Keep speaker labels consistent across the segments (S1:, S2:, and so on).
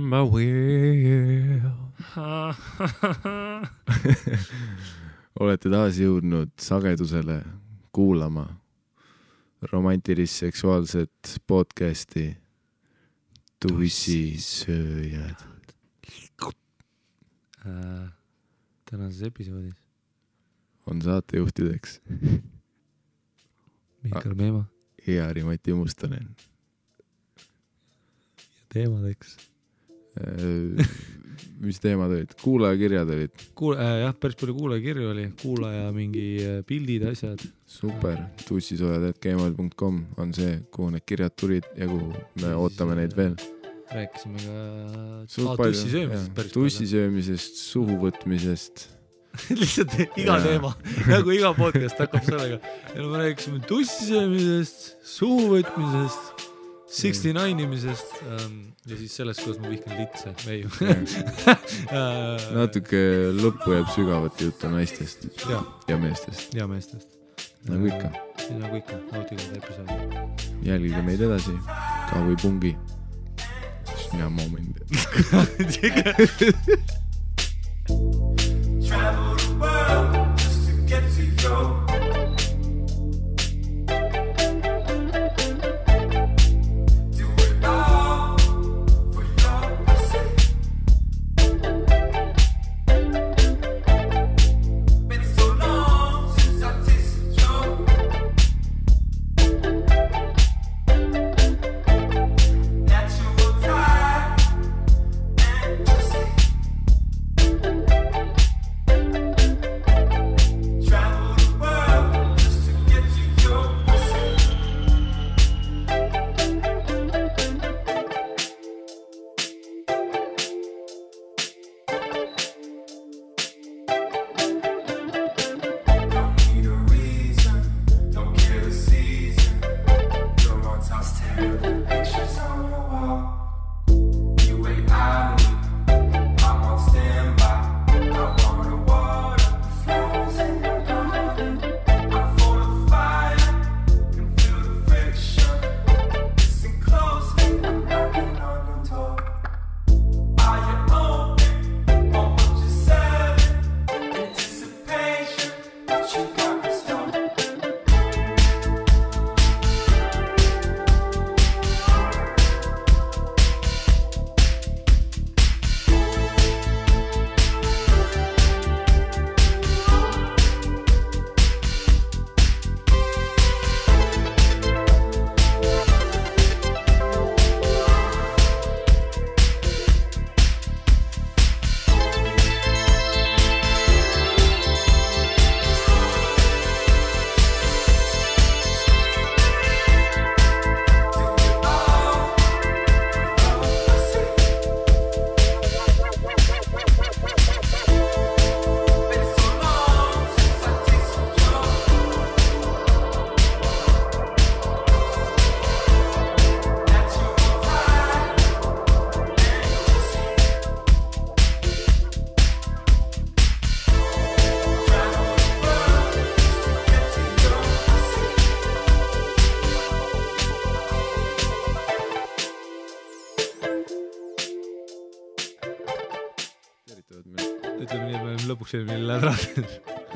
S1: on my wheel. Olete taas jõudnud sagedusele kuulama romantilist seksuaalset podcasti Tussisööjad.
S2: Tänases episoodis
S1: on saatejuhtideks
S2: Mihkel Meema
S1: ja Mati Mustonen.
S2: Teemadeks.
S1: Mis teemad olid? Kuulajakirjad olid?
S2: Jah, päris palju kuulajakirju oli. Kuulaja mingi pildid, asjad.
S1: Super. tussisööjad@gmail.com on see, kuhu need kirjad tulid ja kuhu me ootame neid veel.
S2: Rääkisime ka tussisöömisest päris palju.
S1: Tussisöömisest, suhu võtmisest.
S2: Lihtsalt iga teema, nagu iga podcast hakkab sellega. Ja me rääkisime tussisöömisest, suhu võtmisest, 69 imisest ja siis sellest, kuidas ma vihkan litse.
S1: Natuke lõppu jääb sügavat juttu naistest ja meestest.
S2: Ja meestest.
S1: Nagu ikka.
S2: Nagu ikka, nautige episoodi.
S1: Jälgige meid edasi, ka või pungi. Sina moment.
S3: Travel the world just to get to you.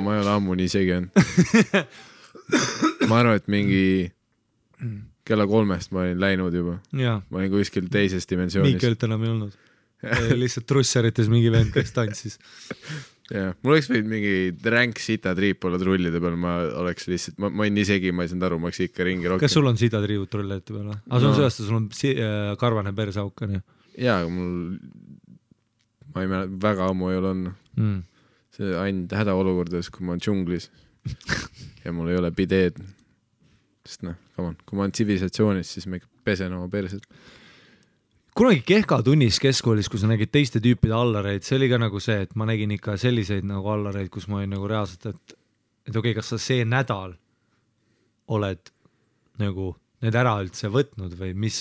S1: Ma ei ole ammu nii segi on. Ma arvan, et mingi kella 3 ma olin läinud juba.
S2: Ja.
S1: Ma olin kuskil teises dimensioonis.
S2: Miikelt enam ei olnud. Lihtsalt trussarites mingi vend, kes tantsis.
S1: Ja. Mul oleks võinud mingi ränk sita triip olla trullide peal. Ma oleks lihtsalt, ma olin nii segi, ma ei saanud aru, ma oleks ikka ringi rohkem.
S2: Kas sul on sita triivud trullide peal? Aga sul on sellest, sul on karvane persauk.
S1: Jaa, mul ma ei mäleta, väga ammu ei ole olnud. See ainult hädaolukordades, kui ma olen džunglis ja mul ei ole bideed. Sest kui ma olen tsivilisatsionis, siis ma ikka pesen oma perset.
S2: Kunagi kehka tunnis keskkoolis, kui sa nägid teiste tüüpide allareid, see oli ka nagu see, et ma nägin ikka selliseid nagu allareid, kus ma olin nagu reaalselt, et okei, kas sa see nädal oled nagu need ära üldse võtnud või mis...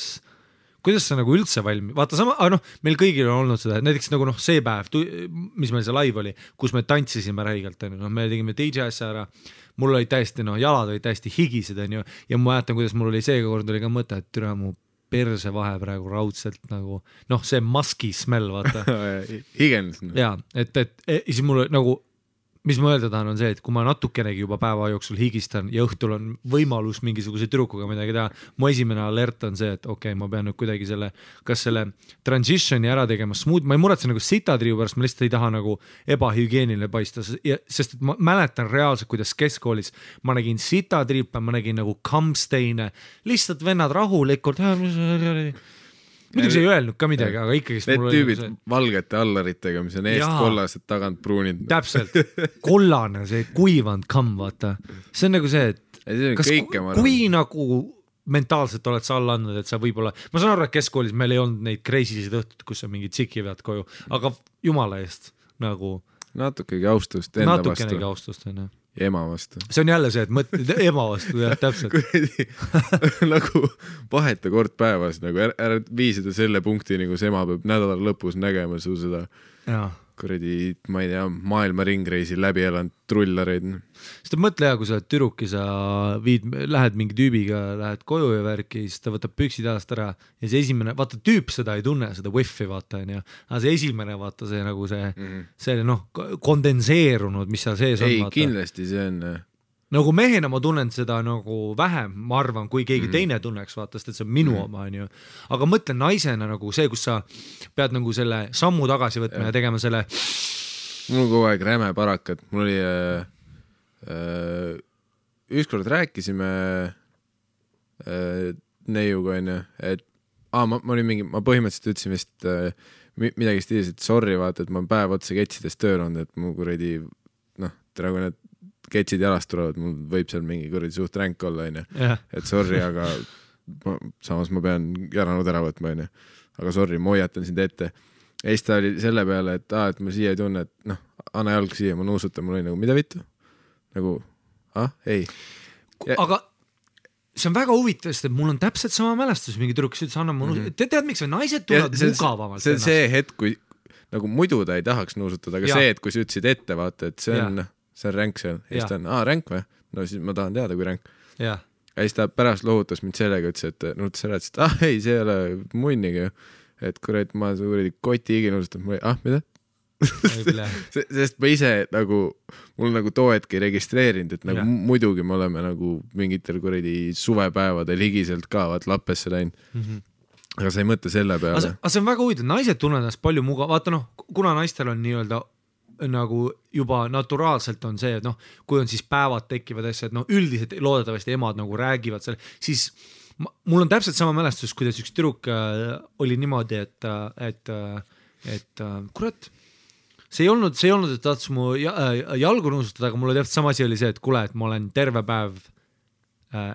S2: Kuidas sa nagu üldse valmi? Vaata sama, meil kõigil on olnud seda, näiteks nagu see päev, mis meil see live oli, kus me tantsisime räigelt, me tegime DJ asja ära, mul olid täiesti, jalad olid täiesti higised, ja ma mäletan, kuidas mul oli seega kord oli ka mõte, et türa mu perse vahe praegu raudselt nagu, noh, see maski smell, vaata.
S1: Higens.
S2: Jaa, et siis mul nagu, mis ma öelda tahan on see, et kui ma natukenegi juba päeva jooksul higistan ja õhtul on võimalus mingisuguse tüdrukuga midagi teha, mu esimene alert on see, et okei, ma pean nüüd kuidagi kas selle transitioni ära tegema smooth, ma ei muretse nagu sitatriiu pärast, ma lihtsalt ei taha nagu ebahügieeniline paista, sest et ma mäletan reaalselt, kuidas keskkoolis ma nägin sitatriipe, ma nägin nagu kampsteine, lihtsalt vennad rahulikult, muidugi see ei öelnud ka midagi, aga ikkagi
S1: need tüübid valgete allaritega, mis on eest kollased, tagant pruunid.
S2: Täpselt, kollane, see kuivanud kamm, vaata. See on nagu see, et kui nagu mentaalselt oled sa alla andnud, et sa võib-olla, ma saan aru, et keskkoolis meil ei olnud neid kreisisid õhtut, kus sa mingi tsiki vead koju, aga jumala eest nagu
S1: natukegi austust enda vastu.
S2: Natukenegi austust, on.
S1: Ja ema vastu.
S2: See on jälle see, et mõtled ema vastu, jah, täpselt.
S1: nagu vaheta kord päevas, nagu ära vii seda selle punkti, nagu see ema peab nädala lõpus nägema su seda kuradi, ma ei tea, maailma ringreisi läbi elanud trullareid.
S2: Sest mõtle hea, kui sa oled tüdruk ja sa lähed mingi tüübiga, lähed koju ja värki, siis ta võtab püksid jalast ära ja see esimene, vaata tüüp seda ei tunne, seda wifi vaata, aga see esimene, vaata see nagu see noh, kondenseerunud, mis seal sees on.
S1: Ei, kindlasti see on.
S2: Nagu mehena ma tunnen seda nagu vähem, ma arvan, kui keegi teine tunneks, vaata, sest et see on minu oma, on ju. Aga mõtlen naisena nagu see, kus sa pead nagu selle sammu tagasi võtma ja tegema selle.
S1: Mul kogu aeg räme parakat. Mul oli ükskord rääkisime neiuga, on ju, et ma olin mingi, ma põhimõtteliselt ütlesin vist midagi stiilis, et sorry, vaata, et ma päev otsa ketsidest tööl olnud, et mu kuradi, noh, praegu need ketsid jalast tulevad, mul võib seal mingi kuradi suht ränk olla, on ju. Et sorry, aga samas ma pean järanud ära võtma, on ju. Aga sorry, ma hoiatan sind ette. Ja siis ta oli selle peale, et ma siia ei tunne, et noh, anna jalg siia, ma nuusutan, mul oli nagu, mida vittu? Nagu, ei.
S2: Aga see on väga huvitav, sest mul on täpselt sama mälestus, mingi tüdruk, kes ütles, anna ma nuusutan. Tead, miks või naised tulevad mugavamalt?
S1: See on see hetk, kui nagu muidu ta ei tahaks nuusutada, aga see, et kui sa ütlesid ette, vaata, et see on ränk seal. Ja siis ta on, ränk või? No siis ma tahan teada, kui ränk. Ja siis ta pärast lohutas mind sellega, ütles, et nuutas ära, et ei, see ei ole munnigi. Et kurat, ma kuradi koti higi nuusutan. Mida? Sest ma ise nagu, mul nagu too hetk ei registreerinud, et nagu muidugi me oleme nagu mingitel kuradi suvepäevadel higiselt ka vaat lappesse läinud. Aga sa ei mõtle selle peale.
S2: Aga see on väga huvitav, naised tunnevad ennast palju vaata noh, kuna naistel on nii-öelda nagu juba naturaalselt on see, et noh, kui on siis päevad tekivad asja, et noh, üldiselt loodetavasti emad nagu räägivad selle, siis mul on täpselt sama mälestus, kuidas üks tüdruk oli niimoodi, et kurat, see ei olnud, et tahtis mu jalgu nuusutada, aga mul oli täpselt sama asi oli see, et kuule, et ma olen terve päev,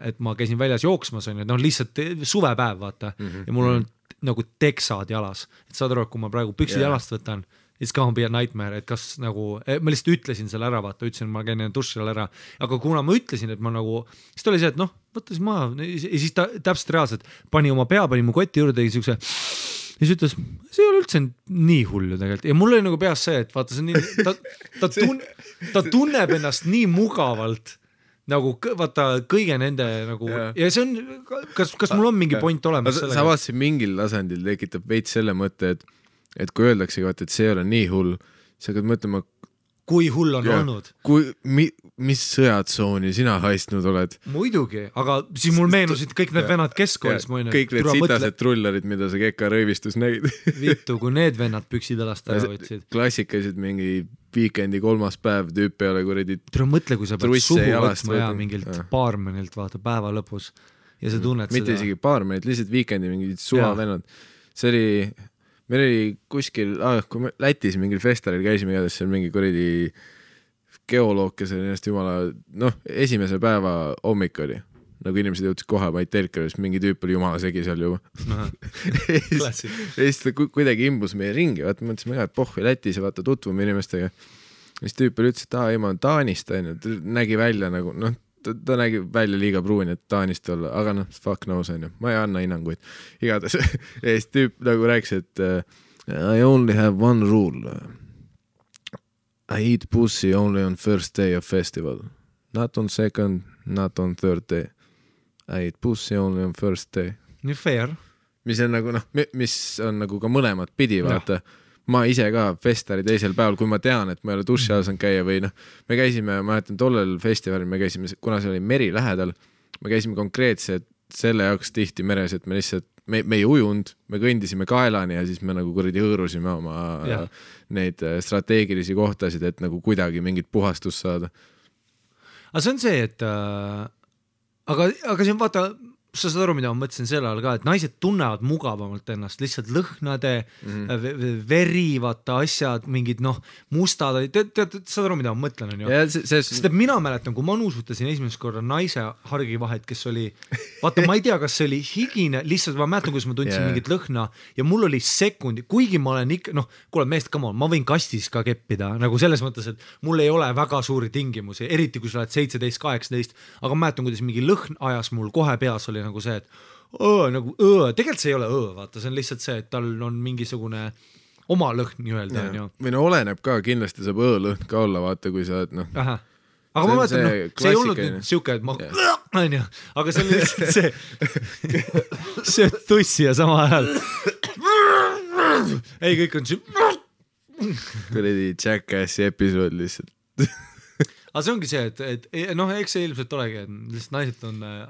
S2: et ma käisin väljas jooksmas, on ju, noh, lihtsalt suvepäev, vaata, ja mul on nagu teksad jalas, et saad aru, et kui ma praegu püksid jalast võtan, it's gonna be a nightmare, et kas nagu, ma lihtsalt ütlesin selle ära, vaata, ütlesin, ma käin duši all ära, aga kuna ma ütlesin, et ma nagu, siis ta oli see, et noh, võtta siis maha, ja siis ta täpselt reaalselt pani oma pea, pani mu kotti juurde, tegi siukse, ja siis ütles, see ei ole üldse nii hull ju tegelikult, ja mul oli nagu peas see, et vaata, see on nii, ta tunneb ennast nii mugavalt, nagu vaata kõige nende nagu ja see on, kas mul on mingi point olemas sellega?
S1: Sa vaatasid mingil tasandil tekitab veits selle mõtte, et kui öeldakse, et see ei ole nii hull, sa hakkad mõtlema,
S2: kui hull on olnud.
S1: Mis sõjatsooni sina haistnud oled?
S2: Muidugi, aga siis mul meenusid kõik need vennad keskkoolis.
S1: Kõik need sitased trullarid, mida sa Keka rõivistus nägid.
S2: Vittu, kui need vennad püksid alast ära võtsid.
S1: Klassikalised mingi viikendi 3. päev tüüp peale kuradi.
S2: Tule mõtle, kui sa pead suhu võtma ja mingilt baarmenilt vaata päeva lõpus ja sa tunned
S1: mitte seda. Mitte isegi baarmenit, lihtsalt viikendi mingid suva vennad. See oli, meil oli kuskil, kui me Lätis mingil festalil käisime igatahes seal mingi kuradi geoloog, kes oli ennast jumala, noh, esimese päeva hommik oli. Nagu inimesed jõudsid kohe, ma ei telka, sest mingi tüüp oli jumala segi seal juba. Ja siis ta kuidagi imbus meie ringi, vaata, mõtlesime ka, et pohvi Lätis ja vaata tutvume inimestega. Ja siis tüüp oli ütles, et ei, ma olen Taanist, ta nägi välja nagu, noh, ta nägi välja liiga pruuni, et Taanist olla, aga noh, fuck knows, on ju. Ma ei anna hinnanguid. Igatahes. Ja siis tüüp nagu rääkis, et I only have one rule. I eat pussy only on first day of festival. Not on second, not on third day. I eat pussy only on first day.
S2: Nii fair.
S1: mis on nagu mis on nagu ka mõlemat pidi, vaata. Ma ise ka festari teisel päeval, kui ma tean, et ma ei ole duši all saanud käia või me käisime, ma mäletan tollel festivalil, me käisime, kuna see oli meri lähedal, me käisime konkreetselt selle jaoks tihti meres, et me lihtsalt, me ei ujunud, me kõndisime kaelani ja siis me nagu kuradi hõõrusime oma neid strateegilisi kohtasid, et nagu kuidagi mingit puhastust saada.
S2: Aga see on see, et aga see on vaata, sa saad aru, mida ma mõtlesin selle all ka, et naised tunnevad mugavamalt ennast, lihtsalt lõhnade, veri, vaata asjad, mingid mustad, saad aru, mida ma mõtlen, on ju? Sest et mina mäletan, kui ma nuusutasin esimest korda naise hargivahet, kes oli, vaata, ma ei tea, kas see oli higine, lihtsalt ma mäletan, kus ma tundsin mingit lõhna ja mul oli sekundi, kuigi ma olen ikka, kuule meest, come on, ma võin kastis ka keppida, nagu selles mõttes, et mul ei ole väga suuri tingimusi, eriti kui sa oled 17-18, aga ma mäletan, kuidas mingi lõhn ajas mul kohe peas oli nagu see, et tegelikult see ei ole vaata, see on lihtsalt see, et tal on mingisugune oma lõhn nii-öelda.
S1: Või oleneb ka, kindlasti saab lõhn ka olla, vaata, kui sa oled
S2: aga ma mõtlen, see ei olnud nüüd siuke, et ma aga see oli lihtsalt see tussi ja sama ajal ei, kõik on
S1: kuradi Jackassi episood lihtsalt
S2: aga see ongi see, et eks see ilmselt olegi, et lihtsalt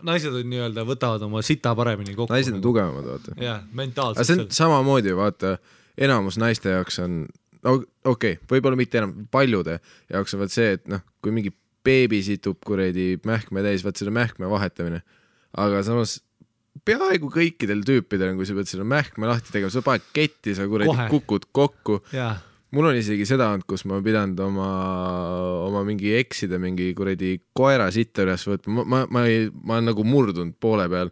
S2: naised on nii-öelda, võtavad oma sita paremini kokku.
S1: Naised on tugevamad, vaata.
S2: Jah, mentaalselt.
S1: Aga see on samamoodi, vaata, enamus naiste jaoks on, võib-olla mitte enam, paljude jaoks on vaat see, et kui mingi beebi situb kuredi mähkme täis, vaat selle mähkme vahetamine. Aga samas peaaegu kõikidel tüüpidel, kui sa pead selle mähkme lahti tegema, sa paned ketti, sa kuredi kukud kokku.
S2: Jah.
S1: Mul on isegi seda olnud, kus ma pidanud oma mingi eksida mingi kuredi koera sitta üles võtma. Ma olen nagu murdunud poole peal.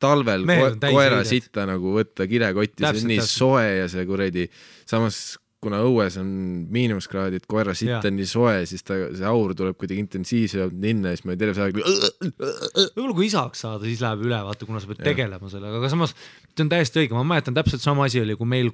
S1: Talvel koera sitta nagu võtta kilekotti, see on nii soe ja see kuredi. Samas, kuna õues on miinuskraadid, koera sitta on nii soe, siis see aur tuleb kuidagi intensiivselt linna ja siis ma ei terve aeg.
S2: Võib-olla kui isaks saada, siis läheb üle, vaata, kuna sa pead tegelema sellega. Aga samas, see on täiesti õige. Ma mäletan täpselt sama asi oli, kui meil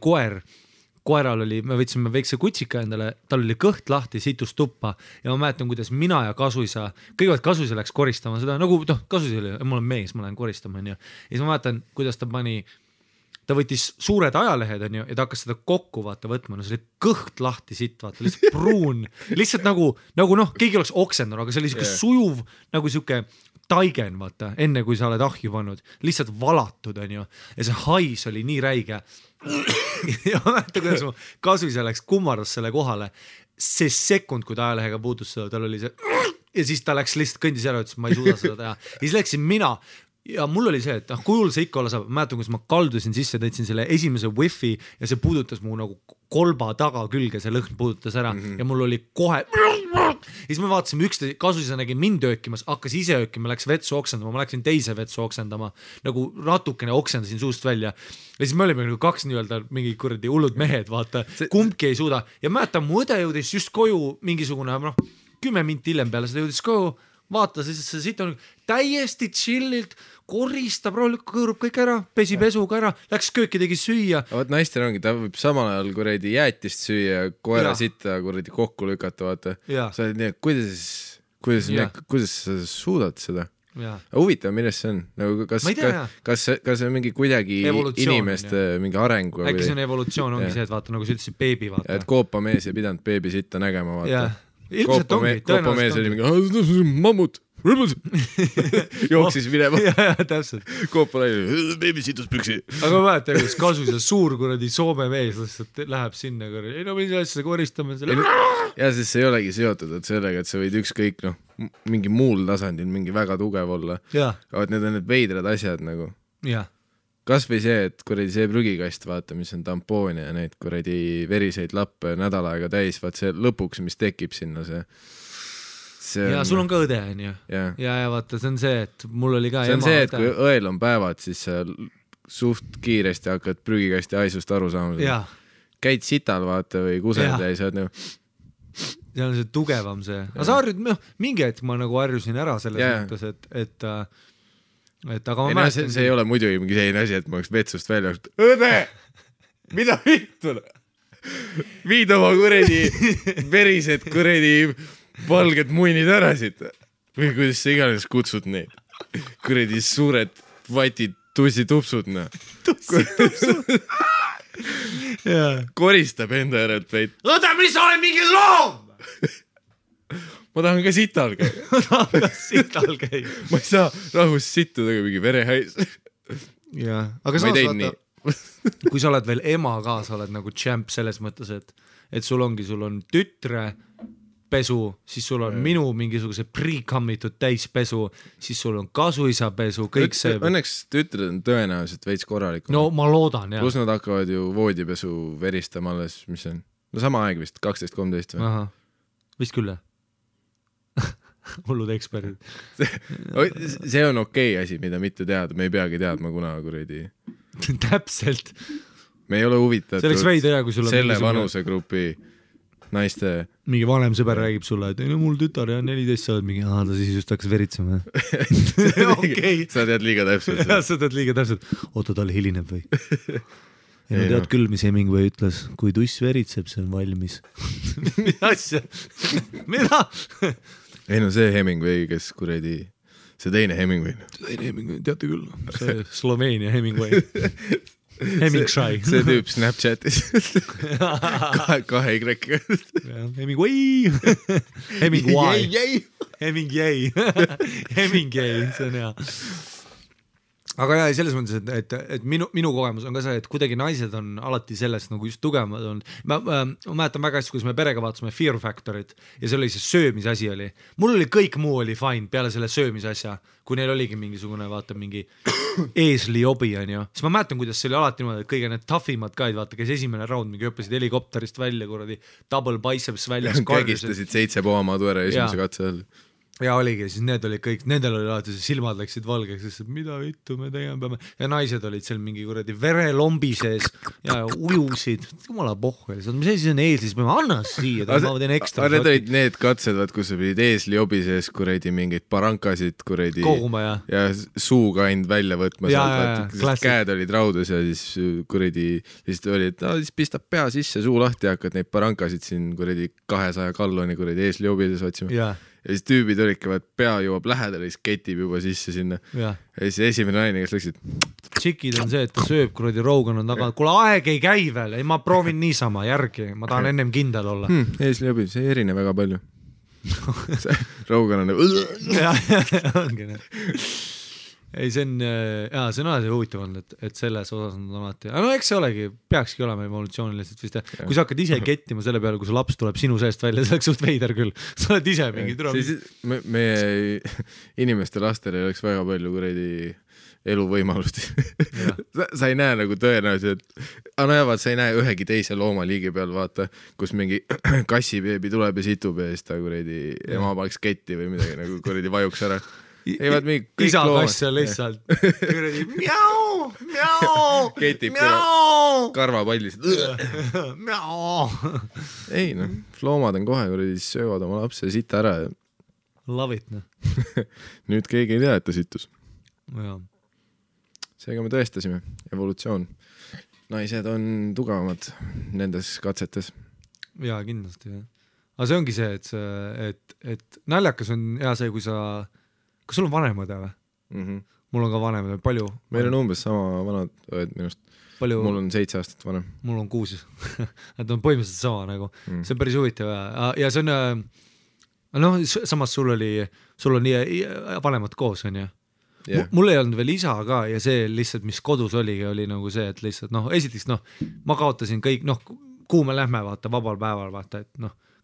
S2: koeral oli, me võtsime väikse kutsika endale, tal oli kõht lahti, situs tuppa ja ma mäletan, kuidas mina ja Kasuisa, kõigepealt Kasuisa läks koristama seda, nagu Kasuisa oli, mul on mees, ma lähen koristama, on ju. Ja siis ma mäletan, kuidas ta võttis suured ajalehed, on ju, ja ta hakkas seda kokku vaata võtma, see oli kõht lahti sitt, vaata, lihtsalt pruun, lihtsalt nagu keegi oleks oksendanud, aga see oli siuke sujuv, nagu siuke taigen, vaata, enne kui sa oled ahju pannud, lihtsalt valatud, on ju, ja see hais oli nii räige ja ma mäletan, kuidas mu Kasuisa läks kummardas selle kohale, see sekund, kui ta ajalehega puutus seda, tal oli see ja siis ta läks lihtsalt kõndis ära, ütles, ma ei suuda seda teha ja siis läksin mina ja mul oli see, et kujul see ikka olla saab, mäletan, kus ma kaldusin sisse, tõitsin selle esimese wifi ja see puudutas mu nagu kolba taga külge, see lõhn puudutas ära ja mul oli kohe ja siis me vaatasime üksteise, Kasuisa nägi mind öökimas, hakkas ise öökima, läks vetsu oksendama, ma läksin teise vetsu oksendama, nagu natukene oksendasin suust välja ja siis me olime nagu kaks nii-öelda mingi kuradi hullud mehed, vaata, kumbki ei suuda ja mäletan, mu õde jõudis just koju mingisugune 10 minti hiljem peale seda jõudis koju, vaatas ja see siit on täiesti chillilt, koristab, kõõrub kõik ära, pesi pesuga ära, läks kööki, tegi süüa.
S1: Vaat naistel ongi, ta võib samal ajal kuradi jäätist süüa, koera sitta kuradi kokku lükata, vaata. Sa oled nii, et kuidas sa suudad seda? Huvitav, millest see on? Nagu, kas see on mingi kuidagi inimeste mingi arengu?
S2: Äkki see on evolutsioon, ongi see, et vaata, nagu sa ütlesid, beebi, vaata.
S1: Et koopamees ei pidanud beebi sitta nägema, vaata.
S2: Koopamees
S1: oli mingi, mammut, jooksis minema.
S2: Täpselt.
S1: Koopal oli, beebi situs püksi.
S2: Aga ma mäletan, kus Kasuisa suur kuradi Soome mees lihtsalt läheb sinna kuradi. Ei mis asja koristame selle.
S1: Ja siis see ei olegi seotud, et sellega, et sa võid ükskõik mingi muul tasandil mingi väga tugev olla. Aga need on need veidrad asjad nagu. Kas või see, et kuradi see prügikast, vaata, mis on tampoon ja neid kuradi veriseid lappe nädal aega täis, vaat see lõpuks, mis tekib sinna see
S2: ja sul on ka õde, on ju. Ja vaata, see on see, et mul oli ka
S1: see on see, et kui õel on päevad, siis sa suht kiiresti hakkad prügikasti haisust aru saama. Käid sital, vaata, või kused ja sa oled nagu
S2: see on see tugevam see. Aga sa harjud, mingi hetk ma nagu harjusin ära selles mõttes, et aga ma mäletan...
S1: See ei ole muidugi mingi selline asi, et ma oleks vetsust välja õde! Mida vittu? Viid oma kuredi verised kuredi valged muinid ära siit. Või kuidas sa iganes kutsud neid. Kuredi suured vatid tussitupsud, koristab enda järelt veid.
S2: Õde, mis sa oled mingi loom?
S1: Ma tahan ka sital käia. Ma ei saa rahus sittuda mingi verehäis.
S2: Jaa, aga saas vaata, kui sa oled veel ema ka, sa oled nagu champ selles mõttes, et sul on tütre pesu, siis sul on minu mingisuguse pre-commitud täispesu, siis sul on kasuisa pesu, kõik see.
S1: Õnneks tütred on tõenäoliselt veits korralikum.
S2: No ma loodan, jah.
S1: Plus nad hakkavad ju voodipesu veristama alles, mis on? No sama aeg vist, 12-13 või?
S2: Aha, vist küll, hullud eksperdid.
S1: See on okei asi, mida mitte teada, me ei peagi teadma kuna kuradi.
S2: Täpselt.
S1: Me ei ole huvitatud selle vanusegrupi naiste.
S2: Mingi vanem sõber räägib sulle, et no mul tütar ja 14 sa oled mingi, ta siis just hakkas veritsema.
S1: Okay. Sa tead liiga täpselt.
S2: Sa tead liiga täpselt. Oota, tal hilineb või? Ja no tead küll, mis Hemingway ütles, kui tuss veritseb, see on valmis. Mida asja? Mida?
S1: Ei no see Hemingway, kes kuradi, see teine Hemingway.
S2: Teate küll, see Sloveenia Hemingway. Hemingway.
S1: See tüüp Snapchatis. kahe Y-ga.
S2: Hemingway. Hemingway, see on hea. Aga jah, selles mõttes, et minu kogemus on ka see, et kuidagi naised on alati sellest nagu just tugevamad on. Ma mäletan väga hästi, kuidas me perega vaatasime Fear Factorit ja see oli see söömise asi oli. Mul oli kõik muu oli fine peale selle söömise asja, kui neil oligi mingisugune, vaata, mingi eesli obi, on ju. Siis ma mäletan, kuidas see oli alati niimoodi, et kõige need toughimad kaid, vaata, kes esimene round mingi õppesid helikopterist välja, kuradi double biceps väljas.
S1: Kägistasid 7 poomadu ära esimese katse all.
S2: Ja oligi, siis need olid kõik, nendel oli alati silmad läksid valgeks, sest mida vittu me tegema peame. Ja naised olid seal mingi kuradi verelombi sees ja ujusid. Jumala pohhu. Mis asi on eesli, siis peame anna siia, ma teen ekstra.
S1: Need olid need katsed, kus sa pidid eesli obi sees kuradi mingeid parankasid kuradi
S2: koguma
S1: ja suuga ainult välja võtma. Käed olid raudus ja siis kuradi siis oli, et siis pistab pea sisse, suu lahti ja hakkad neid parankasid siin kuradi 200 kalloni kuradi eesli obi sees otsima. Ja siis tüübid olidki, et pea jõuab lähedale, siis ketib juba sisse sinna. Ja siis esimene naine, kes läksid.
S2: Tšikid on see, et ta sööb, kuradi Rogan on taga. Kuule, aeg ei käi veel, ei ma proovin niisama järgi, ma tahan ennem kindel olla.
S1: Eesli obi, see ei erine väga palju. Rogan on
S2: ongi need. Ei, see on alati huvitav olnud, et selles osas on alati. No eks see olegi, peakski olema evolutsiooniliselt vist. Kui sa hakkad ise kettima selle peale, kui su laps tuleb sinu seest välja, see oleks suht veider küll. Sa oled ise mingi türa.
S1: Meie inimeste lastel ei oleks väga palju kuredi eluvõimalust. Sa ei näe nagu tõenäoliselt, sa ei näe ühegi teise loomaliigi peal, vaata, kus mingi kassibeebi tuleb ja situb ja siis ta kuredi ema paneks ketti või midagi nagu kuredi vajuks ära.
S2: Isa kass on lihtsalt mjau,
S1: ketib karvapallisid. Ei noh, loomad on kohe, kui söövad oma lapse sita ära.
S2: Love it,
S1: Nüüd keegi ei tea, et ta sittus.
S2: Ja.
S1: Seega me tõestasime, evolutsioon. Naised on tugevamad nendes katsetes.
S2: Jaa, kindlasti. Aga see ongi see, et naljakas on hea see, kui sa kas sul on vanemad või? Mul on ka vanemad, palju?
S1: Meil on umbes sama vanad õed minust. Mul on 7 aastat vanem.
S2: Mul on 6. Nad on põhimõtteliselt sama nagu. See on päris huvitav ja see on samas sul on vanemad koos, on ju? Mul ei olnud veel isa ka ja see lihtsalt, mis kodus oli nagu see, et lihtsalt esiteks ma kaotasin kõik, kuhu me lähme vaata vabal päeval vaata, et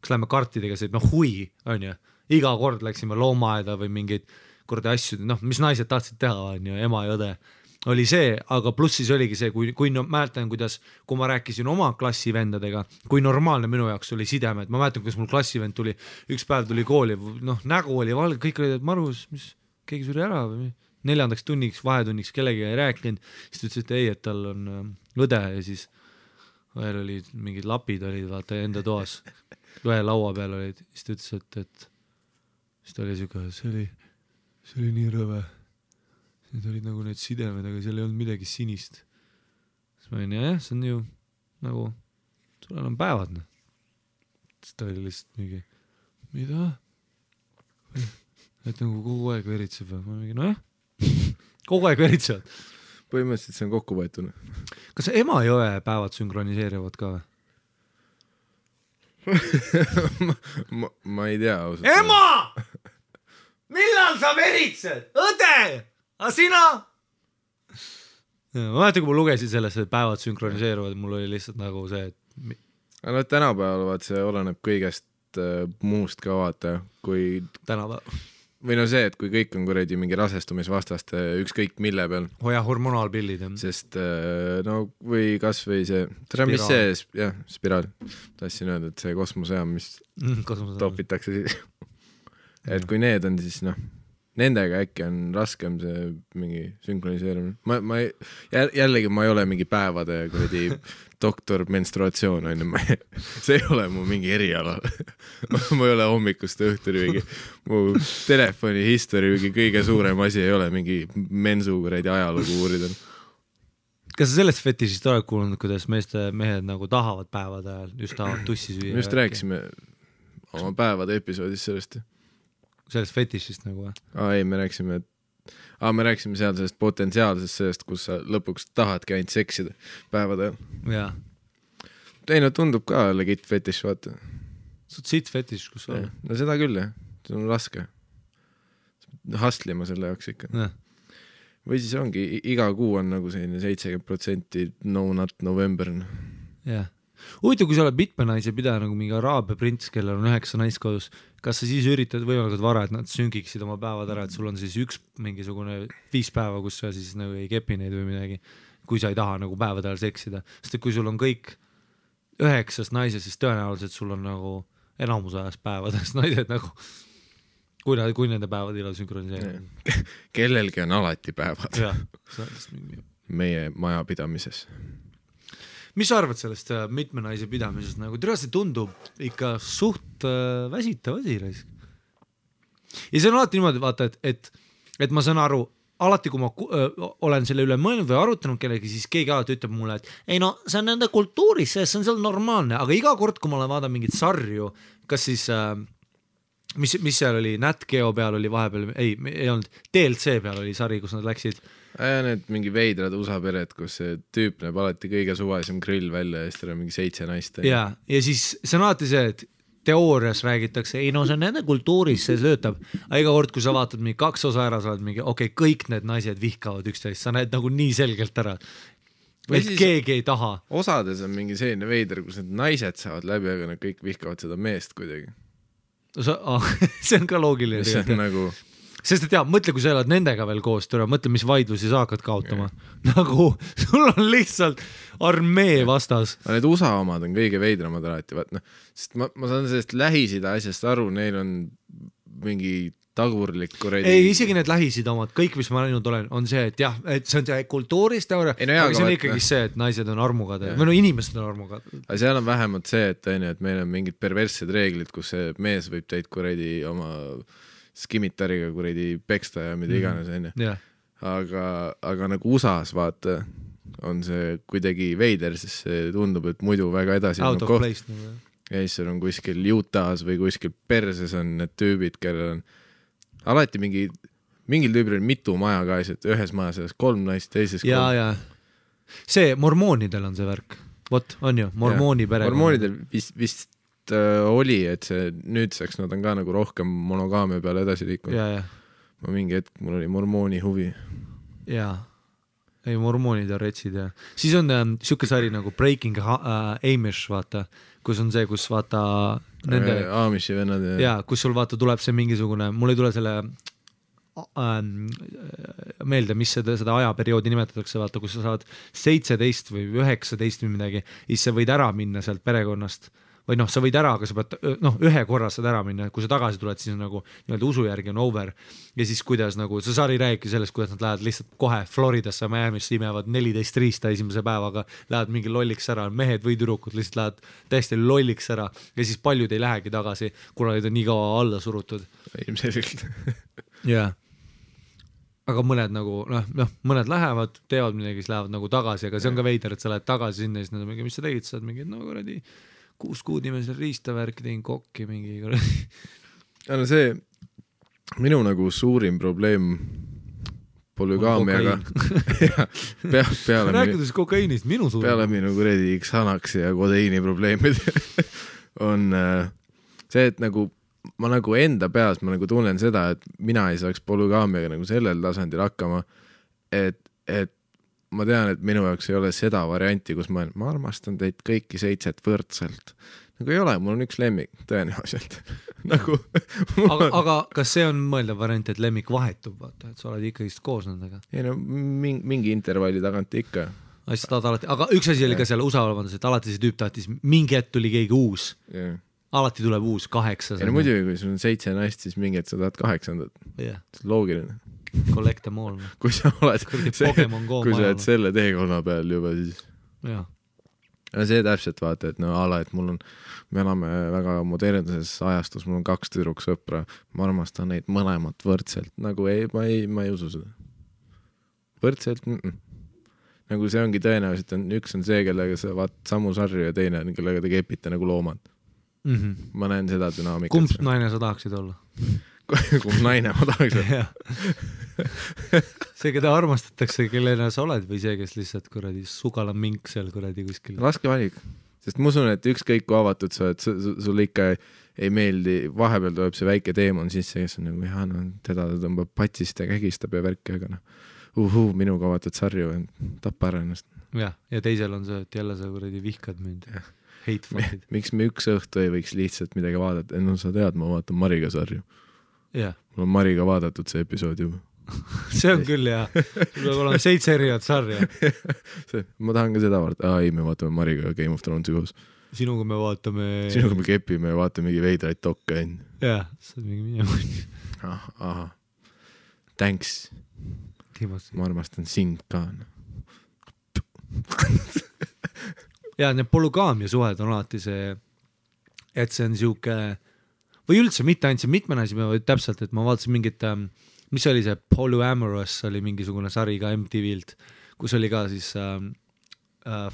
S2: kas lähme kartidega see, hui, on ju? Iga kord läksime loomaaeda või mingid kordi asju, mis naised tahtsid teha, on ju, ema ja õde, oli see, aga pluss siis oligi see, kui mäletan, kui ma rääkisin oma klassivendadega, kui normaalne minu jaoks oli sidemed, ma mäletan, kuidas mul klassivend tuli, üks päev tuli kooli, nägu oli valge, kõik olid, et Marus, mis, keegi suri ära või 4. tunniks, vahetunniks kellegi ei rääkinud, siis ta ütles, et ei, et tal on õde ja siis veel olid mingid lapid olid, vaata, enda toas, ühe laua peal olid, siis ta ütles, et siis ta oli siuke, see oli nii rõve. Need olid nagu need sidemed, aga seal ei olnud midagi sinist. Siis ma olin, jah, see on ju nagu, sul on päevad. Siis ta oli lihtsalt mingi, mida? Et nagu kogu aeg veritseb. Ma mingi, jah, kogu aeg veritsevad.
S1: põhimõtteliselt see on kokku võetud.
S2: Kas Emajõe päevad sünkroniseerivad ka või?
S1: ma ei tea ausalt.
S2: Ema! Millal sa veritsed? Õde! A sina? Ma mäletan, kui ma lugesin sellest, et päevad sünkroniseeruvad, mul oli lihtsalt nagu see, et...
S1: Aga tänapäeval vaat see oleneb kõigest muust ka vaata, kui...
S2: Tänapäeval.
S1: Või no see, et kui kõik on kuradi mingi rasestumisvastaste ükskõik mille peal.
S2: Hoia hormonaalpillid.
S1: Sest no või kas või see, mis see, jah, spiraal. Tahtsin öelda, et see kosmosejaam, mis topitakse siis. Et kui need on, siis noh, nendega äkki on raskem see mingi sünkroniseerimine. Jällegi ma ei ole mingi päevade kuradi doktor menstruatsioon on, see ei ole mu mingi eriala. Ma ei ole hommikust õhtuni mingi, mu telefoni history mingi kõige suurem asi ei ole mingi mensu kuradi ajalugu uurida.
S2: Kas sa sellest fetišist oled kuulnud, kuidas mehed nagu tahavad päevade ajal, just tahavad tussi süüa?
S1: Me just rääkisime oma päevade episoodis sellest.
S2: Sellest fetišist nagu või?
S1: Ei, me rääkisime seal sellest potentsiaalsest sellest, kus sa lõpuks tahadki ainult seksida päevade ajal.
S2: Jaa.
S1: Ei, no tundub ka legit fetiš, vaata.
S2: Sa oled siit fetiš, kus sa oled?
S1: No seda küll, jah. See on raske. Hastlima selle jaoks ikka.
S2: Ja.
S1: Või siis ongi, iga kuu on nagu selline 70% no not November.
S2: Jah. Huvitav, kui sa oled mitme naise pidaja nagu mingi araabia prints, kellel on 9 naiskodus, kas sa siis üritad võimalikult vara, et nad süngiksid oma päevad ära, et sul on siis üks mingisugune 5 päeva, kus sa siis nagu ei kepi neid või midagi, kui sa ei taha nagu päevade ajal seksida. Sest et kui sul on kõik 9 naised, siis tõenäoliselt sul on nagu enamus ajast päevadest naised nagu, kui nende päevad ilal sünkroniseerivad.
S1: Kellelgi on alati päevad.
S2: Jah.
S1: Meie majapidamises.
S2: Mis sa arvad sellest mitme naise pidamisest? Nagu see tundub ikka suht väsitav asi. Ja see on alati niimoodi, vaata, et ma saan aru, alati kui ma olen selle üle mõelnud või arutanud kellegi, siis keegi alati ütleb mulle, et ei no, see on nende kultuuris, see on seal normaalne, aga iga kord, kui ma olen vaadanud mingit sarju, kas siis, mis seal oli, Nat Geo peal oli vahepeal, ei olnud, DLC peal oli sari, kus nad läksid.
S1: Need mingi veidrad USA pered, kus see tüüp näeb alati kõige suvalisem grill välja ja siis teil on mingi 7 naist.
S2: Ja siis see on alati see, et teoorias räägitakse, ei no see on nende kultuuris, see töötab. Aga iga kord, kui sa vaatad mingi 2 osa ära, sa oled mingi, okei, kõik need naised vihkavad üksteist, sa näed nagu nii selgelt ära. Et keegi ei taha.
S1: Osades on mingi selline veider, kus need naised saavad läbi, aga nad kõik vihkavad seda meest kuidagi.
S2: See on ka loogiline.
S1: See on nagu...
S2: Sest et mõtle, kui sa elad nendega veel koos, mõtle, mis vaidlusi sa hakkad kaotama. Nagu sul on lihtsalt armee vastas.
S1: Need USA omad on kõige veidramad alati, sest ma saan sellest Lähis-Ida asjast aru, neil on mingi tagurlik kuredi...
S2: Ei, isegi need Lähis-Ida omad, kõik, mis ma näinud olen, on see, et jah, et see on see kultuurist, aga see on ikkagi see, et naised on armugad või no inimesed on armugad.
S1: Aga seal on vähemalt see, et meil on mingid perverssed reeglid, kus see mees võib teid kuredi oma... skimitariga kuredi peksta ja mida iganes enne.
S2: Yeah.
S1: Aga nagu USA-s vaata on see kuidagi veider, sest see tundub, et muidu väga edasi
S2: out of place.
S1: Ja siis on kuskil Utah's või kuskil perses on need tüübid, kellel on alati mingil tüübil on mitu maja ka, et ühes maja selles 3 naist, teises 3.
S2: Ja. See mormoonidel on see värk. Vot, on ju, mormooni pere.
S1: Mormoonidel vist oli, et see nüüdseks nad on ka nagu rohkem monogaamia peale edasi liikunud.
S2: Ja.
S1: Ma mingi hetk, mul oli mormooni huvi.
S2: Jaa. Ei, mormoonid on retsid ja. Siis on siuke sari nagu Breaking Amish, vaata, kus on see, kus vaata nende...
S1: Amishi vennad ja...
S2: Jaa, kus sul vaata tuleb see mingisugune, mul ei tule selle meelde, mis seda ajaperioodi nimetatakse, vaata, kus sa saad 17 või 19 või midagi, siis sa võid ära minna sealt perekonnast või noh, sa võid ära, aga sa pead, ühe korra saad ära minna, kui sa tagasi tuled, siis nagu nii-öelda usu järgi on over ja siis kuidas nagu, see sari räägibki sellest, kuidas nad lähevad lihtsalt kohe Floridasse, Miami'sse imevad 14 riista esimese päevaga, lähevad mingi lolliks ära, mehed või tüdrukud lihtsalt lähevad täiesti lolliks ära ja siis paljud ei lähegi tagasi, kuna neid on nii kaua alla surutud.
S1: Ilmselgelt.
S2: Jah. Aga mõned nagu, mõned lähevad, teevad midagi, siis lähevad nagu tagasi, aga see on ka veider, et sa lähed tagasi sinna, siis nad on mingi, mis sa tegid, sa oled mingi, no kuradi 6 kuud nimesel riistavärk, tegin kokki mingi
S1: see minu nagu suurim probleem polügaamiaga peale
S2: rääkides kokaiinist, minu suur
S1: peale minu kuredi Xanaxi ja kodeiini probleemid on see, et nagu ma nagu enda peas ma nagu tunnen seda, et mina ei saaks polügaamiaga nagu sellel tasandil hakkama, et ma tean, et minu jaoks ei ole seda varianti, kus ma armastan teid kõiki 7 võrdselt. Nagu ei ole, mul on üks lemmik, tõenäoliselt. nagu,
S2: aga kas see on mõeldav variant, et lemmik vahetub, vaata, et sa oled ikkagi koos nendega?
S1: Ei no, mingi intervalli tagant ikka.
S2: Aga üks asi oli ka seal USA olevandas, et alati see tüüp tahtis, mingi hetk tuli keegi uus.
S1: Yeah.
S2: Alati tuleb uus 8.
S1: Ja no muidugi, kui sul on 7 naist, siis mingi hetk sa tahad 8.
S2: Yeah.
S1: See on loogiline.
S2: Collect them all.
S1: Kui sa oled, kui sa oled selle teekonna peal juba, siis...
S2: Jaa.
S1: Ja see täpselt vaata, et no ala, et mul on, me elame väga modernises ajastus, mul on 2 tüdruksõpra, ma armastan neid mõlemat võrdselt, nagu ma ei usu seda. Võrdselt, nagu see ongi tõenäoliselt, üks on see, kellega sa vaat samu sarju ja teine on, kellega te kepite nagu loomad. Ma näen seda dünaamikat.
S2: Kumb naine sa tahaksid olla?
S1: Kumb naine ma tahaks olla?
S2: See, keda armastatakse, kellena sa oled või see, kes lihtsalt kuradi sugala mink seal kuradi kuskil?
S1: Raske valik, sest ma usun, et ükskõik kui avatud sa oled, sul ikka ei meeldi, vahepeal tuleb see väike teemon sisse, kes on nagu, no, teda tõmbab patsist ja kägistab ja värki, aga minuga vaatad sarju, tappa ära ennast.
S2: Ja teisel on see, et jälle sa kuradi vihkad mind.
S1: Miks me üks õhtu ei võiks lihtsalt midagi vaadata? No sa tead, ma vaatan Mariga sarju.
S2: Yeah.
S1: Mul on Mariga vaadatud see episood juba.
S2: See on küll, jah. Sul peab olema 7 erinevat sarja.
S1: Ma tahan ka seda vaadata. Ei, me vaatame Mariga Game of Thronesi koos.
S2: Sinuga me vaatame...
S1: Sinuga me kepime ja vaatame mingi veidraid dokke.
S2: Jah, see on mingi mingi.
S1: Aha. Thanks. Ma armastan sind ka.
S2: Ja need polügaamia suhed on alati see, et see on siuke, või üldse mitte ainult see mitmenasi, vaid täpselt, et ma vaatasin mingit, mis oli see Polyamorous, oli mingisugune sari ka MTV-lt, kus oli ka siis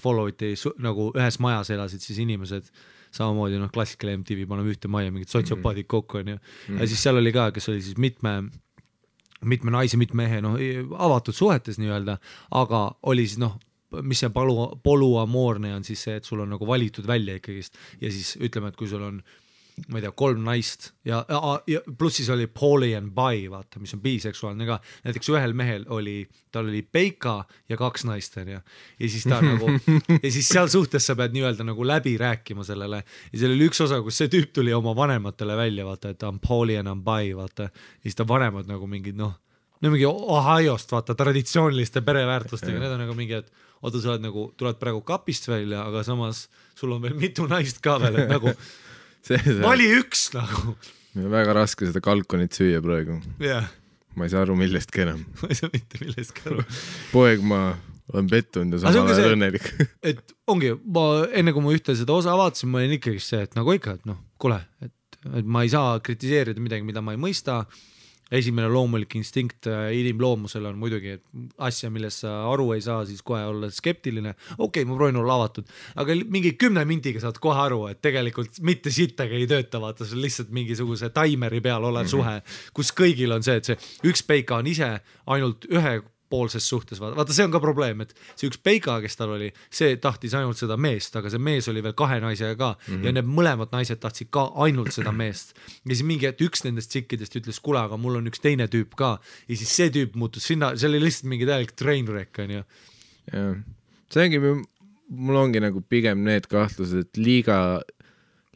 S2: follow'iti nagu ühes majas elasid siis inimesed, samamoodi klassikale MTV, paneme ühte maja, mingid sotsiopaadid kokku on ju. Ja siis seal oli ka, kes oli siis mitme naise, mitme mehe, avatud suhetes nii-öelda, aga oli siis mis see polüamoorne on siis see, et sul on nagu valitud välja ikkagist ja siis ütleme, et kui sul on ma ei tea, 3 naist ja pluss siis oli poly and bi, vaata, mis on biseksuaalne ka. Näiteks ühel mehel tal oli peika ja 2 naist ja siis ta nagu ja siis seal suhtes sa pead nii-öelda nagu läbi rääkima sellele ja seal oli üks osa, kus see tüüp tuli oma vanematele välja, vaata, et ta on poly and bi, vaata, ja siis ta vanemad nagu mingid mingi Ohiost, vaata, traditsiooniliste pereväärtustega, need on nagu mingi, et oota, sa oled nagu, tuled praegu kapist välja, aga samas sul on veel mitu naist ka veel, et nagu vali üks nagu.
S1: Meil on väga raske seda kalkonit süüa praegu.
S2: Yeah.
S1: Ma ei saa aru millestki enam.
S2: Ma ei saa mitte millestki aru.
S1: Poeg ma olen pettunud ja samal ajal õnnelik.
S2: Et ongi, enne kui ma ühte seda osa avaatasin, ma olin ikkagi see, et nagu ikka, et kuule, et ma ei saa kritiseerida midagi, mida ma ei mõista. Esimene loomulik instinkt inimloomusel on muidugi asja, millest sa aru ei saa, siis kohe olla skeptiline. Okei, ma proovin olla avatud, aga mingi 10 mintiga saad kohe aru, et tegelikult mitte sittagi ei tööta, vaata, see on lihtsalt mingisuguse taimeri peal olev suhe, kus kõigil on see, et see üks peika on ise ainult ühepoolses suhtes, vaata, see on ka probleem, et see üks peika, kes tal oli, see tahtis ainult seda meest, aga see mees oli veel 2 naisega ka ja need mõlemad naised tahtsid ka ainult seda meest ja siis mingi, et üks nendest tsikkidest ütles, kuule, aga mul on üks teine tüüp ka ja siis see tüüp muutus sinna, see oli lihtsalt mingi täielik trainwreck on ju.
S1: Ja, see ongi, mul ongi nagu pigem need kahtlused, et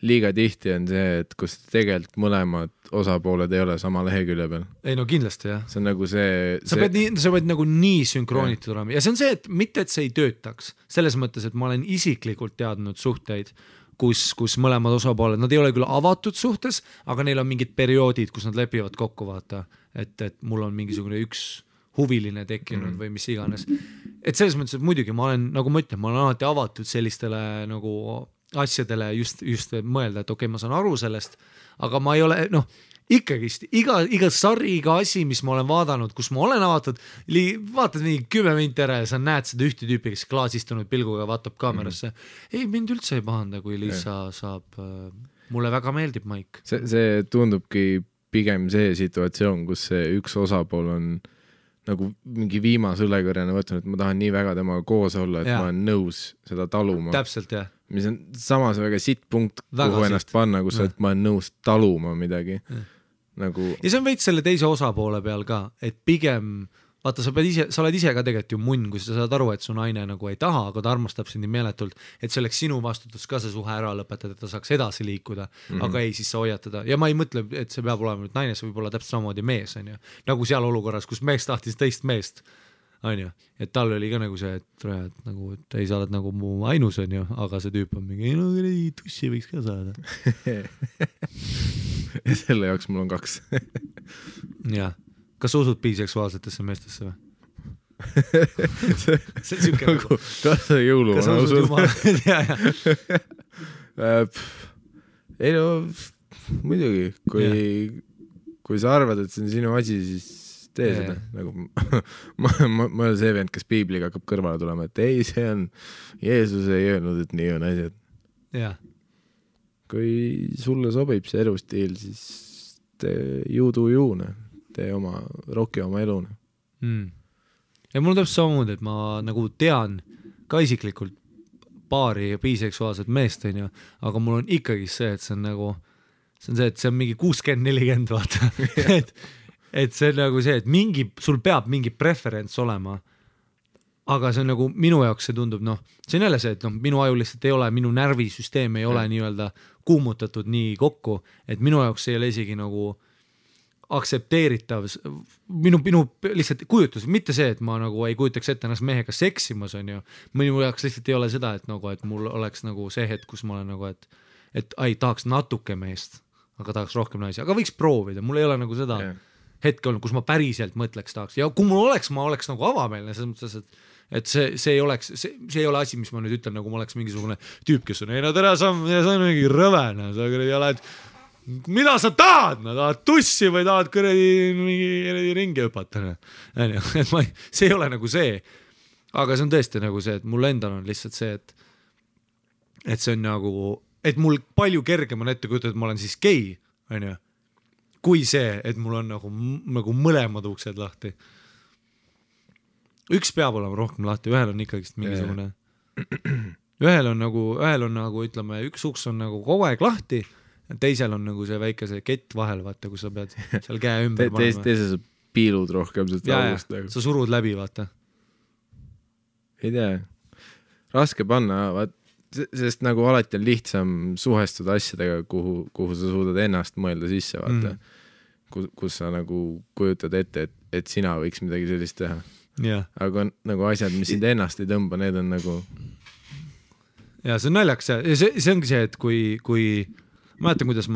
S1: liiga tihti on see, et kus tegelikult mõlemad osapooled ei ole sama lehekülje peal.
S2: Ei no kindlasti jah.
S1: See on nagu see... Sa
S2: pead nagu nii sünkroonitud olema ja see on see, et mitte, et see ei töötaks. Selles mõttes, et ma olen isiklikult teadnud suhteid, kus mõlemad osapooled, nad ei ole küll avatud suhtes, aga neil on mingid perioodid, kus nad lepivad kokku, vaata, et mul on mingisugune üks huviline tekkinud või mis iganes. Et selles mõttes, et muidugi ma olen, nagu ma ütlen, ma olen alati avatud sellistele nagu asjadele just mõelda, et okei, ma saan aru sellest, aga ma ei ole, ikkagist, iga sari, iga asi, mis ma olen vaadanud, kus ma olen avatud, vaatad mingi 10 minti ära ja sa näed seda ühte tüüpi, kes klaasistunud pilguga vaatab kaamerasse. Ei, mind üldse ei pahanda, kui Liisa saab, mulle väga meeldib Maik.
S1: See tundubki pigem see situatsioon, kus see üks osapool on nagu mingi viimase õlekõrjana võtnud, et ma tahan nii väga temaga koos olla, et ma olen nõus seda taluma.
S2: Täpselt, jah.
S1: Mis on samas väga sitt punkt, kuhu ennast panna, kus ma olen nõus taluma midagi. Nagu...
S2: Ja see on veits selle teise osapoole peal ka, et pigem vaata, sa oled ise ka tegelikult ju munn, kui sa saad aru, et su naine nagu ei taha, aga ta armastab sind nii meeletult, et see oleks sinu vastutus ka see suhe ära lõpetada, et ta saaks edasi liikuda, aga ei, siis sa hoiad teda. Ja ma ei mõtle, et see peab olema nüüd naine, see võib olla täpselt samamoodi mees, on ju. Nagu seal olukorras, kus mees tahtis teist meest, on ju. Et tal oli ka nagu see, et nagu, et ei, sa oled nagu mu ainus, on ju, aga see tüüp on mingi, no tussi võiks ka saada.
S1: Ja selle jaoks mul on 2.
S2: Jah. Kas sa usud biseksuaalsetesse meestesse või? See on siuke nagu...
S1: Kas sa jõuluvana usud? Ei no, muidugi, kui sa arvad, et see on sinu asi, siis tee seda. Nagu, ma olen see vend, kes piibliga hakkab kõrvale tulema, et ei, see on... Jeesus ei öelnud, et nii on asjad.
S2: Jah.
S1: Kui sulle sobib see elustiil, siis tee juudu-juune. Tee oma, roki oma elune.
S2: Ja mul on täpselt samamoodi, et ma nagu tean ka isiklikult paari biseksuaalset meest, on ju, aga mul on ikkagi see, et see on nagu, see on mingi 60-40, vaata. et see on nagu see, et sul peab mingi preferents olema, aga see on nagu minu jaoks see tundub, see on jälle see, et minu aju lihtsalt ei ole, minu närvisüsteem ei ole nii-öelda kuumutatud nii kokku, et minu jaoks ei ole isegi nagu aktsepteeritav, minu lihtsalt kujutus, mitte see, et ma nagu ei kujutaks ette ennast mehega seksimas, on ju, minu jaoks lihtsalt ei ole seda, et mul oleks nagu see hetk, kus ma olen nagu, et tahaks natuke meest, aga tahaks rohkem naisi, aga võiks proovida, mul ei ole nagu seda hetke olnud, kus ma päriselt mõtleks tahaks, ja kui mul oleks, ma oleks nagu avameelne, selles mõttes, et see ei ole asi, mis ma nüüd ütlen, nagu ma oleks mingisugune tüüp, kes on, ei no tere, sa on mingi rõvene, sa oled mida sa tahad, tahad tussi või tahad mingi ringi hüpata, see ei ole nagu see, aga see on tõesti nagu see, et mul endal on lihtsalt see, et see on nagu, et mul palju kergem on ette kujutada, et ma olen siis gei, on ju, kui see, et mul on nagu mõlemad uksed lahti. Üks peab olema rohkem lahti, ühel on ikkagist mingisugune, ühel on nagu, ütleme, üks uks on nagu kogu aeg lahti, teisel on nagu see väike see kett vahel, vaata, kus sa pead seal käe ümber panema.
S1: Teisel sa piilud rohkem
S2: august. Sa surud läbi, vaata.
S1: Ei tea. Raske panna, sest nagu alati on lihtsam suhestuda asjadega, kuhu sa suudad ennast mõelda sisse, vaata. Kus sa nagu kujutad ette, et sina võiks midagi sellist teha. Aga nagu asjad, mis sind ennast ei tõmba, need on nagu...
S2: Ja see on naljaks. See ongi see, et kui mäletan, kuidas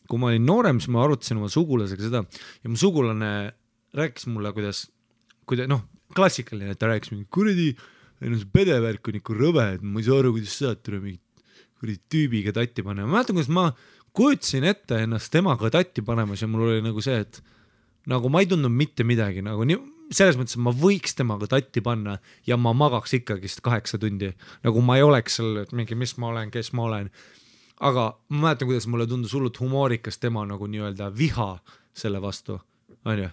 S2: kui ma olin noorem, siis ma arutasin oma sugulasega seda ja mu sugulane rääkis mulle, kuidas klassikaline, et ta rääkis mingi kuradi, see pedevärk on ikka rõve, et ma ei saa aru, kuidas saad tule mingi tüübiga tatti panema. Ma mäletan, kuidas ma kujutasin ette ennast temaga tatti panemas ja mul oli nagu see, et nagu ma ei tundnud mitte midagi, nagu selles mõttes, et ma võiks temaga tatti panna ja ma magaks ikkagist 8 tundi. Nagu ma ei oleks seal, et mingi, mis ma olen, kes ma olen. Aga ma mäletan, kuidas mulle tundus hullult humoorikas tema nagu nii-öelda viha selle vastu, on ju?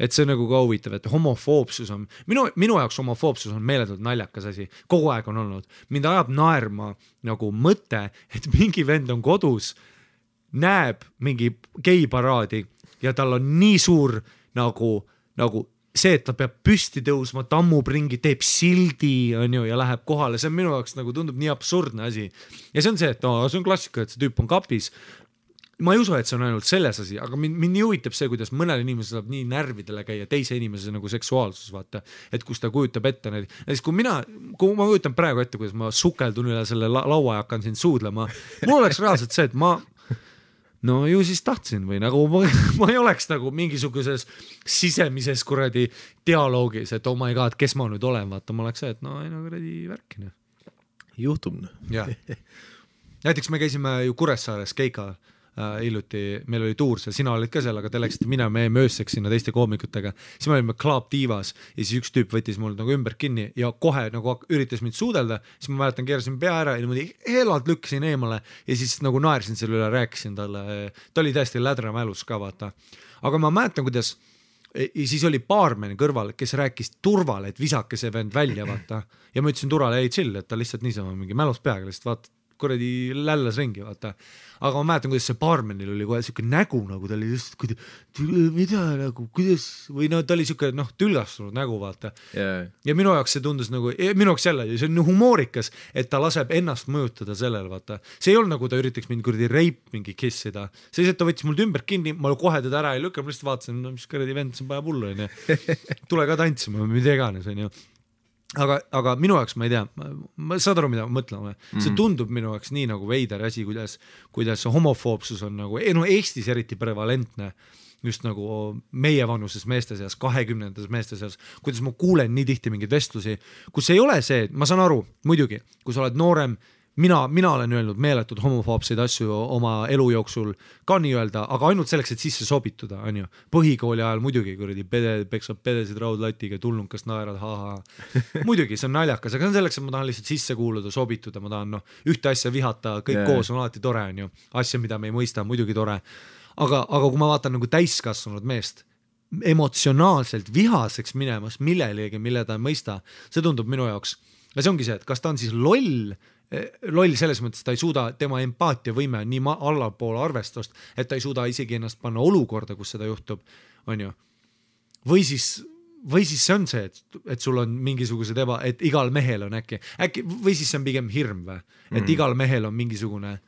S2: Et see on nagu ka huvitav, et homofoobsus on, minu jaoks homofoobsus on meeletult naljakas asi, kogu aeg on olnud. Mind ajab naerma nagu mõte, et mingi vend on kodus, näeb mingi geiparaadi ja tal on nii suur nagu see, et ta peab püsti tõusma, tammub ringi, teeb sildi, on ju, ja läheb kohale. See on minu jaoks nagu tundub nii absurdne asi. Ja see on see, et see on klassika, et see tüüp on kapis. Ma ei usu, et see on ainult selles asi, aga mind nii huvitab see, kuidas mõnel inimesel saab nii närvidele käia teise inimese nagu seksuaalsus, vaata, et kus ta kujutab ette neid. Ja siis, kui ma kujutan praegu ette, kuidas ma sukeldun üle selle laua ja hakkan siin suudlema, mul oleks reaalselt see, et no ju siis tahtsin või nagu ma ei oleks nagu mingisuguses sisemises kuradi dialoogis, et oh my god, kes ma nüüd olen, vaata, ma oleks see, et no ei no kuradi värkine.
S1: Juhtub.
S2: Ja. Näiteks me käisime ju Kuressaares Keika hiljuti, meil oli tuur seal, sina olid ka seal, aga te läksite me ööseks sinna teiste koomikutega, siis me olime Club Divas ja siis üks tüüp võttis mul nagu ümber kinni ja kohe nagu üritas mind suudelda, siis ma mäletan, keerasin pea ära ja niimoodi helalt lükkasin eemale ja siis nagu naersin selle üle, rääkisin talle, ta oli täiesti lädra mälus ka, vaata. Aga ma mäletan, kuidas ja siis oli baarmen kõrval, kes rääkis turvale, et visake see vend välja, vaata. Ja ma ütlesin turvale, ei chill, et ta lihtsalt niisama mingi mälus peaga lihtsalt vaata, kuradi lällas ringi, vaata. Aga ma mäletan, kuidas see baarmenil oli kohe siuke nägu, nagu ta oli just, mida nagu, kuidas, või no ta oli siuke, tülgastunud nägu, vaata. Ja minu jaoks see tundus nagu, minu jaoks jälle, see on humoorikas, et ta laseb ennast mõjutada sellel, vaata. See ei olnud nagu ta üritaks mind kuradi reip mingi kissida. See ta võttis mul ümber kinni, ma kohe teda ära ei lükka, ma lihtsalt vaatasin, mis kuradi vend, see on päeva pullu, tule ka tantsima, mida iganes, on ju. Aga minu jaoks ma ei tea, ma saad aru, mida ma mõtlen, see tundub minu jaoks nii nagu veider asi, kuidas homofoobsus on nagu, Eestis eriti prevalentne, just nagu meie vanuses meeste seas, 20 meeste seas, kuidas ma kuulen nii tihti mingeid vestlusi, kus ei ole see, ma saan aru, muidugi, kui sa oled noorem, mina olen öelnud meeletud homofoobseid asju oma elu jooksul ka nii öelda, aga ainult selleks, et sisse sobituda, on ju. Põhikooli ajal muidugi, kuradi peksab pedesid raudlatiga, tulnukas naerad, muidugi, see on naljakas, aga see on selleks, et ma tahan lihtsalt sisse kuuluda, sobituda, ma tahan ühte asja vihata, kõik koos on alati tore, on ju. Asja, mida me ei mõista, muidugi tore. Aga kui ma vaatan nagu täiskasvanud meest, emotsionaalselt vihaseks minemas millelegi, mille ta ei mõista, see tundub minu jaoks. Ja see ongi see, et kas ta on siis loll selles mõttes, ta ei suuda, tema empaatiavõime nii allapoole arvestust, et ta ei suuda isegi ennast panna olukorda, kus seda juhtub, on ju. Või siis see on see, et sul on mingisugused et igal mehel on äkki, või siis see on pigem hirm või, et igal mehel on mingisugune,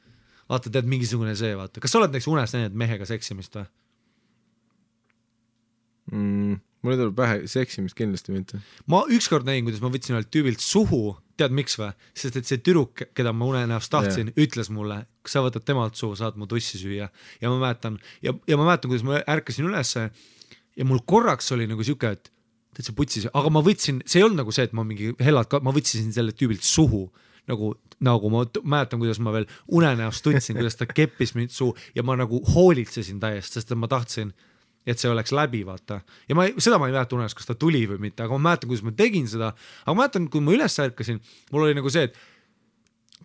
S2: vaata, tead mingisugune see, vaata. Kas sa oled näiteks unes näinud mehega seksimist või?
S1: Mulle tuleb pähe seksimist kindlasti mitte.
S2: Ma ükskord näin, kuidas ma võtsin ühelt tüübilt suhu, tead miks või? Sest et see tüdruk, keda ma unenäost tahtsin, ütles mulle, kui sa võtad temalt suhu, saad mu tussi süüa. Ja ma mäletan, kuidas ma ärkasin ülesse ja mul korraks oli nagu siuke, et see putsis, aga ma võtsin, see ei olnud nagu see, et ma mingi hellad, ma võtsin selle tüübilt suhu, nagu ma mäletan, kuidas ma veel unenäost tundsin, kuidas ta keppis mind suu ja ma nagu hoolitsesin täiesti, sest ma tahtsin et see oleks läbi, vaata. Ja seda ma ei mäleta unes, kas ta tuli või mitte, aga ma mäletan, kuidas ma tegin seda, aga ma mäletan, kui ma üles ärkasin, mul oli nagu see, et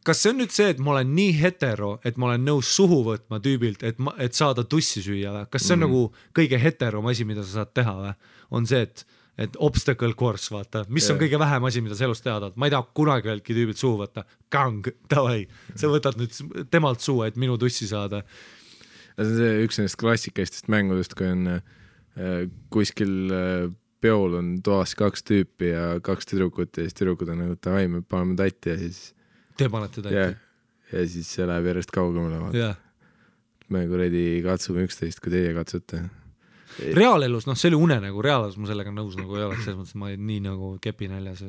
S2: kas see on nüüd see, et ma olen nii hetero, et ma olen nõus suhu võtma tüübilt, et saada tussi süüa või? Kas see on nagu kõige heterom asi, mida sa saad teha või? On see, et obstacle course, vaata, mis on kõige vähem asi, mida sa elus teada, ma ei taha kunagi öeldki tüübilt suhu võtta, kang, davai, sa võtad nüüd temalt suu, et minu tussi saada.
S1: See on see üks nendest klassikaistest mängudest, kui on kuskil peol on toas 2 tüüpi ja 2 tüdrukut ja siis tüdrukud on nagu davai, me paneme tatti ja siis
S2: te panete tatti
S1: ja siis see läheb järjest kaugemale me kuradi katsume üksteist, kui teie katsute
S2: reaalelus, see oli unenägu, reaalelus ma sellega nõus nagu ei oleks, selles mõttes ma nii nagu kepinäljas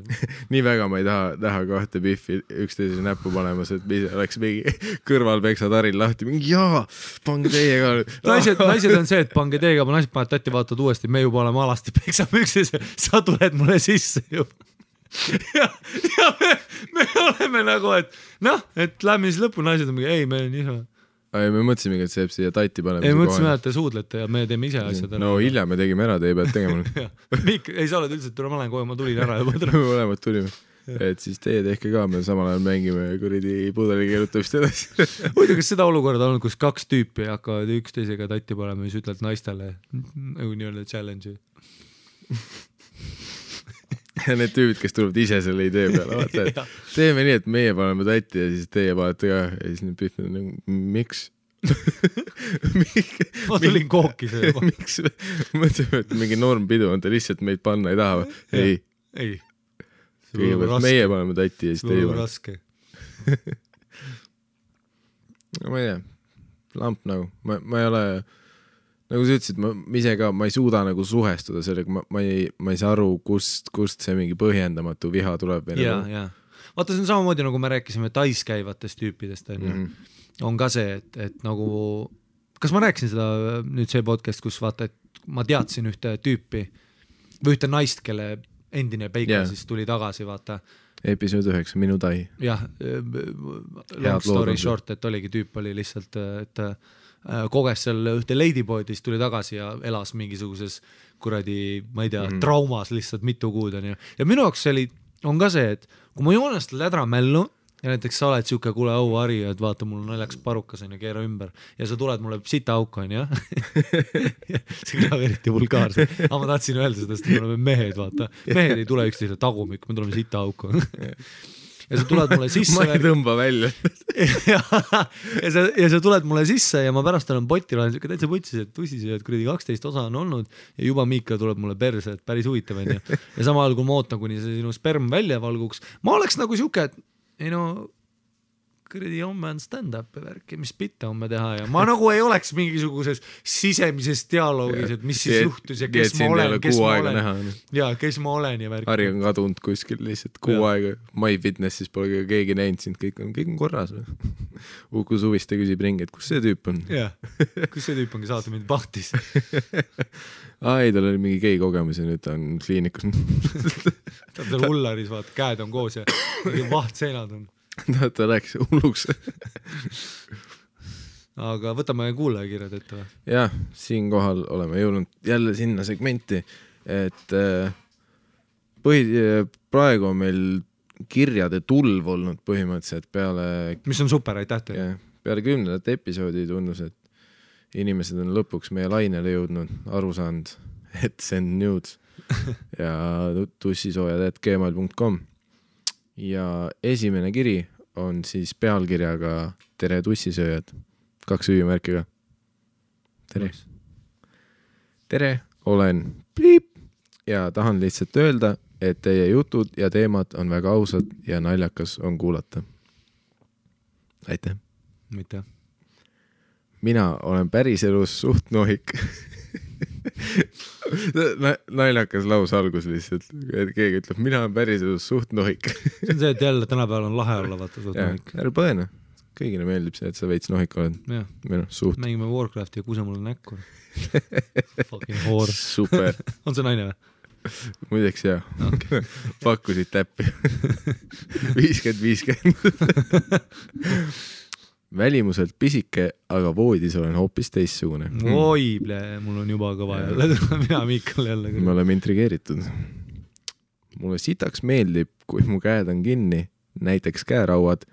S1: nii väga ma ei taha 2 pihvi üksteise näppu panemas, et oleks mingi kõrval peksad Haril lahti, mingi jaa, pange teie ka
S2: naised on see, et pange teie ka, ma naised paned tatti, vaatad uuesti, me juba oleme alasti, peksame üksteise, sa tuled mulle sisse ju ja me oleme nagu, et lähme siis lõppu, naised on mingi, ei, me on isa
S1: me mõtlesimegi, et see jääb siia tatti panema.
S2: Ei, mõtlesime, et te suudlete ja me teeme ise asjad.
S1: No hilja me tegime ära, te ei pead tegema.
S2: Ei, sa oled üldse, ma olen kohe, ma tulin ära.
S1: Mõlemad tulime. Et siis teie tehke ka, me samal ajal mängime kuridi pudeli keerutamist edasi.
S2: Muidu, kas seda olukorda on, kus 2 tüüpi hakkavad üksteisega tatti panema ja siis ütled naistele nagu nii-öelda challenge.
S1: Ja need tüübid, kes tulevad ise selle idee peale, vaata, et teeme nii, et meie paneme tatti ja siis teie panete ka ja siis need pihvid on nagu, miks?
S2: Ma tulin kooki see juba.
S1: Miks? Mõtleme, et mingi normpidu on, te lihtsalt meid panna ei taha või?
S2: Ei.
S1: Kõigepealt meie paneme tatti ja siis teie paneme.
S2: Raske.
S1: Ma ei tea, lamp nagu, ma ei ole nagu sa ütlesid, ma ise ka, ma ei suuda nagu suhestuda sellega, ma ei saa aru, kust see mingi põhjendamatu viha tuleb.
S2: Ja. Vaata, see on samamoodi, nagu me rääkisime täiskäivatest tüüpidest, on ka see, et nagu, kas ma rääkisin seda nüüd see podcast, kus vaata, et ma teadsin ühte tüüpi või ühte naist, kelle endine peika siis tuli tagasi, vaata.
S1: Episood 9, minu tai.
S2: Jah, long story short, et oligi tüüp oli lihtsalt, et koges seal ühte ladyboydist tuli tagasi ja elas mingisuguses kuradi, ma ei tea, traumas lihtsalt mitu kuud on ju. Ja minu jaoks on ka see, et kui ma joonest lädra mällu, ja näiteks sa oled siuke, kuule au Harri, et vaata, mul on naljakas parukas on ja keera ümber ja sa tuled mulle sita auka on ja see kõlab eriti vulgaarselt, aga ma tahtsin öelda seda, sest me oleme mehed, vaata, mehed ei tule üksteisele tagumik, me tuleme sita auka ja sa tuled mulle sisse
S1: ma ei tõmba välja
S2: ja sa tuled mulle sisse ja ma pärast olen potil, olen siuke täitsa putsis, et tussis ja et kuradi 12 osa on olnud ja juba Miika tuleb mulle perse, et päris huvitav on ja samal ajal kui ma ootan, kuni see sinu sperm välja valguks, ma oleks nagu siuke, et ei no kuradi homme on stand-up värki, mis bitte homme teha ja ma nagu ei oleks mingisuguses sisemises dialoogis, et mis siis juhtus ja kes ma olen ja kes ma olen ja värki.
S1: Harri on kadunud kuskil lihtsalt kuu aega, My Fitnessis pole keegi näinud sind, kõik on korras või? Uku Suviste küsib ringi, et kus see tüüp on?
S2: Jah, kus see tüüp ongi saata mind pahtis?
S1: Ei, tal oli mingi gei kogemus ja nüüd ta on kliinikus.
S2: Ta on hullaris, vaata, käed on koos ja vahtseinad on.
S1: Ta läks hulluks.
S2: Aga võtame kuulajakirjad ette või?
S1: Jah, siinkohal oleme jõudnud jälle sinna segmenti, et praegu on meil kirjade tulv olnud põhimõtteliselt peale...
S2: Mis on super, aitäh teile.
S1: Peale 10. episoodi tunnus, et inimesed on lõpuks meie lainele jõudnud, aru saanud, et send nudes ja tussisoojad@gmail.com ja esimene kiri on siis pealkirjaga Tere tussisööjad, 2 hüümärkiga. Tere. Tere, olen pliip ja tahan lihtsalt öelda, et teie jutud ja teemad on väga ausad ja naljakas on kuulata. Aitäh.
S2: Mitte.
S1: Mina olen päriselus suht nohik. Naljakas laus algus lihtsalt, et keegi ütleb, mina olen päriselus suht nohik.
S2: See on see, et jälle tänapäeval on lahe olla, vaata suht nohik.
S1: Ära põene, kõigile meeldib see, et sa veits nohik oled. Suht.
S2: Mängime Warcrafti ja kuuse mulle näkku. Fucking whore.
S1: Super.
S2: On see naine või?
S1: Muideks jah. Okay. Pakkusid täppi. 50-50. Välimuselt pisike, aga voodis olen hoopis teissugune.
S2: Oi, mul on juba kõva jälle. Mina Miikal jälle.
S1: Me oleme intrigeeritud. Mulle sitaks meeldib, kui mu käed on kinni, näiteks käerauad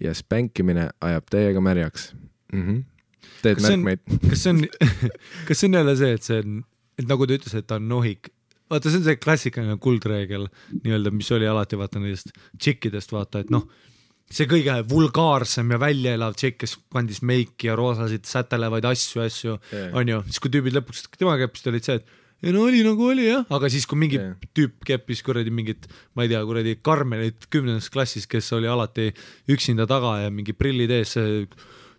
S1: ja spänkimine ajab täiega märjaks. Teed märkmeid. Kas
S2: see on jälle see, et nagu ta ütles, et ta on nohik. Vaata, see on see klassikaline kuldreegel, nii-öelda, mis oli alati vaata nendest tšikkidest, vaata, et noh, see kõige vulgaarsem ja välja elav tšekk, kes kandis meiki ja roosasid sätelevaid asju, on ju, siis kui tüübid lõpuks, tema keppist olid see, et no oli nagu oli jah, aga siis kui mingi tüüp keppis kuradi mingit, ma ei tea, kuradi Karmenit 10. klassis, kes oli alati üksinda taga ja mingi prillid ees,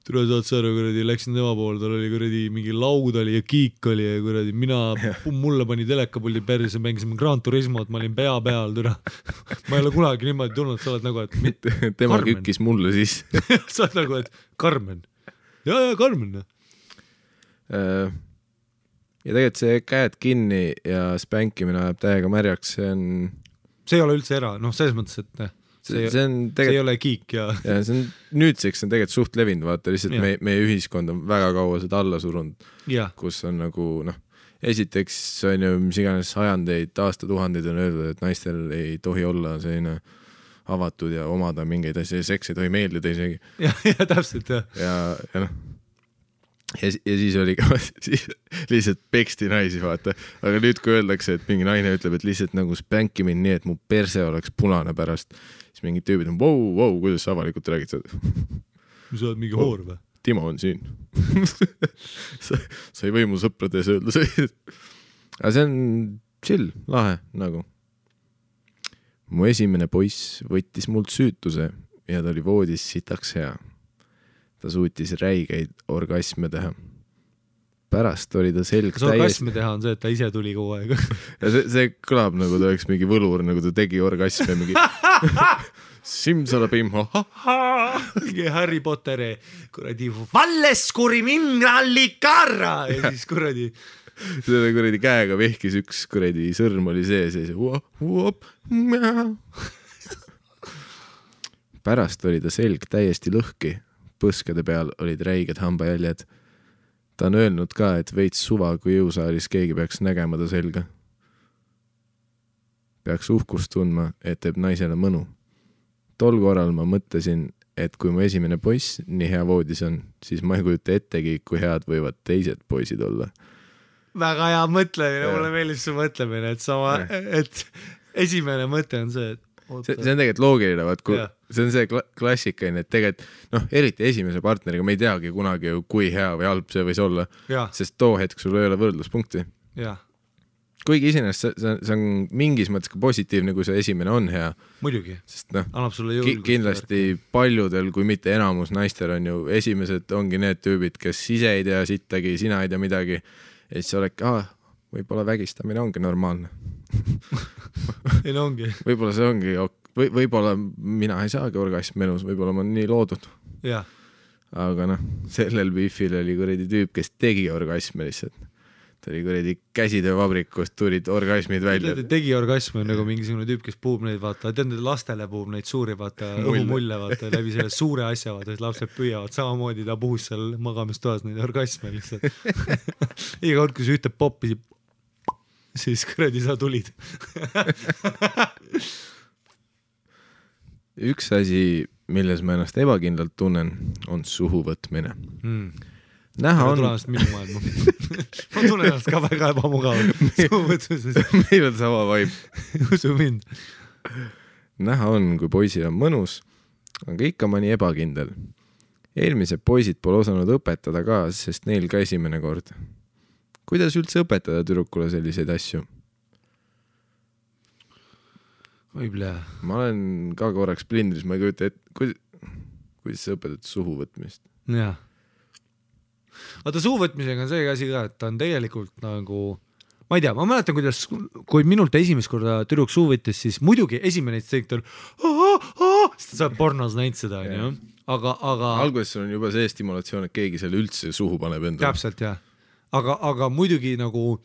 S2: tule saad sa aru, kuradi, läksin tema poole, tal oli kuradi mingi laud oli ja kiik oli ja kuradi, mulle pani telekapuldi perse, mängisime Gran Turismot, ma olin pea peal, türa. Ma ei ole kunagi niimoodi tulnud, sa oled nagu, et
S1: tema Karmen. Kükkis mulle siis.
S2: Sa oled nagu, et Karmen. Ja, Karmen.
S1: Ja tegelikult see käed kinni ja spänkimine ajab täiega märjaks,
S2: see ei ole üldse selles mõttes, et see ei ole kiik ja
S1: see on nüüdseks on tegelikult suht levinud, vaata lihtsalt meie ühiskond on väga kaua seda alla surunud, kus on nagu esiteks on ju mis iganes sajandeid, aastatuhandeid on öeldud, et naistel ei tohi olla selline avatud ja omada mingeid asja ja seks ei tohi meeldida isegi.
S2: Ja täpselt jah.
S1: Ja siis oli ka lihtsalt peksti naisi, vaata. Aga nüüd kui öeldakse, et mingi naine ütleb, et lihtsalt nagu spänki mind nii, et mu perse oleks punane pärast, siis mingid tüübid on, wow, kuidas sa avalikult räägid seda?
S2: Sa oled mingi hoor või?
S1: Timo on siin. Sa ei või mu sõprades öelda see. Aga see on chill, lahe nagu. Mu esimene poiss võttis mult süütuse ja ta oli voodis sitaks hea. Ta suutis räigeid orgasme teha. Pärast oli ta selg
S2: täiesti... Kas orgasme teha on see, et ta ise tuli kogu aeg?
S1: Ja see kõlab nagu ta oleks mingi võlur, nagu ta tegi orgasme mingi Simsalabim,
S2: mingi Harry Potteri kuradi Valleskuri mineralikarra ja siis kuradi
S1: selle kuradi käega vehkis üks kuradi sõrm oli sees ja siis pärast oli ta selg täiesti lõhki. Põskade peal olid räiged hambajäljed. Ta on öelnud ka, et veits suva, kui jõusaalis keegi peaks nägema ta selga. Peaks uhkust tundma, et teeb naisele mõnu. tol korral ma mõtlesin, et kui mu esimene poiss nii hea voodis on, siis ma ei kujuta ettegi, kui head võivad teised poisid olla.
S2: Väga hea mõtlemine, mulle meeldib su mõtlemine, et esimene mõte on see, et
S1: see on tegelikult loogiline, vaat kui see on see klassikaline, et tegelikult eriti esimese partneriga me ei teagi kunagi ju, kui hea või halb see võis olla, sest too hetk sul ei ole võrdluspunkti. Kuigi isenest see on mingis mõttes ka positiivne, kui see esimene on hea.
S2: Muidugi,
S1: sest
S2: annab sulle jõulgust.
S1: Kindlasti paljudel, kui mitte enamus naistel on ju esimesed ongi need tüübid, kes ise ei tea sittagi, sina ei tea midagi, et siis oled, võib-olla vägistamine ongi normaalne.
S2: Ei no ongi.
S1: Võib-olla see ongi, võib-olla mina ei saagi orgasmi elus, võib-olla ma olen nii loodud. Aga sellel biifil oli kuradi tüüp, kes tegi orgasmi lihtsalt. Ta oli kuradi käsitöövabrikust, tulid orgasmid välja.
S2: Tegi orgasmi on nagu mingisugune tüüp, kes puhub neid, vaata, lastele puhub neid suuri, vaata, õhumulle, vaata, läbi selle suure asja, vaata, et lapsed püüavad, samamoodi ta puhus seal magamistoas neid orgasme lihtsalt. Iga kord, kui sa ühte poppi, siis kuradi sa tulid.
S1: Üks asi, milles ma ennast ebakindlalt tunnen, on suhu võtmine. Näha on...
S2: Tulemast minu maailma. Ma tunnen ennast ka väga ebamugavalt.
S1: Meil on sama vaib.
S2: Usu mind.
S1: Näha on, kui poisil on mõnus, aga ikka mõni ebakindel. Eelmised poisid pole osanud õpetada ka, sest neil ka esimene kord. Kuidas üldse õpetada tüdrukule selliseid asju?
S2: Võib-olla.
S1: Ma olen ka korraks plindris, ma ei kujuta, et kuidas sa õpetad suhu võtmist?
S2: Jah. Vaata suuvõtmisega on see asi ka, et ta on tegelikult nagu, ma ei tea, ma mäletan, kuidas, kui minult esimest korda tüdruk suu võttis, siis muidugi esimene teikt on sest sa pornos näinud seda, aga
S1: alguses sul on juba see stimulatsioon, et keegi selle üldse suhu paneb endale.
S2: Täpselt, jah. Aga muidugi nagu,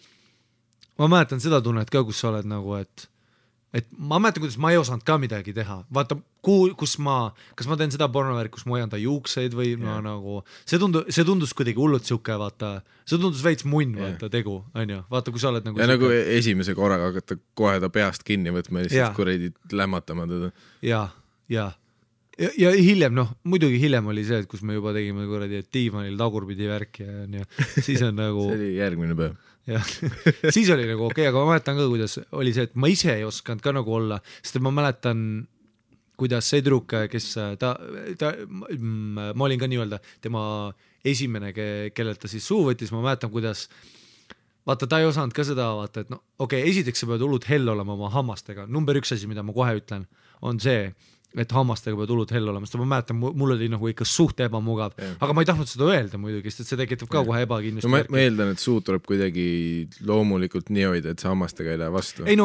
S2: ma mäletan seda tunnet ka, kus sa oled nagu, et ma mäletan, kuidas ma ei osanud ka midagi teha. Vaata, kas ma teen seda pornovärk, kus ma hoian ta juukseid või nagu, see tundus kuidagi hullult siuke, vaata, see tundus veits munn, vaata, tegu, on ju, vaata, kui sa oled nagu...
S1: Ja nagu esimese korraga hakata kohe ta peast kinni võtma ja lihtsalt kuradi lämmatama teda. Ja hiljem, muidugi hiljem oli see, et kus me juba tegime kuradi diivanil tagurpidi värki ja siis on nagu... See oli järgmine päev.
S2: Siis oli nagu okei, aga ma mäletan ka, kuidas oli see, et ma ise ei osanud ka nagu olla, sest ma mäletan, kuidas see tüdruk, kes ma olin ka nii-öelda tema esimene, kellelt ta siis suu võttis, ma mäletan, kuidas vaata, ta ei osanud ka seda vaata, et okei, esiteks sa pead hullud hell olema oma hammastega. Number 1 asi, mida ma kohe ütlen, on see, et hammastega pead hullud hell olema, sest ma mäletan, mul oli nagu ikka suht ebamugav, aga ma ei tahtnud seda öelda muidugi, sest see tekitab ka kohe ebakindlust.
S1: Ma eeldan, et suu tuleb kuidagi loomulikult nii hoida, et sa hammastega ei lähe vastu.
S2: Ei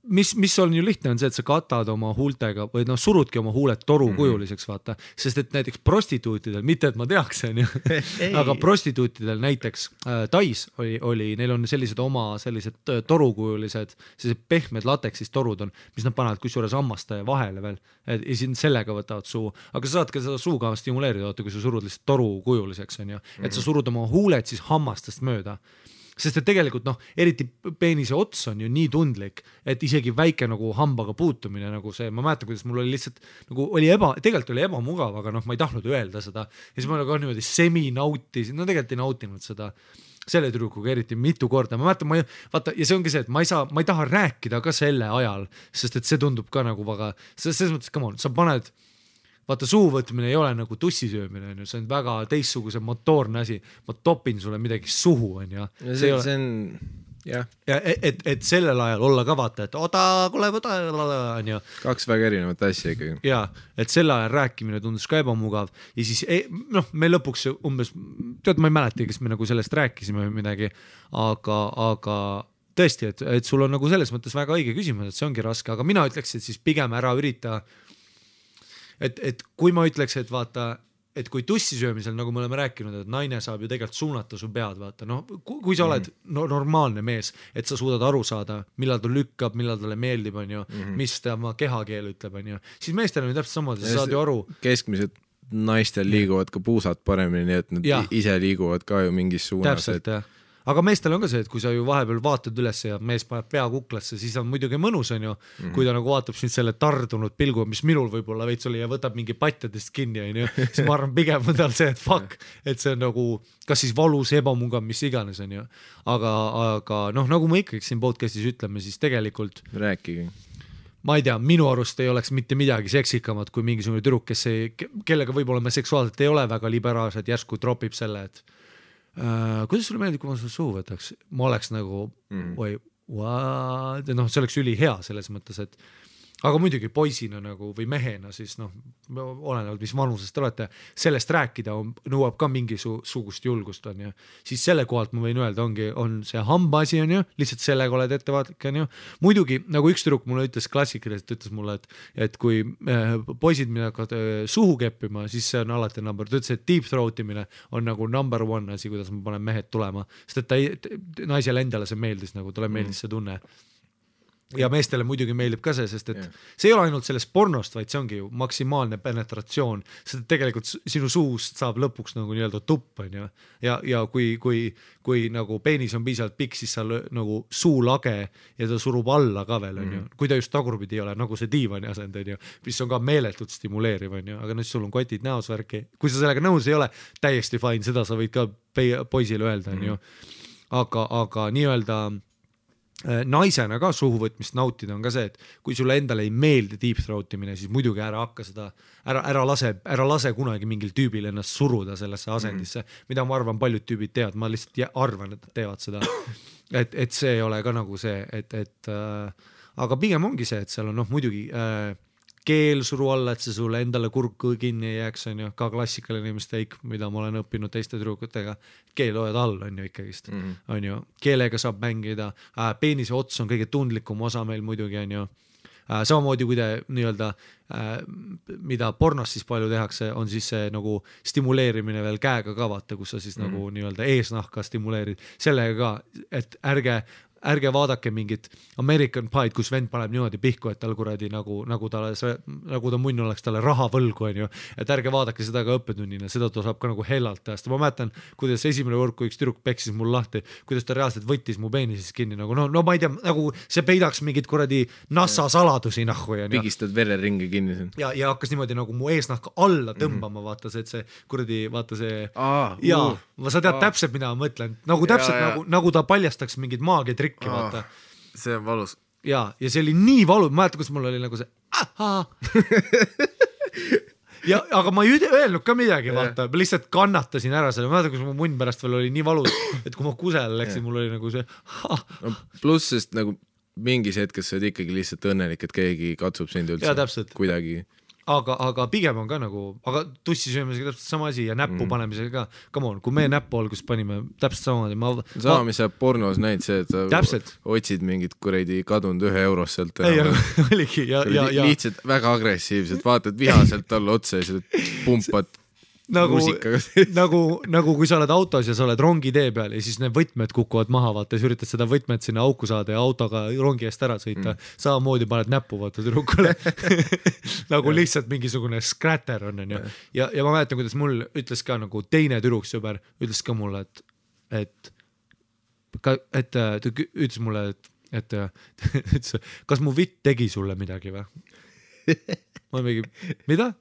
S2: mis on ju lihtne on see, et sa katad oma huultega või surudki oma huuled torukujuliseks, vaata, sest et näiteks prostituutidel, mitte et ma teaks, aga prostituutidel näiteks Tais oli, neil on sellised oma sellised torukujulised, sellised pehmed lateksist torud on, mis nad panevad kusjuures hammaste vahele veel, ja siin sellega võtavad suu, aga sa saad ka seda suuga stimuleerida, kui sa surud lihtsalt torukujuliseks, on ju, et sa surud oma huuled siis hammastest mööda. Sest et tegelikult eriti peenise ots on ju nii tundlik, et isegi väike nagu hambaga puutumine nagu see, ma mäletan, kuidas mul oli lihtsalt nagu tegelikult oli ebamugav, aga ma ei tahtnud öelda seda ja siis ma nagu niimoodi semi-nautisin, tegelikult ei nautinud seda selle tüdrukuga eriti mitu korda, ma mäletan, vaata, ja see ongi see, et ma ei taha rääkida ka selle ajal, sest et see tundub ka nagu väga, selles mõttes, come on, sa paned vaata, suuvõtmine ei ole nagu tussisöömine, see on väga teistsuguse motoorne asi. Ma topin sulle midagi suhu, on ju.
S1: See on, jah.
S2: Ja et sellel ajal olla ka vaata, et kuule, on ju.
S1: Kaks väga erinevat asja ikkagi.
S2: Ja, et selle ajal rääkimine tundus ka ebamugav. Ja siis, me lõpuks umbes, ma ei mäleta, kes me nagu sellest rääkisime või midagi, aga tõesti, et sul on nagu selles mõttes väga õige küsimus, et see ongi raske, aga mina ütleks, et siis pigem ära ürita et kui ma ütleks, et vaata, et kui tussisöömisel, nagu me oleme rääkinud, et naine saab ju tegelikult suunata su pead, vaata, kui sa oled normaalne mees, et sa suudad aru saada, millal ta lükkab, millal talle meeldib, on ju, mis ta oma kehakeel ütleb, on ju, siis meestel on ju täpselt samad, sa saad ju aru.
S1: Keskmised naistel liiguvad ka puusad paremini, nii et nad ise liiguvad ka ju mingis suunas.
S2: Täpselt, jah. aga meestel on ka see, et kui sa ju vahepeal vaatad üles ja mees paneb pea kuklasse, siis on muidugi mõnus, on ju, kui ta nagu vaatab sind selle tardunud pilgu, mis minul võib-olla veits oli ja võtab mingi patjadest kinni, on ju, siis ma arvan pigem on tal see, et fuck, et see on nagu, kas siis valus, ebamungav, mis iganes, on ju, aga noh, nagu me ikkagi siin podcastis ütleme, siis tegelikult
S1: rääkige.
S2: Ma ei tea, minu arust ei oleks mitte midagi seksikamat kui mingisugune tüdruk, kellega võib-olla me seksuaalselt ei ole väga liberaalsed, järsku tropib selle, et kuidas sulle meeldib, kui ma sulle suhu võtaks? Ma oleks nagu, või what? No, see oleks üli hea selles mõttes, et aga muidugi poisina nagu või mehena siis noh, olenevalt mis vanusest te olete, sellest rääkida nõuab ka mingisugust julgust on ju, siis selle kohalt ma võin öelda, on see hamba asi on ju, lihtsalt sellega oled ettevaatlik on ju, muidugi nagu üks tüdruk mulle ütles klassikaliselt, ütles mulle, et kui poisid mida hakkavad suhu keppima, siis see on alati number, ta ütles, et deep throat imine on nagu number one asi, kuidas ma panen mehed tulema, sest et naisele endale see meeldis, nagu talle meeldis see tunne ja meestele muidugi meeldib ka see, sest et see ei ole ainult sellest pornost, vaid see ongi ju maksimaalne penetratsioon, sest et tegelikult sinu suust saab lõpuks nagu nii-öelda tupp on ju ja kui nagu peenis on piisavalt pikk, siis sa nagu suulage ja ta surub alla ka veel on ju, kui ta just tagurpidi ei ole, nagu see diivani asend on ju, mis on ka meeletult stimuleeriv on ju, aga nüüd sul on kotid näos värki, kui sa sellega nõus ei ole, täiesti fine, seda sa võid ka poisile öelda on ju, aga nii-öelda naisena ka suhuvõtmist nautida on ka see, et kui sulle endale ei meeldi deep throat imine, siis muidugi ära hakka seda, ära lase kunagi mingil tüübil ennast suruda sellesse asendisse, mida ma arvan paljud tüübid teevad, ma lihtsalt arvan, et teevad seda, et see ei ole ka nagu see, aga pigem ongi see, et seal on noh muidugi keel suru alla, et see sulle endale kurk kinni ei jääks, on ju, ka klassikaline mistake, mida ma olen õppinud teiste tüdrukutega, keel hoiad all, on ju ikkagist, on ju, keelega saab mängida, peenise ots on kõige tundlikum osa meil muidugi, on ju, samamoodi kui te nii-öelda, mida pornos siis palju tehakse, on siis see nagu stimuleerimine veel käega ka vaata, kus sa siis nagu nii-öelda eesnahka stimuleerid, sellega ka, et ärge vaadake mingit American Pie'd, kus vend paneb niimoodi pihku, et tal kuradi nagu ta munn oleks talle raha võlgu, on ju, et ärge vaadake seda ka õppetunnina, seda ta saab ka nagu hellalt teha, ma mäletan, kuidas esimene kord, kui üks tüdruk peksis mul lahti, kuidas ta reaalselt võttis mu peenises kinni, nagu no ma ei tea, nagu see peidaks mingit kuradi NASA saladusi nahku ja
S1: pigistad vereringe kinni siin.
S2: Ja hakkas niimoodi nagu mu eesnahka alla tõmbama, vaata see, et see kuradi, vaata see sa tead täpselt, mida ma mõtlen, nagu täpselt nagu ta paljastaks mingid maagiatrikki, vaata.
S1: See on valus.
S2: Ja see oli nii valu, ma mäletan, kus mul oli nagu see ja, aga ma ei öelnud ka midagi, vaata, ma lihtsalt kannatasin ära selle, ma mäletan, kus mu munn pärast veel oli nii valus, et kui ma kusele läksin, mul oli nagu see
S1: no, pluss, sest nagu mingis hetkes sa oled ikkagi lihtsalt õnnelik, et keegi katsub sind üldse kuidagi.
S2: Aga pigem on ka nagu, aga tussisöömisega täpselt sama asi ja näppu panemisega ka, come on, kui meie näppu alguses panime täpselt samamoodi.
S1: Sama, mis sa pornos näid see, et sa otsid mingit kuradi kadunud 1 eurost sealt.
S2: Oligi ja
S1: lihtsalt väga agressiivselt, vaatad vihaselt talle otsa ja sa pumpad
S2: nagu kui sa oled autos ja sa oled rongi tee peal ja siis need võtmed kukuvad maha, vaata, ja üritad seda võtmed sinna auku saada ja autoga rongi eest ära sõita, samamoodi paned näppu, vaata, tüdrukule nagu lihtsalt mingisugune skratter on ju. Ja ma mäletan, kuidas mul ütles ka nagu teine tüdruksõber, ütles ka mulle, et ütles mulle, et kas mu vitt tegi sulle midagi või? Ma mingi, mida?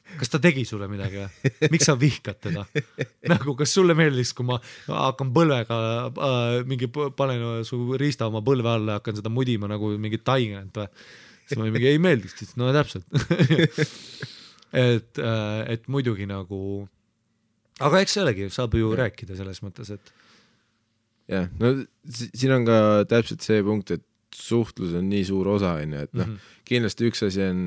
S2: Kas ta tegi sulle midagi või? Miks sa vihkad teda? Nagu, kas sulle meeldis, kui ma hakkan põlvega panen su riista oma põlve alla ja hakkan seda mudima nagu mingi taigent või? Siis ma mingi ei meeldiks, no täpselt. et muidugi nagu, aga eks sellegi saab ju rääkida selles mõttes, et
S1: jah, no siin on ka täpselt see punkt, et suhtlus on nii suur osa, et noh, kindlasti üks asi on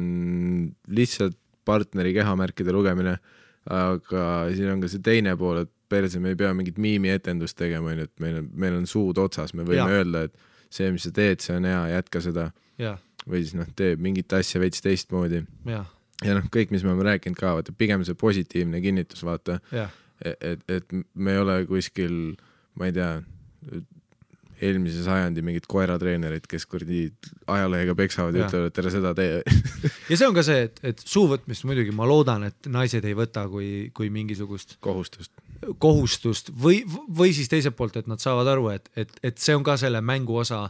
S1: lihtsalt partneri kehamärkide lugemine, aga siin on ka see teine pool, et perse me ei pea mingit miimi etendust tegema, et meil on suud otsas, me võime öelda, et see, mis sa teed, see on hea, jätka seda või siis noh, teeb mingit asja veits teistmoodi ja noh, kõik, mis me oleme rääkinud ka, vaata, pigem see positiivne kinnitus, vaata, et me ei ole kuskil, ma ei tea, eelmise sajandi mingid koeratreenerid, kes kurdi ajalehega peksavad ja ütlevad, et tere seda tee.
S2: Ja see on ka see, et suuvõtmist muidugi ma loodan, et naised ei võta kui mingisugust
S1: kohustust.
S2: kohustust või siis teiselt poolt, et nad saavad aru, et see on ka selle mängu osa,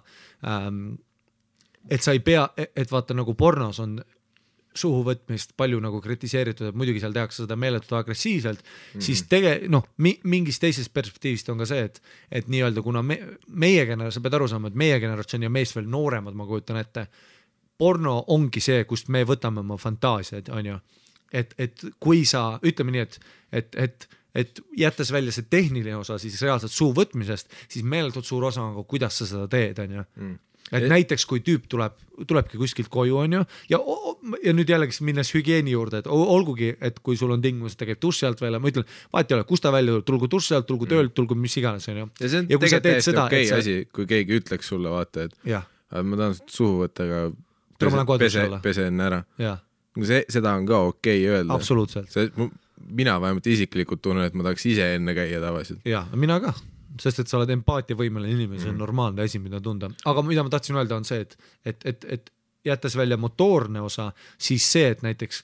S2: et sa ei pea, et vaata nagu pornos on suhu võtmist palju nagu kritiseeritud, et muidugi seal tehakse seda meeletult agressiivselt, siis mingis teisest perspektiivist on ka see, et nii-öelda kuna meie generatsioon, sa pead aru saama, et meie generatsioon ja meist veel nooremad, ma kujutan ette, porno ongi see, kust me võtame oma fantaasiaid, on ju. Et kui sa, ütleme nii, et jättes välja see tehniline osa siis reaalselt suu võtmisest, siis meeletult suur osa on, kuidas sa seda teed, on ju. Et näiteks kui tüüp tulebki kuskilt koju, on ju, ja nüüd jällegi minnes hügieeni juurde, et olgugi, et kui sul on tingimus, et ta käib duši alt välja, ma ütlen, vahet ei ole, kus ta välja tuleb, tulgu duši alt, tulgu töölt, tulgu mis iganes, on ju.
S1: Ja see on tegelikult täiesti okei asi, kui keegi ütleks sulle, vaata, et ma tahan suhu võtta, aga pesen ära. Seda on ka okei öelda.
S2: Absoluutselt.
S1: Mina vähemalt isiklikult tunnen, et ma tahaks ise enne käia tavaliselt.
S2: Ja, mina ka. Sest et sa oled empaatiavõimeline inimene, see on normaalne asi, mida tunda. Aga mida ma tahtsin öelda on see, et jättes välja motoorne osa, siis see, et näiteks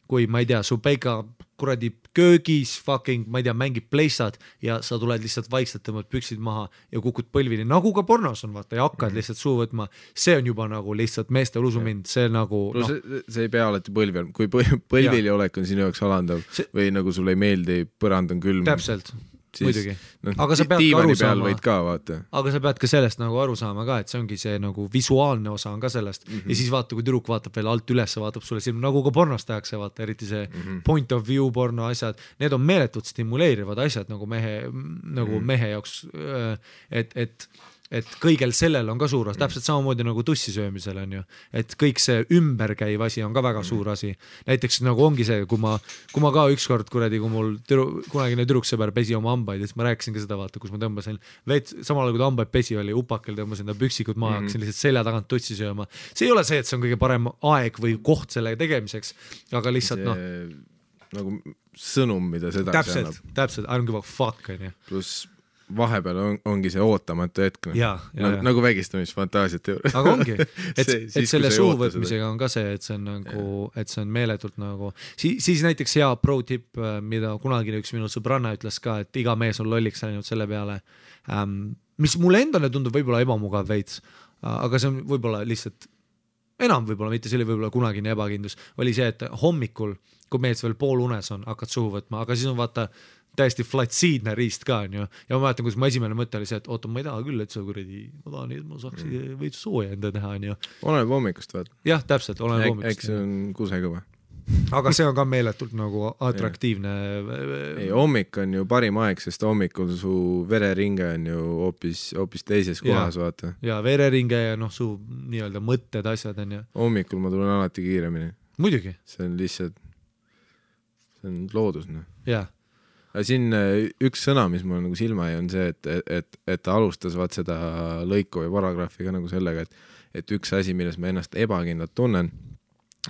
S2: kui ma ei tea, su peika kuradi köögis fucking, ma ei tea, mängib pleissad ja sa tuled lihtsalt vaikselt tõmbad püksid maha ja kukud põlvini, nagu ka pornos on, vaata, ja hakkad lihtsalt suu võtma, see on juba nagu lihtsalt meeste usumind, see nagu
S1: see ei pea alati põlvi on, kui põlvili olek on sinu jaoks alandav või nagu sulle ei meeldi, põrand on külm.
S2: Täpselt. Muidugi. Aga sa pead ka aru saama.
S1: Võid ka, vaata.
S2: Aga sa pead ka sellest nagu aru saama ka, et see ongi see nagu visuaalne osa on ka sellest. Ja siis vaata, kui tüdruk vaatab veel alt üles, vaatab sulle silm, nagu ka pornos tehakse, vaata, eriti see point of view porno asjad. Need on meeletult stimuleerivad asjad nagu mehe jaoks, et kõigel sellel on ka suur osa, täpselt samamoodi nagu tussi söömisel on ju, et kõik see ümberkäiv asi on ka väga suur asi. Näiteks nagu ongi see, kui ma ka ükskord kuradi, kui mul kunagine tüdruksõber pesi oma hambaid, siis ma rääkisin ka seda, vaata, kus ma tõmbasin samal ajal kui ta hambaid pesi oli, upakel tõmbasin ta püksikud maha, hakkasin lihtsalt selja tagant tussi sööma. See ei ole see, et see on kõige parem aeg või koht selle tegemiseks, aga lihtsalt
S1: nagu sõnum, mida seda
S2: täpselt, I don't give a fuck on ju.
S1: Pluss vahepeal ongi see ootamatu hetk nagu vägistamisfantaasiate juures.
S2: Aga ongi, et selle suu võtmisega on ka see, et see on nagu, et see on meeletult nagu siis näiteks hea pro tip, mida kunagi üks minu sõbranna ütles ka, et iga mees on lolliks läinud selle peale, mis mulle endale tundub võib-olla ebamugav veits, aga see on võib-olla lihtsalt enam võib-olla, mitte see oli võib-olla kunagine ebakindlus, oli see, et hommikul, kui mees veel pool unes on, hakkad suhu võtma, aga siis on vaata täiesti flatsiidne riist ka, on ju. Ja ma mäletan, kus mu esimene mõte oli see, et oota, ma ei taha küll, et sa kuradi, ma tahan, et ma saaks veits sooja enda teha, on ju.
S1: Oleneb hommikust, vaata.
S2: Jah, täpselt, oleneb hommikust.
S1: Eks see on kusega või?
S2: Aga see on ka meeletult nagu atraktiivne.
S1: Ei, hommik on ju parim aeg, sest hommikul su vereringe on ju hoopis teises kohas, vaata.
S2: Ja vereringe ja su nii-öelda mõtted, asjad on ju.
S1: Hommikul ma tulen alati kiiremini.
S2: Muidugi.
S1: See on lihtsalt, see on loodus,
S2: Jah.
S1: Aga siin üks sõna, mis mul nagu silma jäi, on see, et ta alustas vaat seda lõiku või paragrahviga nagu sellega, et üks asi, milles ma ennast ebakindlalt tunnen,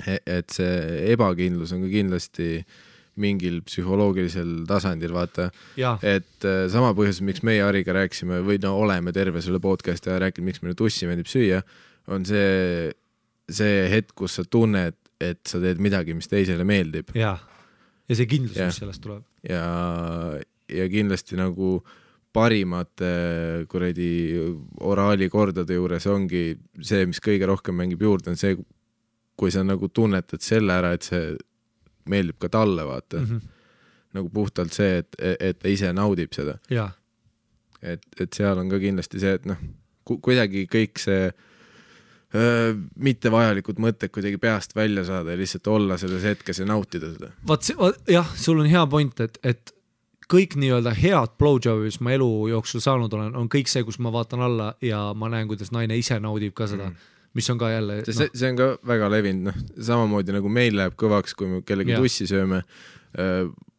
S1: et see ebakindlus on ka kindlasti mingil psühholoogilisel tasandil, vaata, et sama põhjus, miks meie Hariga rääksime või oleme terve selle podcasti ja rääkinud, miks meile tussi meeldib süüa, on see hetk, kus sa tunned, et sa teed midagi, mis teisele meeldib.
S2: Ja see kindlus, mis sellest tuleb.
S1: Ja kindlasti nagu parimate kuradi oraalikordade juures ongi see, mis kõige rohkem mängib juurde, on see, kui sa nagu tunnetad selle ära, et see meeldib ka talle, vaata. Nagu puhtalt see, et ta ise naudib seda. Et seal on ka kindlasti see, et kuidagi kõik see mitte vajalikud mõtted kuidagi peast välja saada ja lihtsalt olla selles hetkes ja nautida seda.
S2: Jah, sul on hea point, et kõik nii-öelda head blowjobis ma elu jooksul saanud olen, on kõik see, kus ma vaatan alla ja ma näen, kuidas naine ise naudib ka seda, mis on ka jälle...
S1: See on ka väga levinud, samamoodi nagu meil läheb kõvaks, kui me kellegi tussi sööme.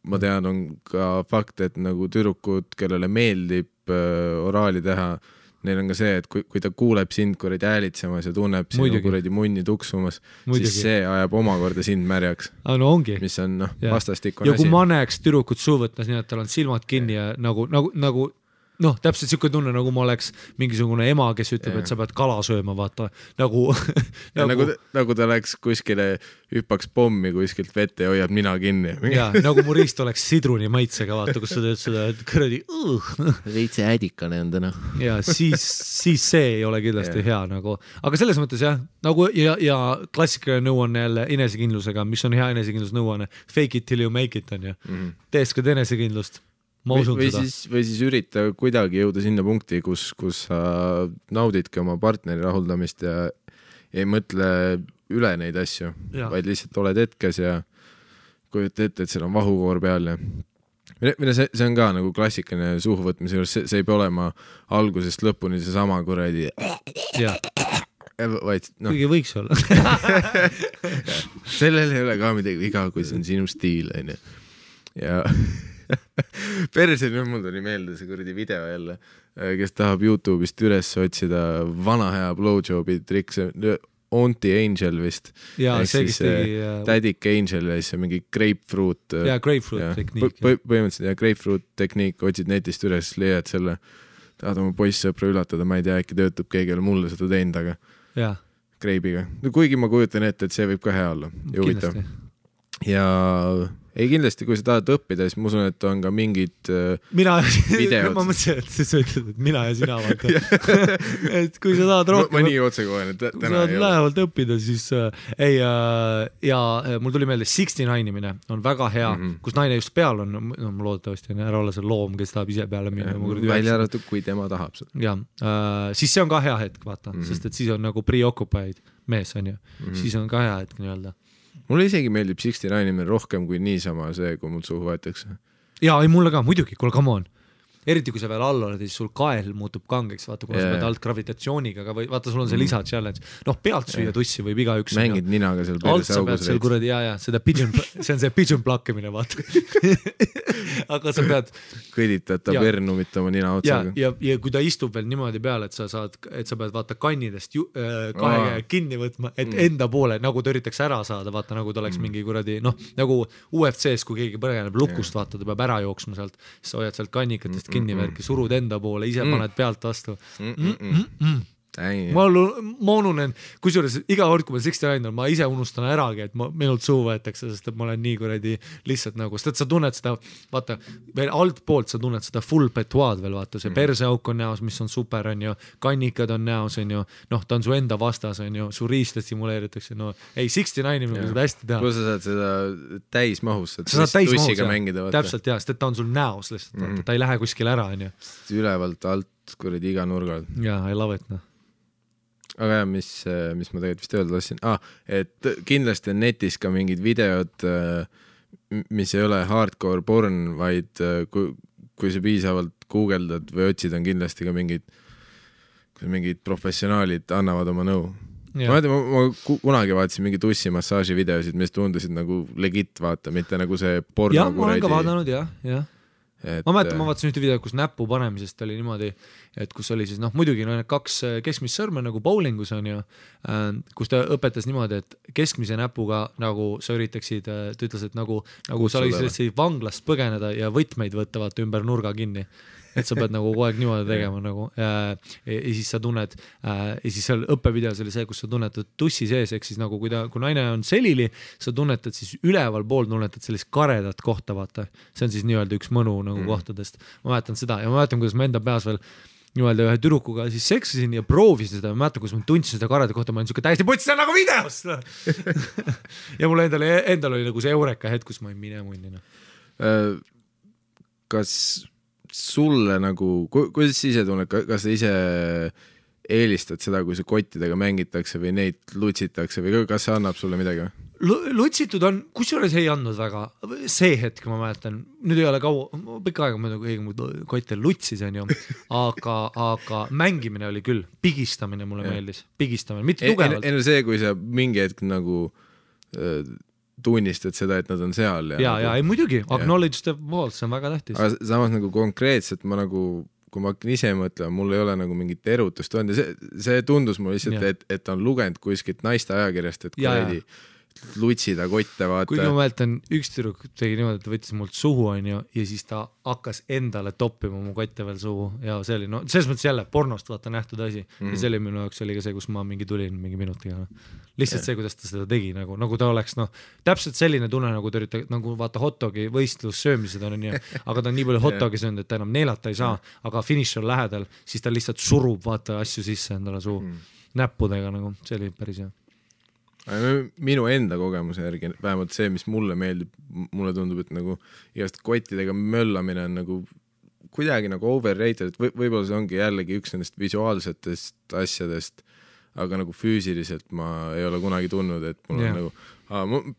S1: Ma tean, on ka fakt, et nagu tüdrukud, kellele meeldib oraali teha, neil on ka see, et kui ta kuuleb sind kuradi häälitsemas ja tunneb sinu kuradi munni tuksumas, siis see ajab omakorda sind märjaks.
S2: Ongi.
S1: Mis on vastastikune asi.
S2: Ja kui ma näeks tüdrukut suu võtmas, nii et tal on silmad kinni ja nagu noh, täpselt siuke tunne, nagu ma oleks mingisugune ema, kes ütleb, et sa pead kala sööma, vaata, nagu
S1: nagu ta läks kuskile, hüppaks pommi kuskilt vette ja hoiab nina kinni.
S2: Ja, nagu mu riist oleks sidruni maitsega, vaata, kus sa teed seda, et kõradi
S1: veitse ädikane on täna.
S2: Ja siis see ei ole kindlasti hea nagu, aga selles mõttes jah, nagu ja klassikaline nõuanne jälle enesekindlusega, mis on hea enesekindlus nõuanne, fake it till you make it on ju, teeskad enesekindlust. Või
S1: siis ürita kuidagi jõuda sinna punkti, kus sa naudidki oma partneri rahuldamist ja ei mõtle üle neid asju, vaid lihtsalt oled hetkes ja kujuta ette, et seal on vahukoor peal ja see on ka nagu klassikaline suhuvõtmise juures, see ei pea olema algusest lõpuni see sama kuradi vaid noh.
S2: Kuigi võiks olla.
S1: Sellel ei ole ka midagi viga, kui see on sinu stiil on ju. Ja perse, nüüd mul tuli meelde see kuradi video jälle, kes tahab YouTube'ist üles otsida vana hea blowjobi trikk, see Auntie Angel vist.
S2: Ja,
S1: ehk siis Tädik Angel ja siis mingi grapefruit.
S2: Ja, grapefruit tekniik.
S1: Põhimõtteliselt grapefruit tekniik, otsid netist üles, leiad selle, tahad oma poissõpra üllatada, ma ei tea, äkki töötab keegi ole mulle seda teinud, aga greibiga. No, kuigi ma kujutan ette, et see võib ka hea olla. Juvitav. Ja ei kindlasti, kui sa tahad õppida, siis ma usun, et on ka mingid videod. Ma
S2: mõtlesin, et sa ütled, et mina ja sina vaata. Et kui sa tahad rohkem
S1: ma nii otsekohen, et
S2: täna ei ole. Lähevalt õppida, siis ja mul tuli meelde 69-imine on väga hea, kus naine just peal on, no ma loodetavasti on ära olla see loom, kes tahab ise peale minna.
S1: Välja arvatud, kui tema tahab seda.
S2: Ja, siis see on ka hea hetk, vaata, sest et siis on nagu preoccupied mees on ju, siis on ka hea hetk nii-öelda.
S1: Mulle isegi meeldib 69 rohkem kui niisama see, kui mul suhu võetakse.
S2: Jaa, ei mulle ka, muidugi, kuule, come on. Eriti kui sa veel all oled, siis sul kael muutub kangeks, vaata, kuna sa pead alt gravitatsiooniga, aga vaata, sul on see lisa challenge. Noh, pealt süüa tussi võib iga üks.
S1: Mängid ninaga seal perse augus.
S2: Seal kuradi, seda pigeon, see on see pigeon plakkimine, vaata. Aga sa pead
S1: kõditata pernumitama nina otsaga.
S2: Ja kui ta istub veel niimoodi peale, et sa pead vaata kannidest kahe kinni võtma, et enda poole, nagu ta üritaks ära saada, vaata, nagu ta oleks mingi kuradi, noh, nagu UFC-s, kui keegi põgeneb lukust, vaata, ta peab ära jooksma sealt, siis sa hoiad sealt kannikatest kinni värki, surud enda poole, ise paned pealt vastu. Ma ununen, kusjuures iga kord, kui ma 69 on, ma ise unustan äragi, et minult suu võetakse, sest et ma olen nii kuradi lihtsalt nagu, sest et sa tunned seda, vaata, veel alt poolt sa tunned seda full petoaad veel, vaata, see perseauk on näos, mis on super, on ju, kannikad on näos, on ju, noh, ta on su enda vastas, on ju, su riista stimuleeritakse, no ei, 69 inimene seda hästi teha.
S1: Kus sa saad seda täismahus,
S2: tussiga mängida, vaata. Täpselt, jah, sest et ta on sul näos lihtsalt, ta ei lähe kuskil ära, on ju.
S1: Ülevalt alt kuradi iga nurgal.
S2: Jaa, I love it, noh.
S1: Aga jah, mis ma tegelikult vist öelda tahtsin, et kindlasti on netis ka mingid videod, mis ei ole hardcore porn, vaid kui sa piisavalt guugeldad või otsid, on kindlasti ka mingid professionaalid annavad oma nõu. Ma kunagi vaatasin mingi tussimassaaži videosid, mis tundusid nagu legit vaata, mitte nagu see porno.
S2: Jah, ma olen ka vaadanud, jah. Ma mäletan, ma vaatasin ühte video, kus näpu panemisest oli niimoodi, et kus oli siis, noh, muidugi no, kaks keskmist sõrme nagu bowlingus on ju, kus ta õpetas niimoodi, et keskmise näpuga nagu sa üritaksid, ta ütles, et nagu sa oleksid vanglast põgeneda ja võtmeid võttavad ümber nurga kinni. Et sa pead nagu kogu aeg niimoodi tegema nagu, ja siis sa tunned, ja siis seal õppevideos oli see, kus sa tunnetad tussi sees, ehk siis nagu kui naine on selili, sa tunnetad siis üleval pool tunnetad sellist karedat kohta, vaata. See on siis nii-öelda üks mõnu nagu kohtadest. Ma mäletan seda ja ma mäletan, kuidas ma enda peas veel nii-öelda ühe tüdrukuga siis seksisin ja proovisin seda, ma mäletan, kuidas ma tundsin seda karedat kohta, ma olin siuke täiesti putsi, see on nagu videos. Ja mul endal oli nagu see eureka hetk, kus ma olin mine munnina.
S1: Kas sulle nagu, kuidas sa ise tunned, kas sa ise eelistad seda, kui see kottidega mängitakse või neid lutsitakse või kas see annab sulle midagi?
S2: Lutsitud on, kusjuures ei andnud väga, see hetk ma mäletan, nüüd ei ole pikka aega ma nagu kotte lutsis on ju, aga mängimine oli küll, pigistamine mulle meeldis, pigistamine, mitte tugevalt.
S1: Enne see, kui sa mingi hetk nagu tunnistad seda, et nad on seal.
S2: Ja ei muidugi, acknowledge the walls, see on väga tähtis.
S1: Aga samas nagu konkreetselt ma nagu, kui ma hakkan ise mõtlema, mul ei ole nagu mingit erutust olnud ja see tundus mul lihtsalt, et on lugenud kuskilt naiste ajakirjast, et kuredi lutsida kotte, vaata.
S2: Kuigi ma mäletan, üks tüdruk tegi niimoodi, et ta võttis mult suhu, onju, ja siis ta hakkas endale toppima mu kotte veel suhu ja see oli, no selles mõttes jälle pornost vaata nähtud asi ja see oli minu jaoks oli ka see, kus ma mingi tulin mingi minutiga. Lihtsalt see, kuidas ta seda tegi, nagu ta oleks, täpselt selline tunne, nagu ta üritab, nagu vaata hotdogi võistlus söömised on nii, aga ta on nii palju hotdogi söönud, et ta enam neelata ei saa, aga finish on lähedal, siis ta lihtsalt surub vaata asju sisse endale suhu näppudega, nagu see oli päris hea.
S1: Minu enda kogemuse järgi, vähemalt see, mis mulle meeldib, mulle tundub, et nagu igast kottidega möllamine on nagu kuidagi nagu overrated, et võib-olla see ongi jällegi üks nendest visuaalsetest asjadest, aga nagu füüsiliselt ma ei ole kunagi tundnud, et mul on nagu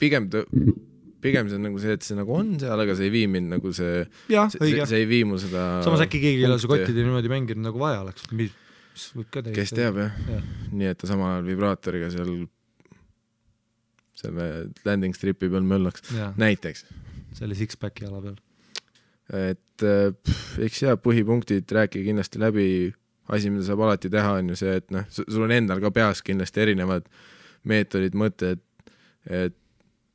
S1: pigem see on nagu see, et see nagu on seal, aga see ei vii mind nagu see ei vii mu seda
S2: samas äkki keegi ei ole su kottide niimoodi mänginud nagu vaja oleks, mis võib ka
S1: kes teab jah. Nii, et ta samal ajal vibraatoriga seal selle landing stripi peal möllaks näiteks.
S2: Selle six-packi ala peal.
S1: Et eks põhipunktid rääkige kindlasti läbi, asi, mida saab alati teha, on ju see, et sul on endal ka peas kindlasti erinevad meetodid, mõtted, et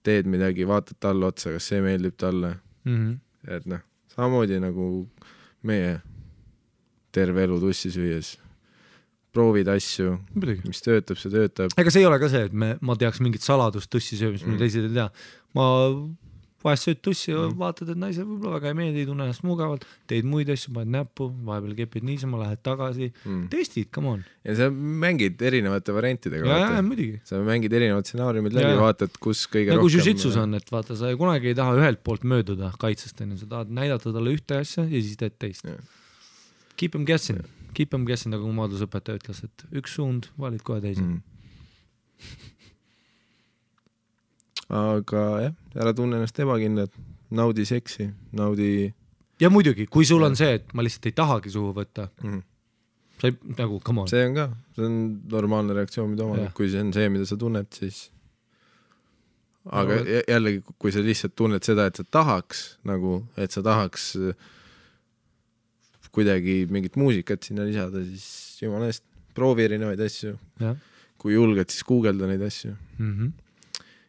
S1: teed midagi, vaatad talle otsa, kas see meeldib talle. Et samamoodi nagu meie terve elu tussi süües. Proovid asju, mis töötab, see töötab.
S2: Ega see ei ole ka see, et ma teaks mingit saladust tussi söömist, mida teised ei tea. Ma vahest sööd tussi ja vaatad, et naise võib-olla väga ei meeldi, tunne ennast mugavalt, teed muid asju, paned näppu, vahepeal kepid niisama, lähed tagasi, testid, come on.
S1: Ja sa mängid erinevate variantidega.
S2: Ja, muidugi.
S1: Sa mängid erinevad stsenaariumid läbi, vaatad, kus kõige
S2: rohkem... Jiu-jitsus on, et vaata, sa kunagi ei taha ühelt poolt mööduda kaitsest, sa tahad näidata talle ühte asja ja siis teed teist. Keep them guessing, nagu maadlusõpetaja ütles, et üks suund, valid kohe teisi.
S1: Aga jah, ära tunne ennast ebakindlad, naudi seksi, naudi...
S2: Ja muidugi, kui sul on see, et ma lihtsalt ei tahagi suhu võtta, sa ei, nagu, come on.
S1: See on ka, see on normaalne reaktsioon, mida oma, kui see on see, mida sa tunned, siis... Aga jällegi, kui sa lihtsalt tunned seda, et sa tahaks, nagu, et sa tahaks... kuidagi mingit muusikat sinna lisada, siis jumala eest, proovi erinevaid asju. Kui julged, siis googelda neid asju.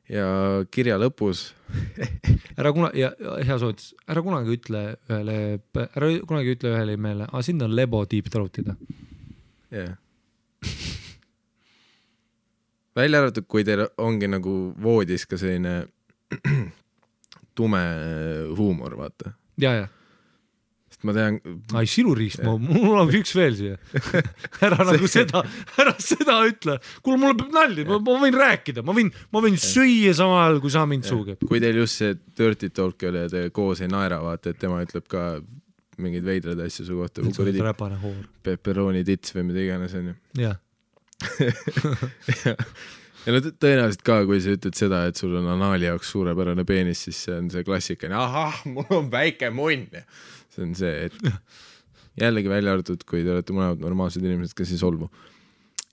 S1: Ja kirja lõpus
S2: hea soovitus, ära kunagi ütle ühele meele, sind on lebo deep throat'ida.
S1: Välja arvatud, kui teil ongi nagu voodis ka selline tume huumor, vaata.
S2: Ja.
S1: Ma tean...
S2: Ai, siluriist, mul on üks veel siia. Ära seda ütle. Kuule, mulle peab nalli, ma võin rääkida, ma võin süüa samal ajal, kui sa mind suugeb.
S1: Kui teil just see dirty talk oli ja te koos ei naera, vaata, et tema ütleb ka mingeid veidrad asju su kohta.
S2: Räpane hoor.
S1: Pepperoni tits või mida iganes on ju.
S2: Jah.
S1: Ja tõenäoliselt ka, kui sa ütled seda, et sul on anaali jaoks suurepärane peenis, siis see on see klassikane, mul on väike munn. See on see, et jällegi välja arvatud, kui te olete mõlemad normaalsed inimesed, kes ei solvu.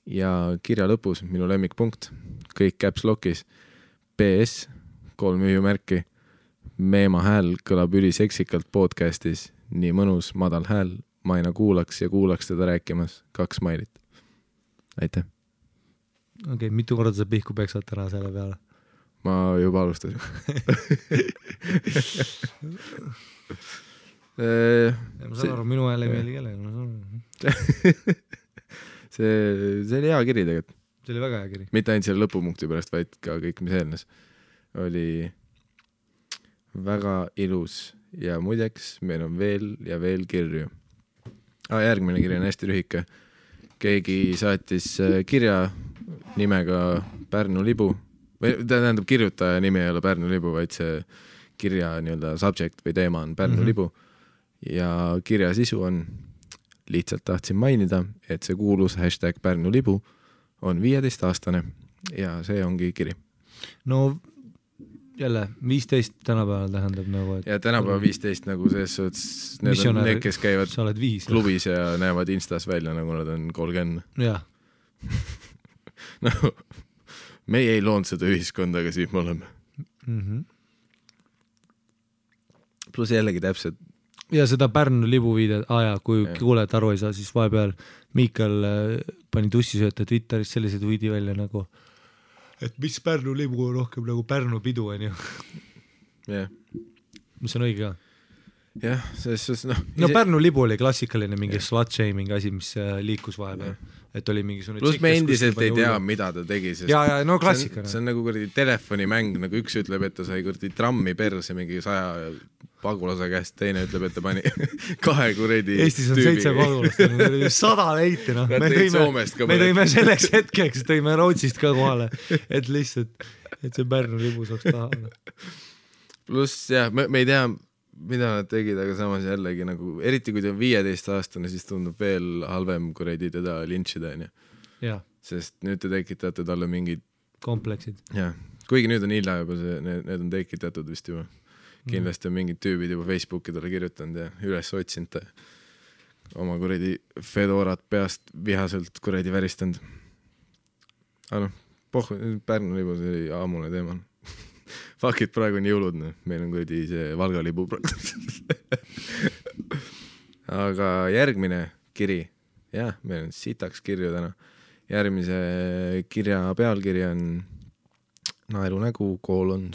S1: Ja kirja lõpus, minu lemmikpunkt, kõik caps lock'is, PS, 3 ühjumärki, Meema hääl kõlab üliseksikalt podcastis, nii mõnus, madal hääl, ma aina kuulaks teda rääkimas, 2 smailit. Aitäh!
S2: Okei, mitu korda sa pihku peksad täna selle peale?
S1: Ma juba alustasin.
S2: Ma saan aru, minu hääl ei meeli kellele.
S1: See oli hea kiri tegelikult.
S2: See oli väga hea kiri.
S1: Mitte ainult selle lõpupunkti pärast, vaid ka kõik, mis eelnes. Oli väga ilus ja muideks meil on veel ja veel kirju. Järgmine kiri on hästi lühike. Keegi saatis kirja nimega Pärnu libu. Tähendab, kirjutaja nimi ei ole Pärnu libu, vaid see kirja nii-öelda subject või teema on Pärnu libu. Ja kirja sisu on, lihtsalt tahtsin mainida, et see kuulus #Pärnu libu on 15-aastane ja see ongi kiri.
S2: No jälle, 15 tänapäeval tähendab nagu, et...
S1: Ja tänapäeval 15 nagu selles suhtes, need on need, kes käivad klubis ja näevad Instas välja, nagu nad on 30.
S2: Jah.
S1: No, meie ei loonud seda ühiskonda, aga siin me oleme. Plus jällegi täpselt.
S2: Ja seda Pärnu libu viidet, kui kuuled aru ei saa, siis vahepeal Miikal pani tussisööta Twitteris sellised võidi välja nagu et mis Pärnu libu on rohkem nagu Pärnu pidu on ju.
S1: jah,
S2: mis on õige ka.
S1: jah, selles suhtes
S2: no Pärnu libu oli klassikaline mingi slut-shaming asi, mis liikus vahepeal, et oli mingisugune
S1: pluss me endiselt ei tea, mida ta tegi, sest
S2: ja no klassikana.
S1: See on nagu kuradi telefonimäng, nagu üks ütleb, et ta sai kuradi trammi perse mingi 100 pagulase käest, teine ütleb, et ta pani 2 kuradi
S2: Eestis on 7 pagulast, 100 leiti, noh. Me tõime selleks hetkeks, tõime Rootsist ka kohale, et lihtsalt, et see Pärnu libu saaks taha.
S1: Pluss jah, me ei tea, mida nad tegid, aga samas jällegi nagu, eriti kui ta on 15-aastane, siis tundub veel halvem kuradi teda lintšida,
S2: ja.
S1: Sest nüüd te tekitate talle mingid
S2: kompleksid.
S1: Jah, kuigi nüüd on hilja juba need on tekitatud vist juba. Kindlasti on mingid tüübid juba Facebooki talle kirjutanud ja üles otsinud oma kuradi fedorat peast vihaselt kuradi väristanud. Aga Pärnu libu, see oli aamune teema. Fuck it, praegu on jõulud, meil on kuradi see Valga libu aga järgmine kiri, jah, meil on sitaks kirju täna. Järgmise kirja pealkiri on naerunägu,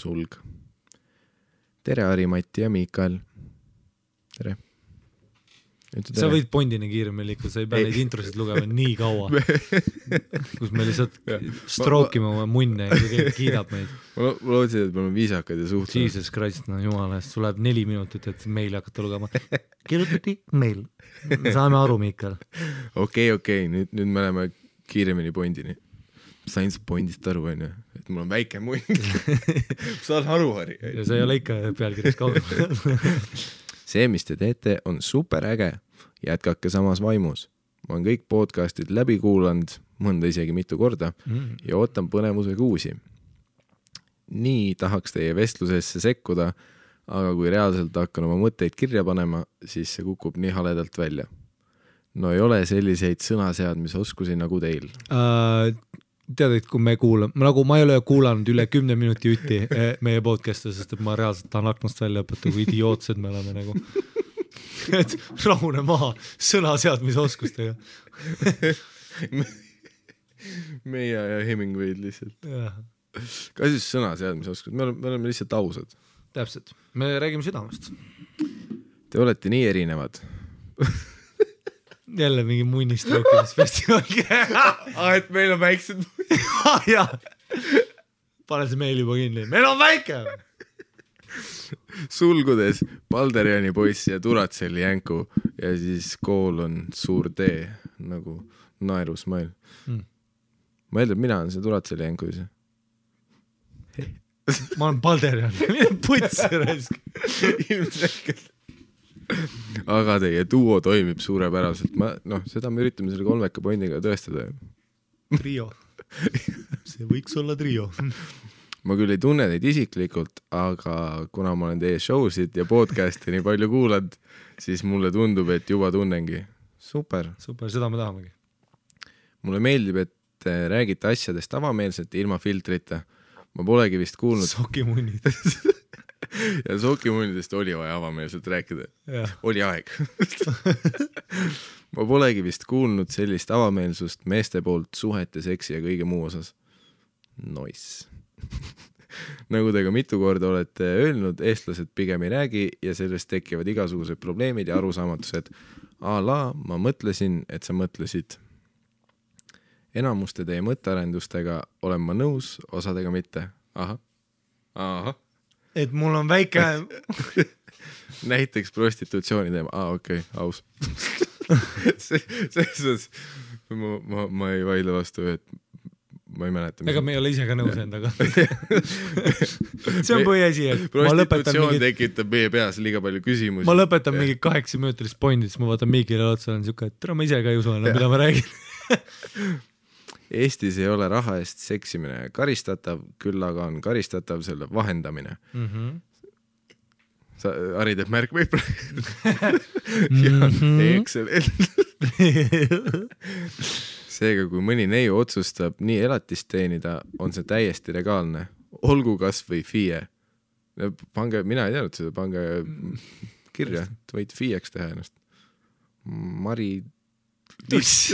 S1: sulg. Tere, Ari-Mati ja Miikael. Tere.
S2: Sa võid Bondini kiiremini liikuda, sa ei pea neid introsid lugema nii kaua, kus me lihtsalt strookime oma munne ja keegi kiidab meid.
S1: Ma lootsin, et me oleme viisakad ja suhtlema.
S2: Jesus Christ, no jumala eest, sul läheb 4 minutit, et meili hakata lugema. Kirjutati meil. Saame aru, Miikael.
S1: Okei, nüüd me oleme kiiremini Bondini. Sain sa Bondist aru, on ju? Et mul on väike munn. Saan aru, Harri.
S2: Ja see ei ole ikka pealkirjas kaugel.
S1: See, mis te teete, on super äge. Jätkake samas vaimus. Ma olen kõik podcastid läbi kuulanud, mõnda isegi mitu korda, ja ootan põnevusega uusi. Nii tahaks teie vestlusesse sekkuda, aga kui reaalselt hakkan oma mõtteid kirja panema, siis see kukub nii haledalt välja. No ei ole selliseid sõnaseadmisoskusi nagu teil.
S2: Tead, et kui me kuulame, nagu ma ei ole kuulanud üle 10 minuti ütti meie podcast'e, sest et ma reaalselt tahan aknast välja õpeta, kui idiootsed me oleme nagu. Et rahune maha sõnaseadmisoskustega.
S1: Meie ja Hemingway'd lihtsalt. Ka siis sõnaseadmisoskused, me oleme lihtsalt ausad.
S2: Täpselt, me räägime südamest.
S1: Te olete nii erinevad.
S2: Jälle mingi munnistrookimisfestival.
S1: Et meil on väiksed
S2: jah, pane see meil juba kinni, meil on väike.
S1: Sulgudes Balderiani poiss ja Turatselli jänku ja siis kool on suur tee nagu naerusmail. Ma eeldan, mina olen see Turatselli jänku ise.
S2: Ma olen Balderian, mida putsi raisk.
S1: Ilmselgelt. Aga teie duo toimib suurepäraselt. Seda me üritame selle 3 pointiga tõestada.
S2: Trio. See võiks olla trio.
S1: Ma küll ei tunne neid isiklikult, aga kuna ma olen teie showsid ja podcasti nii palju kuulad, siis mulle tundub, et juba tunnengi. Super,
S2: seda me tahamegi.
S1: Mulle meeldib, et te räägite asjadest avameelselt ilma filtrita. Ma polegi vist kuulnud
S2: Sokimunnid.
S1: Ja sokimunnidest oli vaja avameelselt rääkida. Oli aeg. Ma polegi vist kuulnud sellist avameelsust meeste poolt suhete, seksi ja kõige muu osas. Nice. Nagu te ka mitu korda olete öelnud, eestlased pigem ei räägi ja sellest tekivad igasugused probleemid ja arusaamatused. Ma mõtlesin, et sa mõtlesid. Enamuste teie mõttearendustega olen ma nõus, osadega mitte. Aha.
S2: Et mul on väike...
S1: Näiteks prostitutsiooni teema. Okei, aus. Ma ei vaidle vastu, et ma ei mäleta.
S2: Ega me ei ole ise ka nõus endaga. See on põhiasi, et
S1: prostitutsioon tekitab meie peas liiga palju küsimusi.
S2: Ma lõpetan mingi 8-minutilist pointi, siis ma vaatan Miikile otsa, olen siuke, et ma ise ka ei usu, mida ma räägin.
S1: Eestis ei ole raha eest seksimine karistatav, küll aga on karistatav selle vahendamine. Ari teeb märk või Excellent. Seega, kui mõni neiu otsustab nii elatist teenida, on see täiesti legaalne. Olgu kas või FIE. Pange, mina ei teadnud seda, pange kirja, et võid FIE-ks teha ennast. Mari Tuss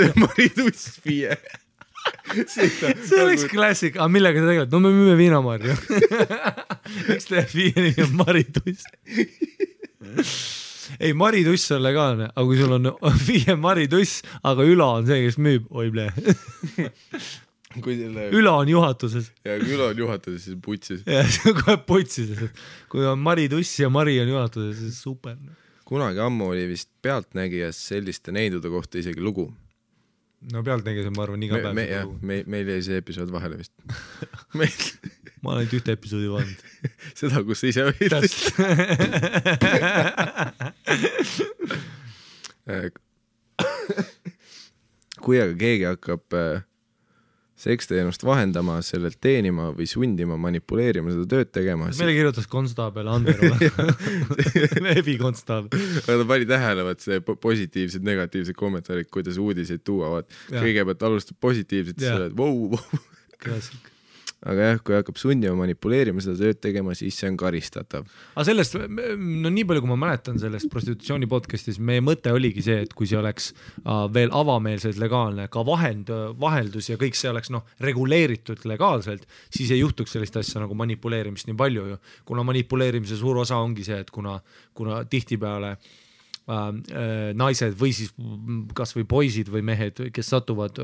S1: FIE.
S2: see oleks klassik, aga millega sa tegeled? No me müüme viinamarju. Miks teeb viini ja marituss? Ei, marituss on legaalne, aga kui sul on viie marituss, aga Ülo on see, kes müüb, oi ble. Ülo on juhatuses.
S1: Ja kui Ülo on juhatuses, siis putsis.
S2: Ja see on kohe putsis. Kui on marituss ja Mari on juhatuses, siis super.
S1: Kunagi ammu oli vist Pealtnägijas selliste neidude kohta isegi lugu.
S2: No Pealtnägijas on, ma arvan, iga päev seda lugu.
S1: Meil jäi see episood vahele vist.
S2: Ma olen ühte episoodi vahend.
S1: Seda, kus sa ise olid. Kui aga keegi hakkab seksteenust vahendama, sellelt teenima või sundima, manipuleerima, seda tööd tegema.
S2: Meile kirjutas konstaabel Ander Ebi konstaabel.
S1: Aga ta pani tähele, see positiivsed, negatiivsed kommentaarid, kuidas uudiseid tuuavad. Kõigepealt alustab positiivselt, siis oled wow.
S2: Klassik.
S1: Aga jah, kui hakkab sundima, manipuleerima, seda tööd tegema, siis see on karistatav.
S2: Aga sellest, no nii palju, kui ma mäletan sellest prostitutsiooni podcastis, meie mõte oligi see, et kui see oleks veel avameelselt legaalne, ka vaheldus ja kõik see oleks reguleeritud legaalselt, siis ei juhtuks sellist asja nagu manipuleerimist nii palju ju. Kuna manipuleerimise suur osa ongi see, et kuna tihtipeale naised või siis kas või poisid või mehed, kes satuvad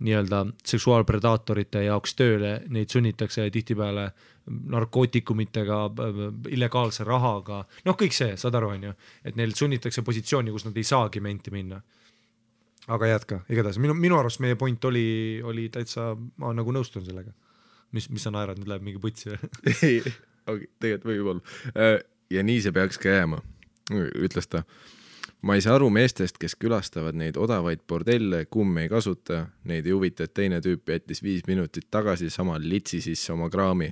S2: nii-öelda seksuaalpredaatorite jaoks tööle, neid sunnitakse tihtipeale narkootikumitega, illegaalse rahaga, kõik see, saad aru, on ju, et neil sunnitakse positsiooni, kus nad ei saagi menti minna. Aga jätka, igatahes, minu arust meie point oli täitsa, ma nagu nõustun sellega. Mis sa naerad, nüüd läheb mingi putsi või?
S1: Ei, tegelikult võib olla. Ja nii see peaks ka jääma. Ütles ta, ma ei saa aru meestest, kes külastavad neid odavaid bordelle, kumm ei kasuta, neid ei huvita, et teine tüüp jättis 5 minutit tagasi sama litsi sisse oma kraami.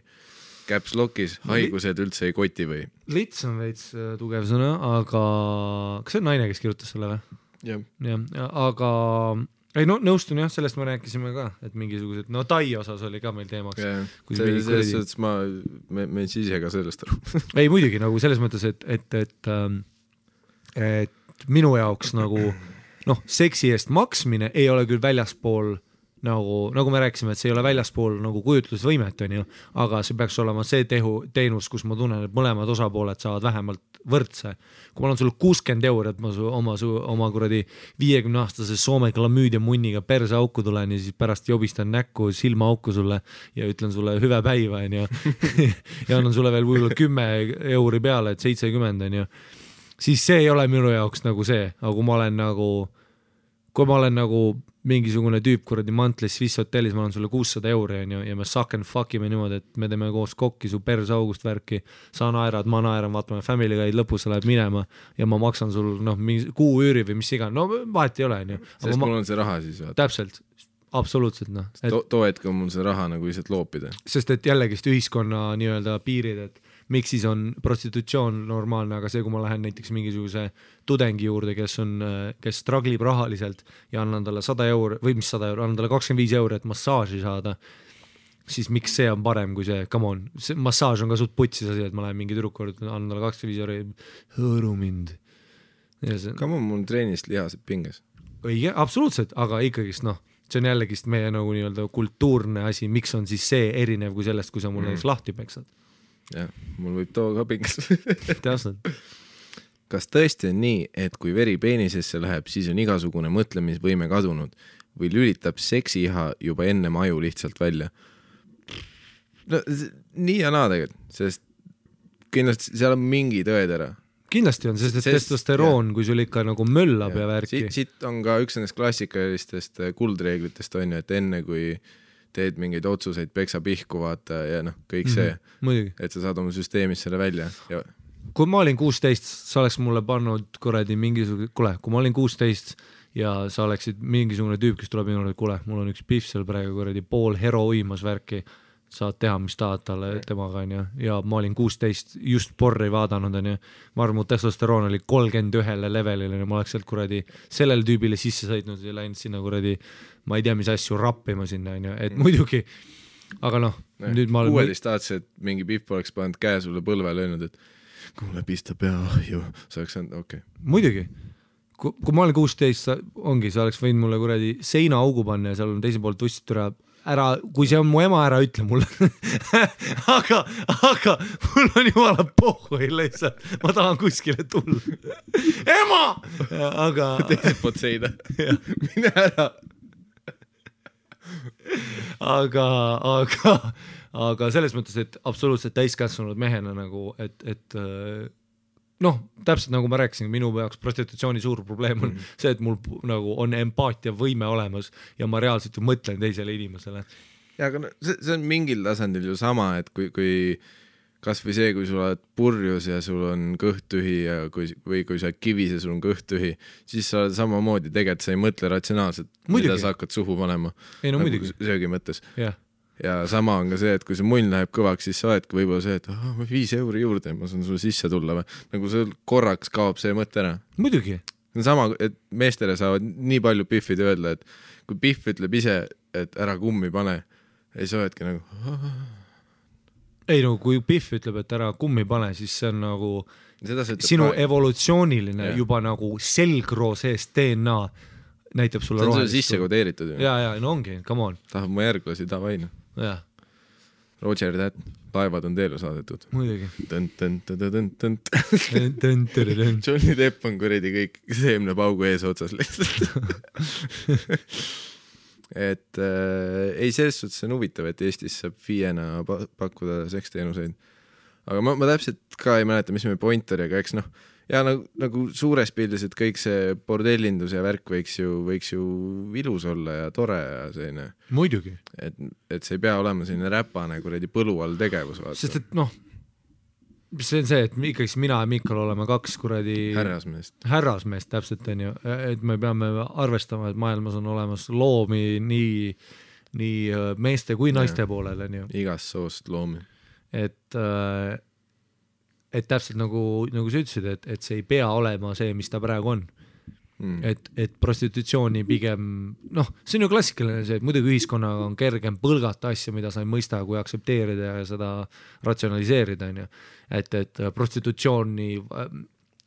S1: Caps lockis, haigused üldse ei koti või?
S2: Lits on veits tugev sõna, aga kas see on naine, kes kirjutas selle või?
S1: Jah.
S2: Aga ei, nõustun jah, sellest me rääkisime ka, et mingisugused, Tai osas oli ka meil teemaks.
S1: Selles me siis ise ka sellest aru.
S2: Ei, muidugi, nagu selles mõttes, et minu jaoks nagu, seksi eest maksmine ei ole küll väljaspool, nagu me rääkisime, et see ei ole väljaspool nagu kujutlusvõimet, on ju, aga see peaks olema see teenus, kus ma tunnen, et mõlemad osapooled saavad vähemalt võrdse. Kui ma olen sulle 60 €, et ma oma kuradi 50-aastase Soome klamüüdia munniga perse auku tulen ja siis pärast jobistan näkku silma auku sulle ja ütlen sulle hüve päiva, on ju, ja annan sulle veel võib-olla 10 € peale, et 70, on ju, siis see ei ole minu jaoks nagu see, aga kui ma olen nagu mingisugune tüüp kuradi mantlis Swiss hotellis, ma olen sulle 600 € on ju, ja me suck and fuckime niimoodi, et me teeme koos kokki su perse august värki, sa naerad, ma naeran, vaatame Family Guide, lõpus sa läheb minema ja ma maksan sul mingi kuu üüri või mis iga, vahet ei ole, on ju.
S1: Sest mul on see raha siis vaata.
S2: Täpselt, absoluutselt
S1: too hetk on mul see raha nagu lihtsalt loopida.
S2: Sest et jällegist ühiskonna nii-öelda piirid, et miks siis on prostitutsioon normaalne, aga see, kui ma lähen näiteks mingisuguse tudengi juurde, kes straglib rahaliselt ja annan talle 100 € või mis 100 €, annan talle 25 €, et massaaži saada, siis miks see on parem kui see, come on, see massaaž on ka suht putsis asi, et ma lähen mingi tüdruku juurde, annan talle 25 € hõõru mind.
S1: Come on, mul treenist lihased pinges.
S2: Õige, absoluutselt, aga ikkagist see on jällegist meie nagu nii-öelda kultuurne asi, miks on siis see erinev kui sellest, kui sa mul näiteks lahti peksad.
S1: Jah, mul võib too ka pingas.
S2: Täpselt.
S1: Kas tõesti on nii, et kui veri peenisesse läheb, siis on igasugune mõtlemisvõime kadunud või lülitab seksiiha juba enne aju lihtsalt välja? No, nii ja naa tegelikult, sest kindlasti seal on mingi tõetera.
S2: Kindlasti on, sest testosteroon, kui sul ikka nagu möllab ja värki.
S1: Siit on ka üks nendest klassikalistest kuldreeglitest on ju, et enne kui teed mingeid otsuseid, peksa pihku vaata ja kõik see, et sa saad oma süsteemist selle välja. Ja...
S2: Kui ma olin 16, sa oleks mulle pannud kuradi mingisugune, kui ma olin 16 ja sa oleksid mingisugune tüüp, kes tuleb minu, et mul on üks pihv seal praegu kuradi pool hero uimas värki, saad teha, mis tahad talle temaga, on ju, ja ma olin 16, just porri vaadanud, on ju, ma arvan, mu testosteroon oli 31 levelil, ma oleks sealt kuradi sellele tüübile sisse sõitnud ja läinud sinna kuradi, ma ei tea, mis asju rappima sinna, on ju, et muidugi, aga nüüd ma olen
S1: 16 et mingi pihv oleks pannud käe sulle põlve löönud, et kuule pista pea ahju, sa oleks saanud, okei.
S2: Muidugi, kui ma olen 16, ongi, sa oleks võinud mulle kuradi seina augu panna ja seal on teise poolt võstit ära, kui see on mu ema, ära ütle mulle aga mul on jumala pohhui lihtsalt, ma tahan kuskile tulla ema! Aga
S1: teiselt poolt seina mine ära
S2: aga selles mõttes, et absoluutselt täiskässunud mehena nagu, et noh, täpselt nagu ma rääkisin, minu jaoks prostitutsiooni suur probleem on see, et mul nagu on empaatia võime olemas ja ma reaalselt ju mõtlen teisele inimesele.
S1: Ja aga see on mingil tasandil ju sama, et kui kas või see, kui sul oled purjus ja sul on kõht tühi ja kui sa oled kivis ja sul on kõht tühi, siis sa oled samamoodi, tegelikult sa ei mõtle ratsionaalselt, mida sa hakkad suhu panema.
S2: Ei, no muidugi.
S1: Söögi mõttes.
S2: Yeah.
S1: Ja sama on ka see, et kui see munn läheb kõvaks, siis sa oledki võib-olla see, et 5 euri juurde, ma saan sulle sisse tulla või. Nagu see korraks kaob see mõte ära.
S2: Muidugi.
S1: Sama, et meestele saavad nii palju Biffid öelda, et kui Biff ütleb ise, et ära kummi pane, siis sa oledki nagu...
S2: Ei no, kui Biff ütleb, et ära kummi pane, siis see on nagu sinu evolutsiooniline juba nagu selgroo seest DNA näitab sulle
S1: rohelist. See on sulle sisse kodeeritud.
S2: Ja, no ongi, come on.
S1: Tahab mu järglasi tavaina.
S2: Jah.
S1: Roger That, laevad on teele saadetud.
S2: Muidugi.
S1: Johnny Depp on kuredi kõik seemnepaugu ees otsas lihtsalt. Et ei, selles suhtes on huvitav, et Eestis saab FIE-na pakkuda seksteenuseid. Aga ma täpselt ka ei mäleta, mis meie point oli, aga eks noh, ja nagu suures pildis, et kõik see bordellindus ja värk võiks ju ilus olla ja tore ja selline.
S2: Muidugi.
S1: Et see ei pea olema selline räpane kuredi põlu all tegevus. Vaata.
S2: Sest et noh, see on see, et ikkagi mina ja Mikal oleme 2 kuradi härrasmeest täpselt on ju, et me peame arvestama, et maailmas on olemas loomi nii meeste kui naiste poolel on ju.
S1: Igast soost loomi.
S2: Et täpselt nagu sa ütlesid, et see ei pea olema see, mis ta praegu on. Et prostitutsiooni pigem, noh, see on ju klassikaline see, et muidugi ühiskonnaga on kergem põlgata asja, mida sa ei mõista, kui aktsepteerida ja seda ratsionaliseerida, on ju. Et prostitutsiooni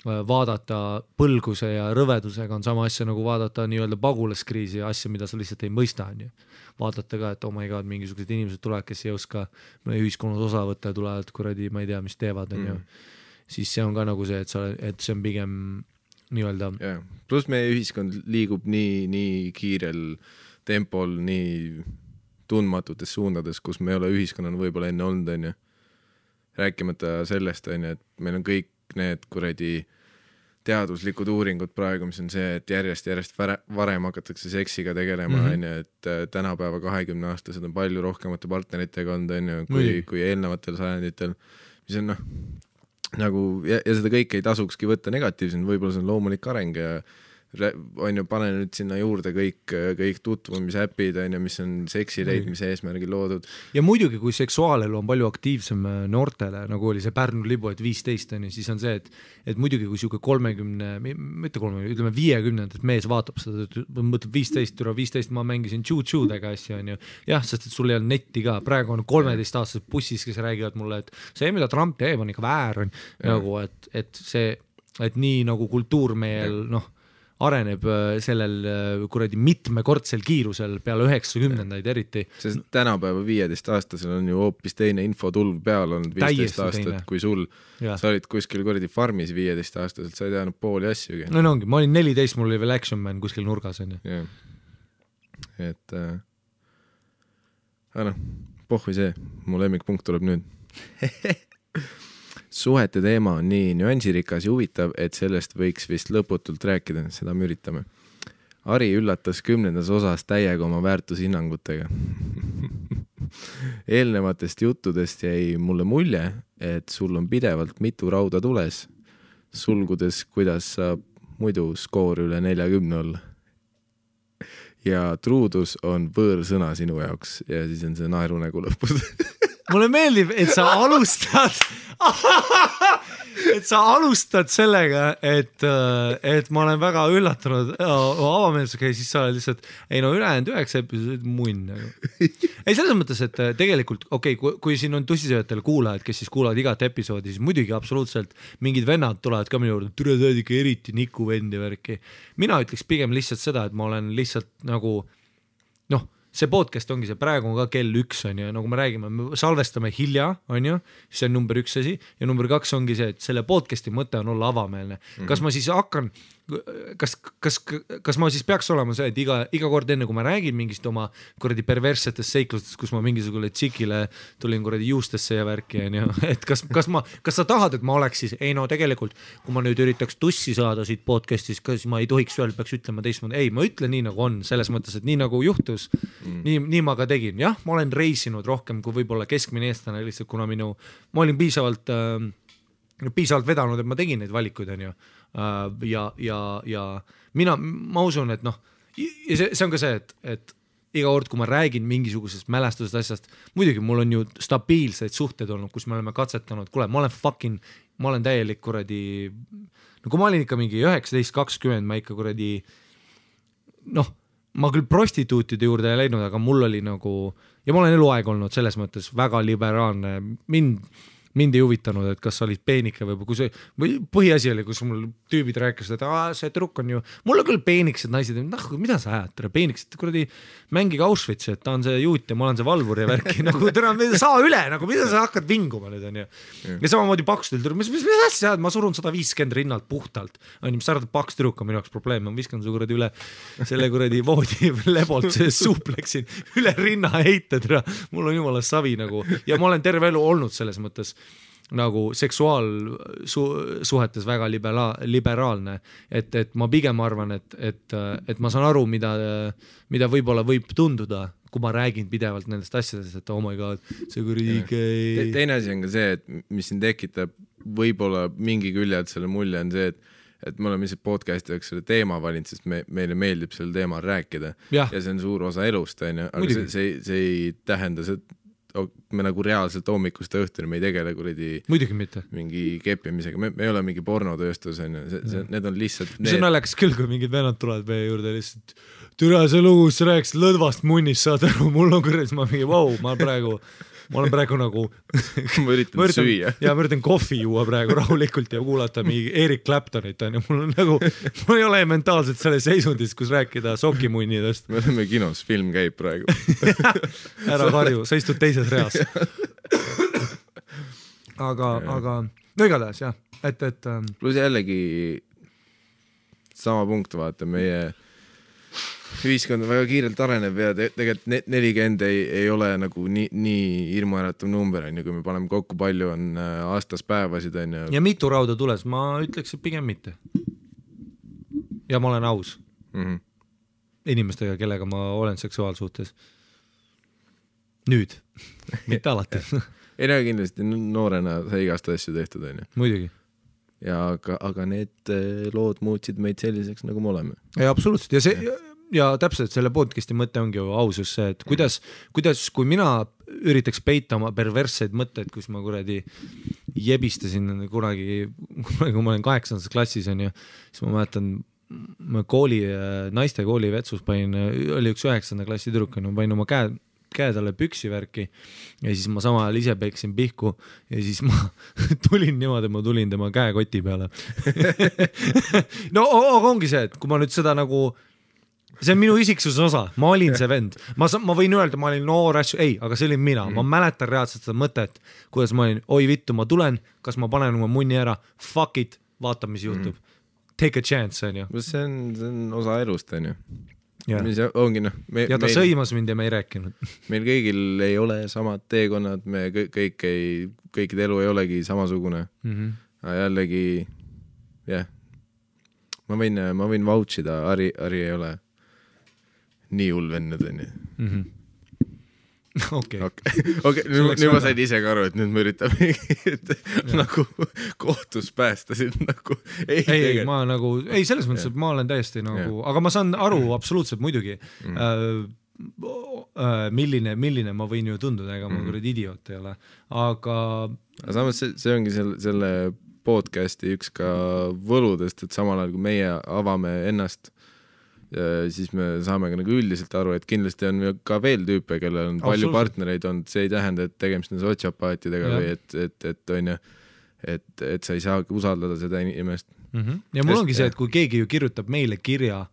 S2: vaadata põlguse ja rõvedusega on sama asja nagu vaadata nii-öelda pagulaskriisi ja asja, mida sa lihtsalt ei mõista, on ju. Vaadata ka, et oh my god, mingisugused inimesed tulevad, kes ei oska ühiskonnas osa võtta ja tulevad kuradi, ma ei tea, mis teevad, on ju. Siis see on ka nagu see, et see on pigem nii-öelda.
S1: Yeah. Plus meie ühiskond liigub nii kiirel tempol, nii tundmatutes suundades, kus me ei ole ühiskonnana võib-olla enne olnud, on ju. Rääkimata sellest, on ju, et meil on kõik need kuradi teaduslikud uuringud praegu, mis on see, et järjest varem hakatakse seksiga tegelema, on ju, et tänapäeva 20-aastased on palju rohkemate partneritega olnud, on ju, kui eelnevatel sajanditel, mis on noh, nagu, ja seda kõike ei tasukski võtta negatiivselt, võib-olla see on loomulik areng ja on ju, pane nüüd sinna juurde kõik tutvumisäpid, on ju, mis on seksi leidmise eesmärgil loodud.
S2: Ja muidugi, kui seksuaalelu on palju aktiivsem noortele, nagu oli see Pärnu libu, et 15, on ju, siis on see, et muidugi, kui siuke 50, 50 mees vaatab seda, mõtleb 15, ma mängisin tšu-tšudega asja, on ju. Jah, sest et sul ei on netti ka. Praegu on 13-aastased bussis, kes räägivad mulle, et see, mida Trump teeb, on ikka väär, on nagu, et nii nagu kultuurmeel, noh, areneb sellel kuradi mitmekordsel kiirusel peale 90-ndaid eriti.
S1: Sest tänapäeva 15-aastasel on ju hoopis teine infotulv peal olnud 15 aastat, kui sul. Sa olid kuskil kuradi farmis 15-aastaselt, sa ei teadnud pooli asjugi.
S2: No ongi, ma olin 14, mul oli veel Action Man kuskil nurgas.
S1: Yeah. Et aga noh, pohvi see, mu lemmikpunkt tuleb nüüd. Suhete teema on nii nüansirikas ja huvitav, et sellest võiks vist lõputult rääkida, seda me üritame. Ari üllatas 10. osas täiega oma väärtushinnangutega. Eelnevatest juttudest jäi mulle mulje, et sul on pidevalt mitu rauda tules, sulgudes, kuidas saab muidu skoor üle 40 olla. Ja truudus on võõrsõna sinu jaoks ja siis on see naerunägu lõpus.
S2: mulle meeldib, et sa alustad sellega, et ma olen väga üllatunud avameelsusega ja siis sa lihtsalt, ei no ülejäänud 9 episoodi munn. Ei selles mõttes, et tegelikult kui siin on tussisööjatel kuulajad, kes siis kuulavad igat episoodi, siis muidugi absoluutselt mingid vennad tulevad ka minu juurde, türa sa oled ikka eriti Niku vendi värki. Mina ütleks pigem lihtsalt seda, et ma olen lihtsalt nagu see podcast ongi see, praegu on ka kell 1 on ju, nagu me räägime, me salvestame hilja, on ju, see on number 1 asi ja number 2 ongi see, et selle podcasti mõte on olla avameelne. Kas ma siis hakkan, kas ma siis peaks olema see, et iga kord enne, kui ma räägin mingist oma kuradi perverssetest seiklustest, kus ma mingisugule tšikile tulin kuradi juustesse ja värki, on ju, et kas sa tahad, et ma oleks siis, ei no tegelikult, kui ma nüüd üritaks tussi saada siit podcastis, kas ma ei tohiks veel, peaks ütlema teistmoodi, ei, ma ütlen nii nagu on, selles mõttes, et nii nagu juhtus, nii ma ka tegin, jah, ma olen reisinud rohkem kui võib-olla keskmine eestlane lihtsalt, kuna ma olin piisavalt vedanud, et ma tegin neid valikuid, on ju, ja ma usun, et see on ka see, et iga kord, kui ma räägin mingisugusest mälestusest asjast, muidugi mul on ju stabiilseid suhteid olnud, kus me oleme katsetanud, kuule, ma olen täielik kuradi, no kui ma olin ikka mingi 19-20, ma ikka kuradi, ma küll prostituutide juurde ei läinud, aga mul oli nagu, ja ma olen eluaeg olnud selles mõttes väga liberaalne, mind ei huvitanud, et kas sa olid peenike või põhiasi oli, kus mul tüübid rääkisid, et see trukk on ju, mul on küll peeniksed naised, mida sa ajad, peeniksed, kuradi mängige Auschwitz, et ta on see juut ja ma olen see valvur ja värki, nagu täna saa üle, nagu mida sa hakkad vinguma nüüd, on ju. Ja samamoodi pakstul, mis asja, ma surun 150 rinnalt puhtalt, on ju, mis sa arvad, paks tüdruk on minu jaoks probleem, ma viskan su kuradi üle selle kuradi voodi lebolt suupleksin üle rinna heited, mul on jumala savi nagu, ja ma olen terve elu olnud selles mõttes nagu seksuaalsuhetes väga liberaalne, et ma pigem arvan, et ma saan aru, mida võib-olla võib tunduda, kui ma räägin pidevalt nendest asjadest, et oh my god, see kuradi
S1: teine asi on ka see, et mis siin tekitab võib-olla mingi küljelt selle mulje on see, et me oleme lihtsalt podcasti jaoks selle teema valinud, sest meile meeldib selle teemal rääkida ja see on suur osa elust, aga see ei tähenda see, me nagu reaalselt hommikust õhtuni me ei tegele kuradi mingi keppimisega, me ei ole mingi pornotööstus, need on lihtsalt
S2: see on naljakas küll, kui mingid vennad tulevad meie juurde lihtsalt, türa see lugu, sa rääkisid lõdvast munnist, saad aru, mul on kuradi, ma mingi ma olen praegu nagu
S1: ma üritan süüa
S2: ja ma üritan kohvi juua praegu rahulikult ja kuulata mingi Eric Claptonit on ja mul on nagu, mul ei ole mentaalselt selles seisundis, kus rääkida sokimunnidest.
S1: Me oleme kinos, film käib praegu
S2: ära karju, sa istud teises reas aga no igatahes jah, et
S1: pluss jällegi sama punkt, vaata, meie ühiskond väga kiirelt areneb ja tegelikult 40 ei ole nagu nii hirmuäratav number, kui me paneme kokku, palju on aastas päevasid.
S2: Ja mitu rauda tules, ma ütleks, et pigem mitte. Ja ma olen aus inimestega, kellega ma olen seksuaalsuhtes. Nüüd, mitte alati.
S1: Ei näe kindlasti, noorena sai igast asju tehtud.
S2: Muidugi.
S1: Ja aga need lood muutsid meid selliseks, nagu me oleme.
S2: Ja absoluutselt, ja see ja täpselt selle podcasti mõte ongi ju ausus see, et kuidas, kui mina üritaks peita oma perversseid mõtteid, kus ma kuradi jebistasin kunagi, kui ma olen 8. klassis on ju, siis ma mäletan, ma naiste kooli vetsus oli üks 9. klassi tüdruk, panin oma käe talle püksivärki ja siis ma sama ajal ise peksin pihku ja siis ma tulin niimoodi, ma tulin tema käekoti peale. No ongi see, et kui ma nüüd seda nagu see on minu isiksuse osa, ma olin see vend, ma võin öelda, ma olin noor asju, ei, aga see olin mina, ma mäletan reaalselt seda mõtet, kuidas ma olin, oi vittu, ma tulen, kas ma panen oma munni ära, fuck it, vaata, mis juhtub, take a chance, on ju.
S1: See on osa elust, on ju. Mis ongi,
S2: ja ta sõimas mind ja me ei rääkinud.
S1: Meil kõigil ei ole samad teekonnad, me kõikide elu ei olegi samasugune, aga jällegi, jah, ma võin vouchida, Ari ei ole nii hull vennad, on ju.
S2: Okei.
S1: Nüüd ma sain ise ka aru, et nüüd me üritame nagu kohtus päästa sind nagu.
S2: Ei, selles mõttes, et ma olen täiesti nagu, aga ma saan aru absoluutselt muidugi. milline ma võin ju tunduda, ega ma kuradi idioot ei ole, aga
S1: samas see ongi selle podcasti üks ka võludest, et samal ajal kui meie avame ennast, siis me saame ka nagu üldiselt aru, et kindlasti on ka veel tüüpe, kellel on palju partnereid olnud, see ei tähenda, et tegemist on sotsiopaatidega või et on ju, et sa ei saagi usaldada seda inimest.
S2: Ja mul ongi see, et kui keegi ju kirjutab meile kirja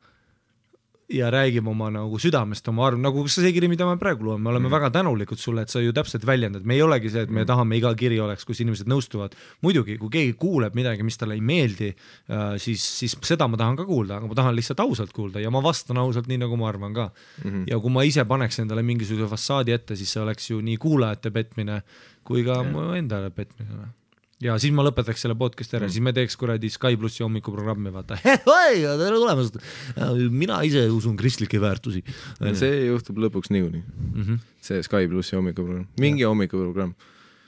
S2: ja räägib oma nagu südamest, oma arv, nagu see kiri, mida me praegu loome, me oleme väga tänulikud sulle, et sa ju täpselt väljendad, me ei olegi see, et me tahame iga kiri oleks, kus inimesed nõustuvad. Muidugi, kui keegi kuuleb midagi, mis talle ei meeldi, siis seda ma tahan ka kuulda, aga ma tahan lihtsalt ausalt kuulda ja ma vastan ausalt nii, nagu ma arvan ka. Ja kui ma ise paneks endale mingisuguse fassaadi ette, siis see oleks ju nii kuulajate petmine kui ka mu endale petmine. Ja siis ma lõpetaks selle podcast ära, siis me teeks kuradi Sky Plussi hommikuprogrammi, vaata. Hei, tere tulemast! Mina ise usun kristlikke väärtusi.
S1: See juhtub lõpuks niikuinii. See Sky Plussi hommikuprogramm. Mingi hommikuprogramm.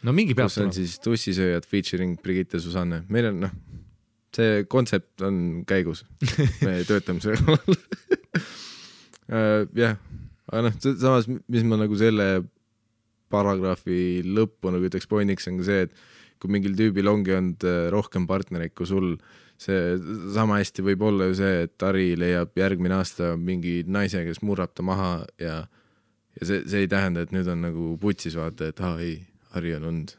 S2: No mingi peab
S1: tulema. Kus on siis tussisööjad featuring Brigitte Susanne. Meil on, see kontsept on käigus. Me töötame selle jah, aga samas, mis ma nagu selle paragrahvi lõppu nagu ütleks pointiks on ka see, et kui mingil tüübil ongi olnud rohkem partnereid kui sul, see sama hästi võib olla ju see, et Ari leiab järgmine aasta mingi naise, kes murrab ta maha ja see ei tähenda, et nüüd on nagu putsis vaata, et ei, Ari on olnud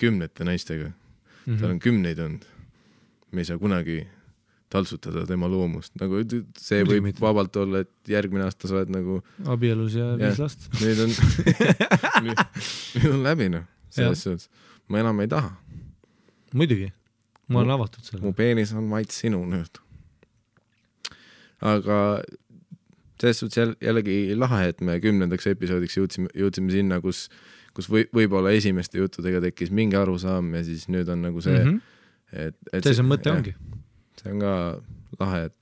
S1: kümnete naistega. Tal on kümneid olnud. Me ei saa kunagi taltsutada tema loomust. Nagu see võib vabalt olla, et järgmine aasta sa oled nagu
S2: abielus ja 5 last.
S1: Nüüd on läbi, selles suhtes. Ma enam ei taha.
S2: Muidugi. Ma olen avatud selle.
S1: Mu peenis on vaid sinu nüüd. Aga selles suhtes jällegi lahe, et me 10. episoodiks jõudsime sinna, kus võib-olla esimeste juttudega tekkis mingi arusaam ja siis nüüd on nagu see, et
S2: see mõte ongi.
S1: See on ka lahe, et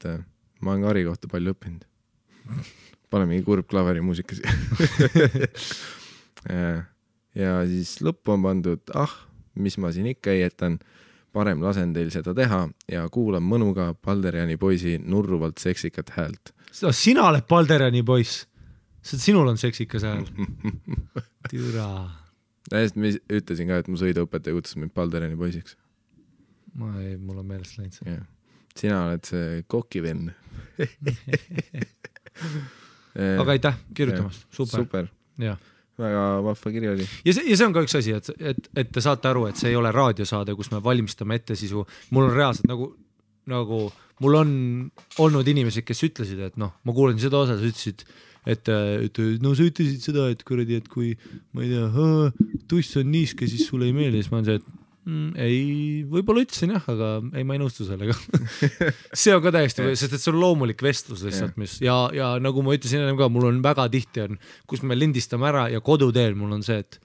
S1: ma olen ka Ari kohta palju õppinud. Pane mingi kurb klaveri muusikas. Ja siis lõppu on pandud, mis ma siin ikka ei jätan, parem lasen teil seda teha ja kuulan mõnuga Balderjani poisi nurruvalt seksikat häält.
S2: Sina oled Balderjani poiss. Sinul on seksikas hääl. Türa.
S1: Ma ütlesin ka, et mu sõiduõpetaja kutsus mind Balderjani poisiks.
S2: Mul on meelest läinud see.
S1: Sina oled see kokivenn.
S2: Aga aitäh kirjutamast. Super. Ja.
S1: Väga vahva kiri oli.
S2: Ja see on ka üks asi, et te saate aru, et see ei ole raadiosaade, kus me valmistame ette sisu. Mul on reaalselt nagu mul on olnud inimesed, kes ütlesid, et ma kuulen seda osa, sa ütlesid, et sa ütlesid seda, et kuradi, et kui ma ei tea, tuss on niiske, siis sulle ei meeldi, siis ma on see, et ei, võib-olla ütlesin jah, aga ei, ma ei nõustu sellega. See on ka täiesti, sest et see on loomulik vestlus lihtsalt, mis ja nagu ma ütlesin ennem ka, mul on väga tihti on, kus me lindistame ära ja koduteel mul on see, et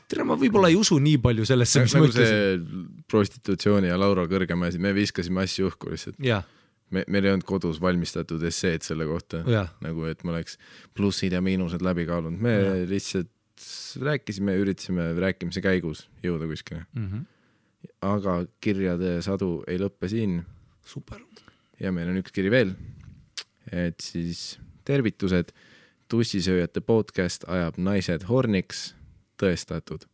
S2: tere, ma võib-olla ei usu nii palju sellesse, mis ma ütlesin.
S1: See prostitutsiooni ja Laura Kõrgemäe, me viskasime asju õhku lihtsalt. Meil ei olnud kodus valmistatud esseed selle kohta, nagu et ma oleks plussid ja miinused läbi kaalunud. Me lihtsalt rääkisime, üritasime rääkimise käigus jõuda kuskile. Aga kirjade sadu ei lõppe siin.
S2: Super. Ja
S1: meil on üks kiri veel. Et siis tervitused. Tussisööjate podcast ajab naised horniks. Tõestatud.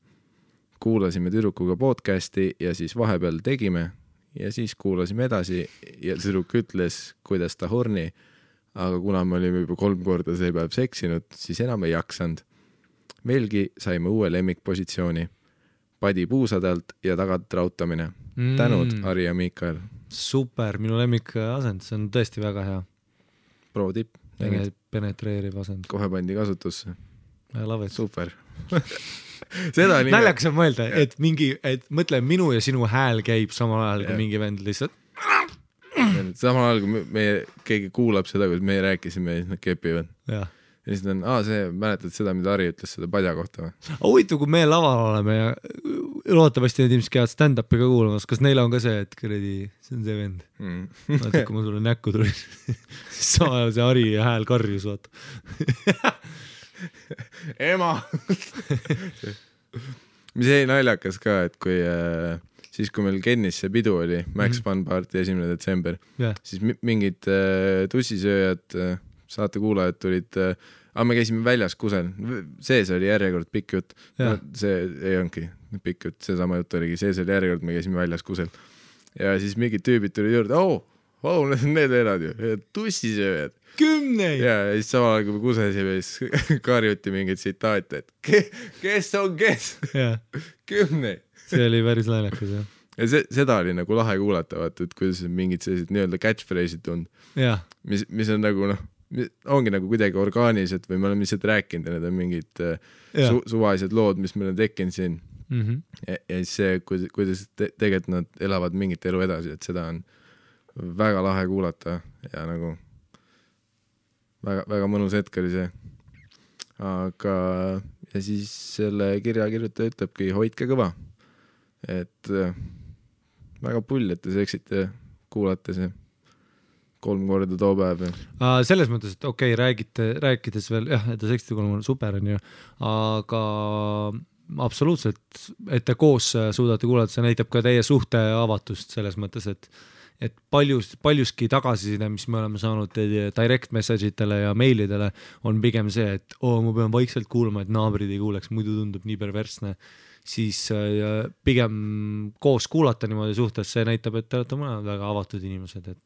S1: Kuulasime tüdrukuga podcasti ja siis vahepeal tegime ja siis kuulasime edasi ja tüdruk ütles, kuidas ta horni, aga kuna me olime juba 3 korda see päev seksinud, siis enam ei jaksanud. Meilgi saime uue lemmikpositsiooni. Padi puusadelt ja tagant rautamine. Tänud, Ari ja Miikael.
S2: Super, minu lemmik asend, see on tõesti väga hea.
S1: Pro tipp.
S2: Penetreeriv asend.
S1: Kohe pandi kasutusse. Super.
S2: Naljakas on mõelda, et mõtle, minu ja sinu hääl käib samal ajal, kui mingi vend lihtsalt.
S1: Samal ajal, kui keegi kuulab seda, kui meie rääkisime, siis nad kepivad.
S2: Jah.
S1: Ja siis on, mäletad seda, mida Ari ütles seda padja kohta või?
S2: Huvitav, kui me laval oleme ja loodetavasti need inimesed käivad stand-upi ka kuulamas, kas neil on ka see, et see on see vend. Vaata, kui ma sulle näkku tulin, siis sama ajal see Ari hääl karjus, vaata.
S1: Ema! Mis jäi naljakas ka, et kui siis, kui meil Kennis see pidu oli, Max Fun Party 1. detsember, siis mingid tussisööjad, saate kuulajad tulid aga me käisime väljas kusel, sees oli järjekord pikk jutt no, see ei olnudki pikk jutt, seesama jutt oligi, sees oli järjekord, me käisime väljas kusel ja siis mingid tüübid tuli juurde, need elad ju, tussisööjad
S2: 10
S1: ja siis samal ajal kui me kusesime, siis karjuti mingeid tsitaate, et kes on kes 10
S2: see oli päris naljakas jah
S1: ja seda oli nagu lahe kuulata, vaata, et kuidas mingid sellised nii-öelda catchphrase'id tund mis on nagu ongi nagu kuidagi orgaanilised või me oleme lihtsalt rääkinud ja need on mingid suvalised lood, mis meil on tekkinud siin ja siis see, kuidas tegelikult nad elavad mingit elu edasi, et seda on väga lahe kuulata ja nagu väga, väga mõnus hetk oli see aga ja siis selle kirja kirjutaja ütlebki hoidke kõva et väga pull, et te seksite kuulate see 3 korda too päev
S2: selles mõttes, et okei, rääkides veel jah, et te seksite 3 korda super on ju, aga absoluutselt, et te koos suudate kuulata, see näitab ka teie suhte avatust selles mõttes, et paljuski tagasiside, mis me oleme saanud direct message itele ja meilidele, on pigem see, et ma pean vaikselt kuulama, et naabrid ei kuuleks, muidu tundub nii perversne, siis pigem koos kuulata niimoodi suhtes, see näitab, et te olete mõned väga avatud inimesed, et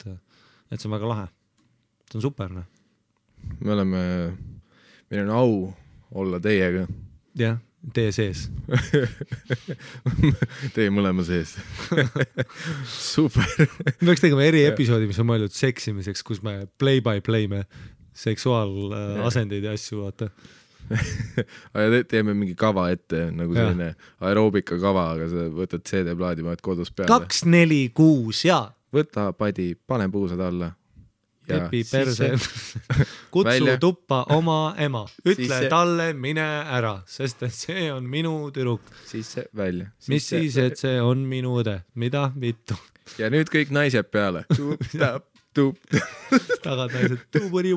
S2: see on väga lahe. See on super, noh. Meil on au olla teiega. Jah, teie sees.
S1: Teie mõlema sees. Super.
S2: Me peaks tegema episoodi, mis on mõeldud seksimiseks, kus me play by play me seksuaalasendeid ja asju vaata.
S1: Aga teeme mingi kava ette, nagu selline aeroobika kava, aga sa võtad CD-plaadi, vaid kodus peale. 2, 4, 6 ja võta padi, pane puusad alla
S2: Kepi perse kutsu välja. Tuppa oma ema ütle talle mine ära, sest et see on minu tüdruk
S1: sisse välja
S2: mis siis, et see on minu õde, mida vittu
S1: ja nüüd kõik naised peale
S2: tagad naised tuburi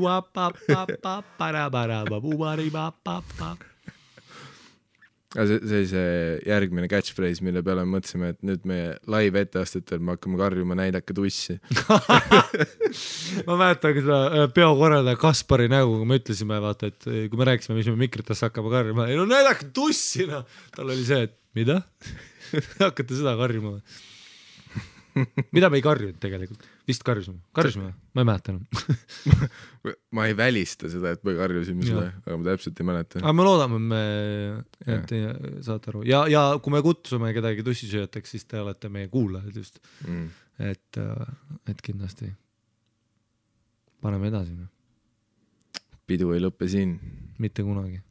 S2: bubari
S1: see järgmine catchphrase, mille peale me mõtlesime, et nüüd meie live etteastetel me hakkame karjuma näidake tussi.
S2: Ma mäletan seda peokorraldaja Kaspari nägu, kui me ütlesime, vaata, et kui me rääkisime, mis me mikritesse hakkame karjuma, ei no näidake tussi, no. Tal oli see, et mida? Hakkate seda karjuma. Mida me ei karjunud tegelikult? Vist karjusime? Ma ei mäleta enam.
S1: Ma ei välista seda, et me karjusime seda, aga ma täpselt ei mäleta.
S2: Aga me loodame, et saate aru. Ja kui me kutsume kedagi tussisööjateks, siis te olete meie kuulajad just. Et kindlasti paneme edasi.
S1: Pidu ei lõppe siin.
S2: Mitte kunagi.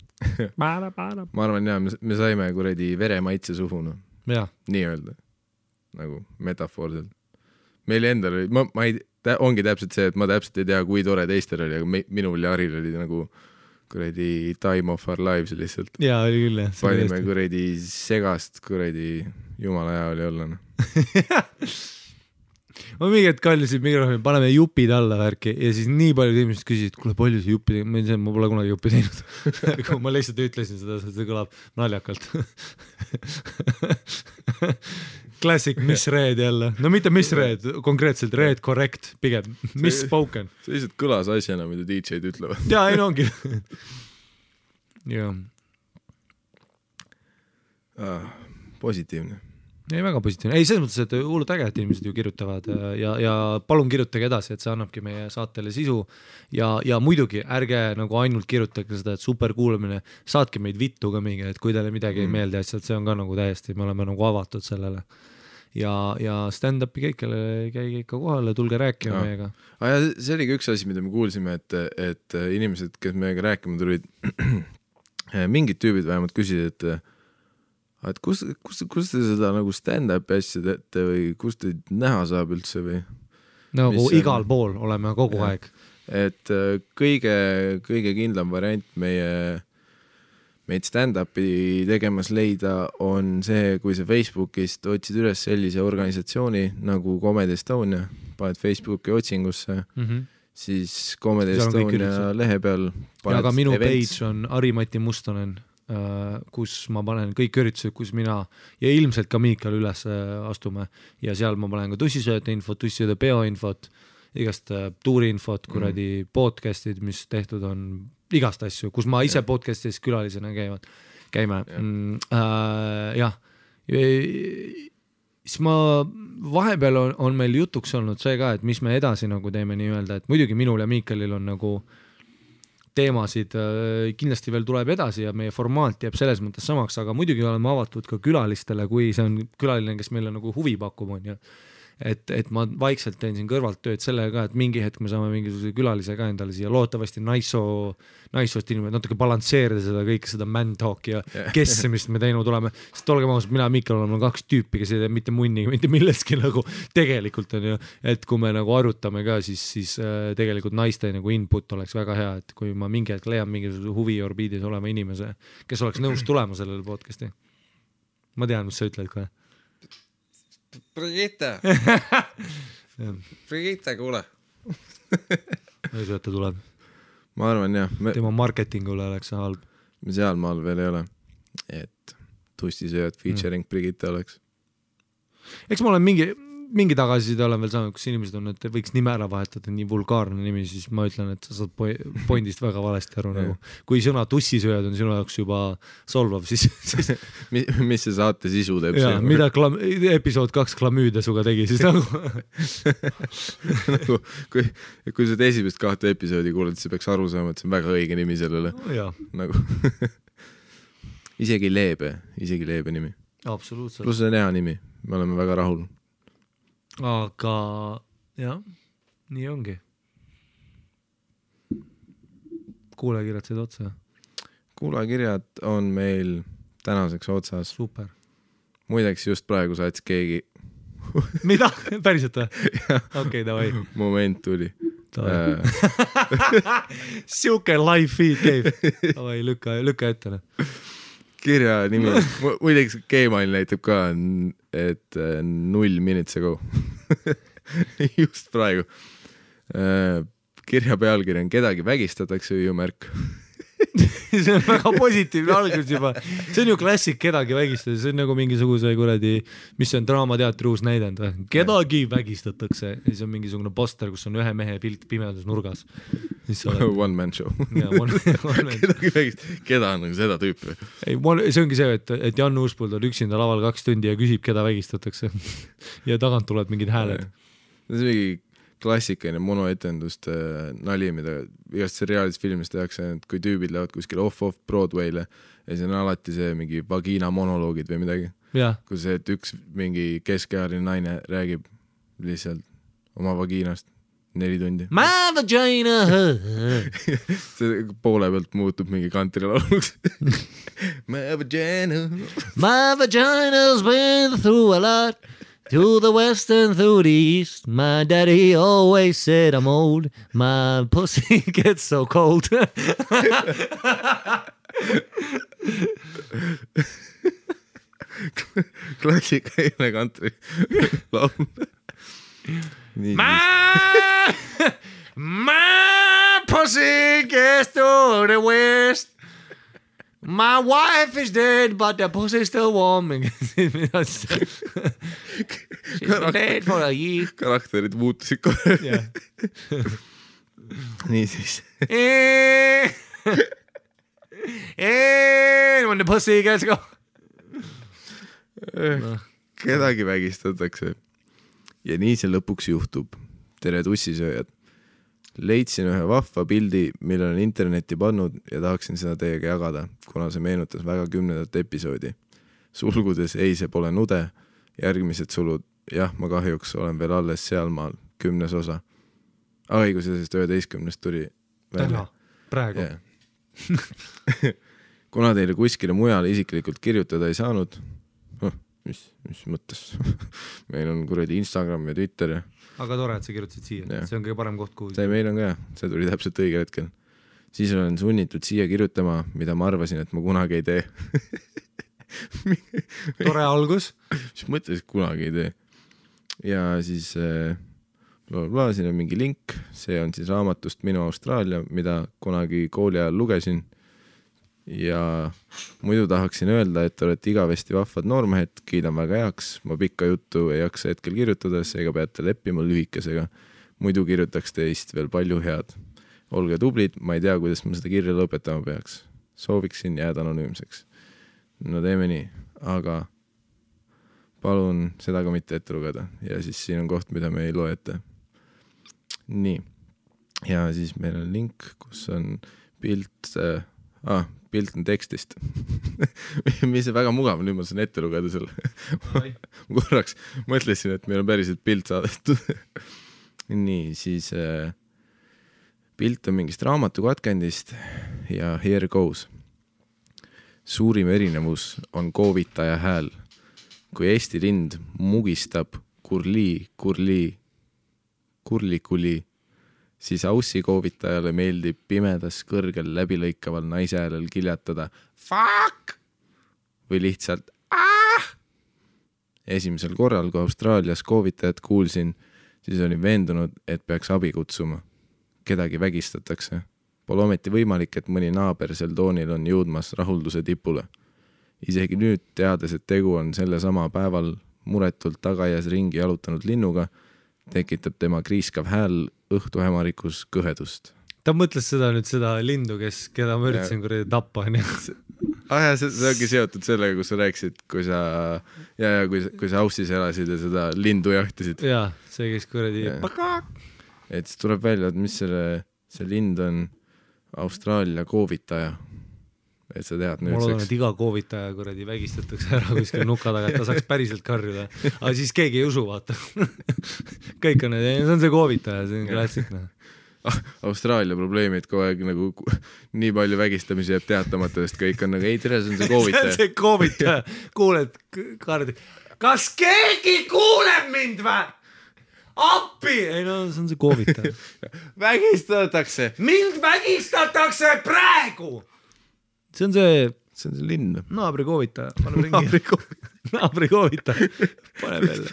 S1: Ma arvan, me saime kuradi veremaitse suhu. Nii öelda. Nagu metafoorselt. Meil endal oli, ongi täpselt see, et ma täpselt ei tea, kui tore teistel oli, aga minul ja Aril oli nagu kuradi time of our lives lihtsalt.
S2: Jaa, oli küll, jah.
S1: Panime kuradi segast, kuradi jumala hea oli olla.
S2: Ma mingi hetk kallisin mikrofoni, paneme jupid alla värki ja siis nii paljud inimesed küsisid, kuule palju see juppi teinud, ma pole kunagi juppi teinud. Kui ma lihtsalt ütlesin seda, see kõlab naljakalt. Classic misread jälle. No mitte misread, konkreetselt read correct, pigem misspoken.
S1: See lihtsalt kõlas asjana, mida DJ-d ütlevad.
S2: Jaa, ei no ongi.
S1: Positiivne.
S2: Ei, väga positiivne. Ei, selles mõttes, et hullult äge, et inimesed ju kirjutavad ja palun kirjutage edasi, et see annabki meie saatele sisu ja muidugi ärge nagu ainult kirjutage seda, et super kuulamine, saatke meid vittu ka mingi, et kui teile midagi ei meeldi asjad, see on ka nagu täiesti, me oleme nagu avatud sellele ja stand-upi kõikele käige ikka kohale, tulge rääkima meiega.
S1: See oli ka üks asi, mida me kuulsime, et inimesed, kes meiega rääkima tulid, mingid tüübid vähemalt küsisid, et kus te seda nagu stand-upi asja teete või kus te näha saab üldse või?
S2: Nagu igal pool oleme kogu aeg.
S1: Et kõige kindlam variant meid stand-upi tegemas leida on see, kui sa Facebookist otsid üles sellise organisatsiooni nagu Comedy Estonia, paned Facebooki otsingusse, siis Comedy Estonia lehe peal
S2: ja ka minu events. Page on Ari-Mati Mustonen, kus ma panen kõik üritused, kus mina ja ilmselt ka Miikal üles astume ja seal ma panen ka tussisööjate infot, tussisööjate peo infot, igast tuuriinfot, kuradi podcastid, mis tehtud on igast asju, kus ma ise podcastis külalisena käime. Jah. Siis ma vahepeal on meil jutuks olnud see ka, et mis me edasi nagu teeme nii-öelda, et muidugi minul ja Miikalil on nagu teemasid kindlasti veel tuleb edasi ja meie formaat jääb selles mõttes samaks, aga muidugi oleme avatud ka külalistele, kui see on külaline, kes meile nagu huvi pakub, on ju. Et ma vaikselt teen siin kõrvalt tööd sellega ka, et mingi hetk me saame mingisuguse külalise ka endale siia loodetavasti naissoost inimene, natuke balansseerida seda kõike, seda man talk ja kessemist me teinud oleme, sest olgem ausalt, mina ja Miikal oleme 2 tüüpi, kes ei tee mitte munniga, mitte millestki nagu tegelikult on ju, et kui me nagu arutame ka, siis tegelikult naiste nagu input oleks väga hea, et kui ma mingi hetk leian mingisuguse huvi orbiidis olema inimese, kes oleks nõus tulema sellele podcasti. Ma tean, mis sa ütled kohe.
S1: Brigitte, kuule.
S2: Ei see, et ta tuleb.
S1: Ma arvan jah.
S2: Tema marketingule oleks see halb.
S1: Me seal maal veel ei ole, et tussisööjad featuring Brigitte oleks.
S2: Eks ma olen mingi tagasiside olen veel saanud, kus inimesed on, et võiks nime ära vahetada, nii vulgaarne nimi, siis ma ütlen, et sa saad pointist väga valesti aru nagu. Kui sõna tussisööjad on sinu jaoks juba solvav, siis...
S1: mis see saate sisu teeb?
S2: Jaa, mida episood 2 klamüüde suga tegi, siis nagu...
S1: kui sa esimest 2 episoodi kuuled, siis peaks aru saama, et see on väga õige nimi sellele. Nagu... isegi leebe nimi.
S2: Absoluutselt.
S1: Plus see on hea nimi, me oleme väga rahul.
S2: Aga jah, nii ongi. Kuulekirjad said otsa?
S1: Kuulekirjad on meil tänaseks otsas.
S2: Super.
S1: Muideks just praegu saatis keegi.
S2: Mida? Päriselt või? Okei, davai.
S1: Moment tuli.
S2: Siuke live feed käib. Davai, lükka ette.
S1: Kirja nimi, muideks Gmail näitab ka, et 0 minutes ago. Just praegu. Kirja pealkiri on kedagi vägistatakse hüüumärk.
S2: See on väga positiivne algus juba. See on ju klassik kedagi vägistada, see on nagu mingisuguse kuradi, mis on draamateatri uus näidend või? Kedagi vägistatakse ja siis on mingisugune poster, kus on ühe mehe pilt pimedus nurgas.
S1: One man show. Kedagi vägistatakse, keda on nagu seda tüüpi?
S2: Ei, see ongi see, et Jan Uuspuld on üksinda laval 2 tundi ja küsib, keda vägistatakse ja tagant tuleb mingid hääled.
S1: See on mingi klassikaline monoetenduste nali, mida igast seriaalis filmis tehakse, et kui tüübid lähevad kuskil off Broadway'le ja siis on alati see mingi vagina monoloogid või midagi. Kui see, et üks mingi keskealine naine räägib lihtsalt oma vagiinast 4 tundi.
S2: My vagina!
S1: See poole pealt muutub mingi kantrilauluks. My vagina!
S2: My vagina's been through a lot. To the west and through the east, my daddy always said I'm old, my pussy gets so cold.
S1: Klassikaline kantri laul.
S2: My pussy gets to the west. My wife is dead, but the pussy's still warm. She's been dead for a year.
S1: Karakterid muutusid kohe. Nii siis.
S2: When the pussy gets go.
S1: Kedagi vägistatakse. Ja nii see lõpuks juhtub. Tere tussisööjad. Leidsin ühe vahva pildi, mille on internetti pannud ja tahaksin seda teiega jagada, kuna see meenutas väga 10. episoodi. Sulgudes ei, see pole nude, järgmised sulud, jah, ma kahjuks olen veel alles sealmaal, 10. osa. Aga kui sellest 11. tuli välja.
S2: Praegu.
S1: Kuna teile kuskile mujale isiklikult kirjutada ei saanud, mis mõttes, meil on kuradi Instagram ja Twitter ja
S2: aga tore, et sa kirjutasid siia, see on kõige parem koht, kuhu.
S1: See meil on ka, see tuli täpselt õigel hetkel. Siis olen sunnitud siia kirjutama, mida ma arvasin, et ma kunagi ei tee.
S2: Tore algus.
S1: Mis mõtles, et kunagi ei tee. Ja siis siin on mingi link, see on siis raamatust Minu Austraalia, mida kunagi kooli ajal lugesin. Ja muidu tahaksin öelda, et olete igavesti vahvad noormehed, kiidan väga heaks, ma pikka juttu ei jaksa hetkel kirjutada, seega peate leppima lühikesega. Muidu kirjutaks teist veel palju head. olge tublid, ma ei tea, kuidas ma seda kirja lõpetama peaks. Sooviksin jääda anonüümseks. No teeme nii, aga palun seda ka mitte ette lugeda. Ja siis siin on koht, mida me ei loe ette. Nii. Ja siis meil on link, kus on pilt on tekstist. Mis on väga mugav, nüüd ma saan ette lugeda selle. Ma korraks mõtlesin, et meil on päriselt pilt saadetud. Nii, siis pilt on mingist raamatu katkendist ja here goes. Suurim erinevus on koovitaja hääl. Kui Eesti lind mugistab kurli, siis Aussi koovitajale meeldib pimedas kõrgel läbilõikaval naise häälel kiljatada fuck või lihtsalt Esimesel korral, kui Austraalias koovitajat kuulsin, siis olin veendunud, et peaks abi kutsuma. Kedagi vägistatakse. Pole ometi võimalik, et mõni naaber sel toonil on jõudmas rahulduse tipule. Isegi nüüd teades, et tegu on selle sama päeval muretult tagaias ringi jalutanud linnuga, tekitab tema kriiskav hääl õhtuhämarikus kõhedust.
S2: Ta mõtles seda lindu, keda ma üritasin kuradi tappa.
S1: See ongi seotud sellega, kus sa rääkisid, kui sa Aussis elasid ja seda lindu jahtisid.
S2: Jaa, see käis kuradi
S1: Et siis tuleb välja, et mis see lind on Austraalia koovitaja. Et sa tead
S2: nüüd seks. Mul on, et iga koovitaja kuradi vägistatakse ära kuskil nuka taga, et ta saaks päriselt karjuda. Aga siis keegi ei usu, vaata. Kõik on, see on see koovitaja, see on klassik.
S1: Austraalia probleemid kogu aeg nagu nii palju vägistamisi jääb teatamata, sest kõik on nagu, ei tere, see on see koovitaja.
S2: See on see koovitaja. Kuuled kardi. Kas keegi kuuleb mind või? Appi! Ei no, see on see koovitaja.
S1: Vägistatakse.
S2: Mind vägistatakse praegu! See on see
S1: linn.
S2: Naabri koovitaja. Naabri koovitaja. Pane veel.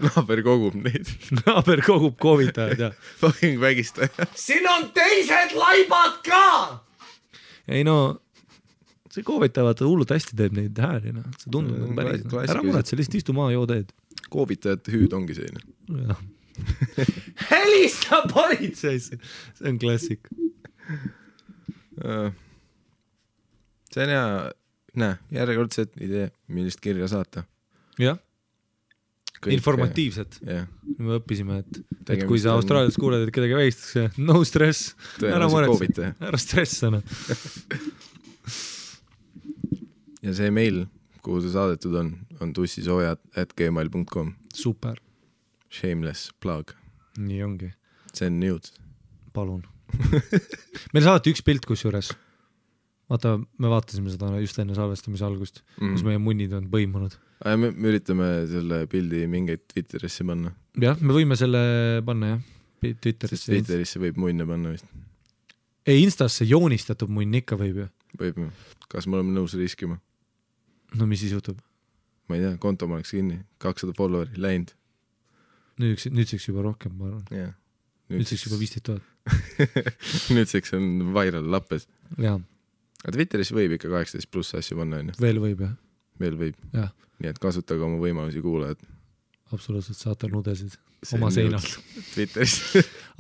S1: Naaber kogub neid.
S2: Naaber kogub koovitajad, jah.
S1: Fucking vägistaja.
S2: Siin on teised laibad ka! Ei no, see koovitaja vaata hullult hästi teeb neid hääli. See tundub nagu päris. Ära muret, see lihtsalt istu maa, joo teed.
S1: Koovitajate hüüd ongi selline.
S2: Jah. Helista politseisse! See on klassik.
S1: See on hea, järjekordset idee, millist kirja saata.
S2: Jah, informatiivset. Me õppisime, et kui sa Austraalias kuuled, et kedagi vägistakse, no stress, ära muretse, ära stressana.
S1: Ja see meil, kuhu see saadetud on tussisoojad@gmail.com.
S2: Super.
S1: Shameless plug.
S2: Nii ongi.
S1: See on news.
S2: Palun. Meil saadeti üks pilt kusjuures. Vaata, me vaatasime seda just enne salvestamise algust, kus meie munnid on põimunud.
S1: Me üritame selle pildi mingeid Twitterisse panna.
S2: Jah, me võime selle panna, jah. Twitterisse.
S1: Twitterisse võib munne panna vist.
S2: Ei, Instasse joonistatud munn ikka võib ju.
S1: Võib ju. Kas me oleme nõus riskima?
S2: No mis siis juhtub?
S1: Ma ei tea, konto ma oleks kinni. 200 followeri, läinud.
S2: Nüüdseks juba rohkem, ma arvan.
S1: Yeah.
S2: Nüüdseks juba 15 000.
S1: Nüüdseks on viral lappes.
S2: Jaa.
S1: Aga Twitteris võib ikka 18 pluss asju panna, on ju?
S2: Veel võib, jah.
S1: Veel võib.
S2: Ja.
S1: Nii et kasutage oma võimalusi kuulajad.
S2: Absoluutselt, saate nudesid oma seinalt.
S1: Twitteris.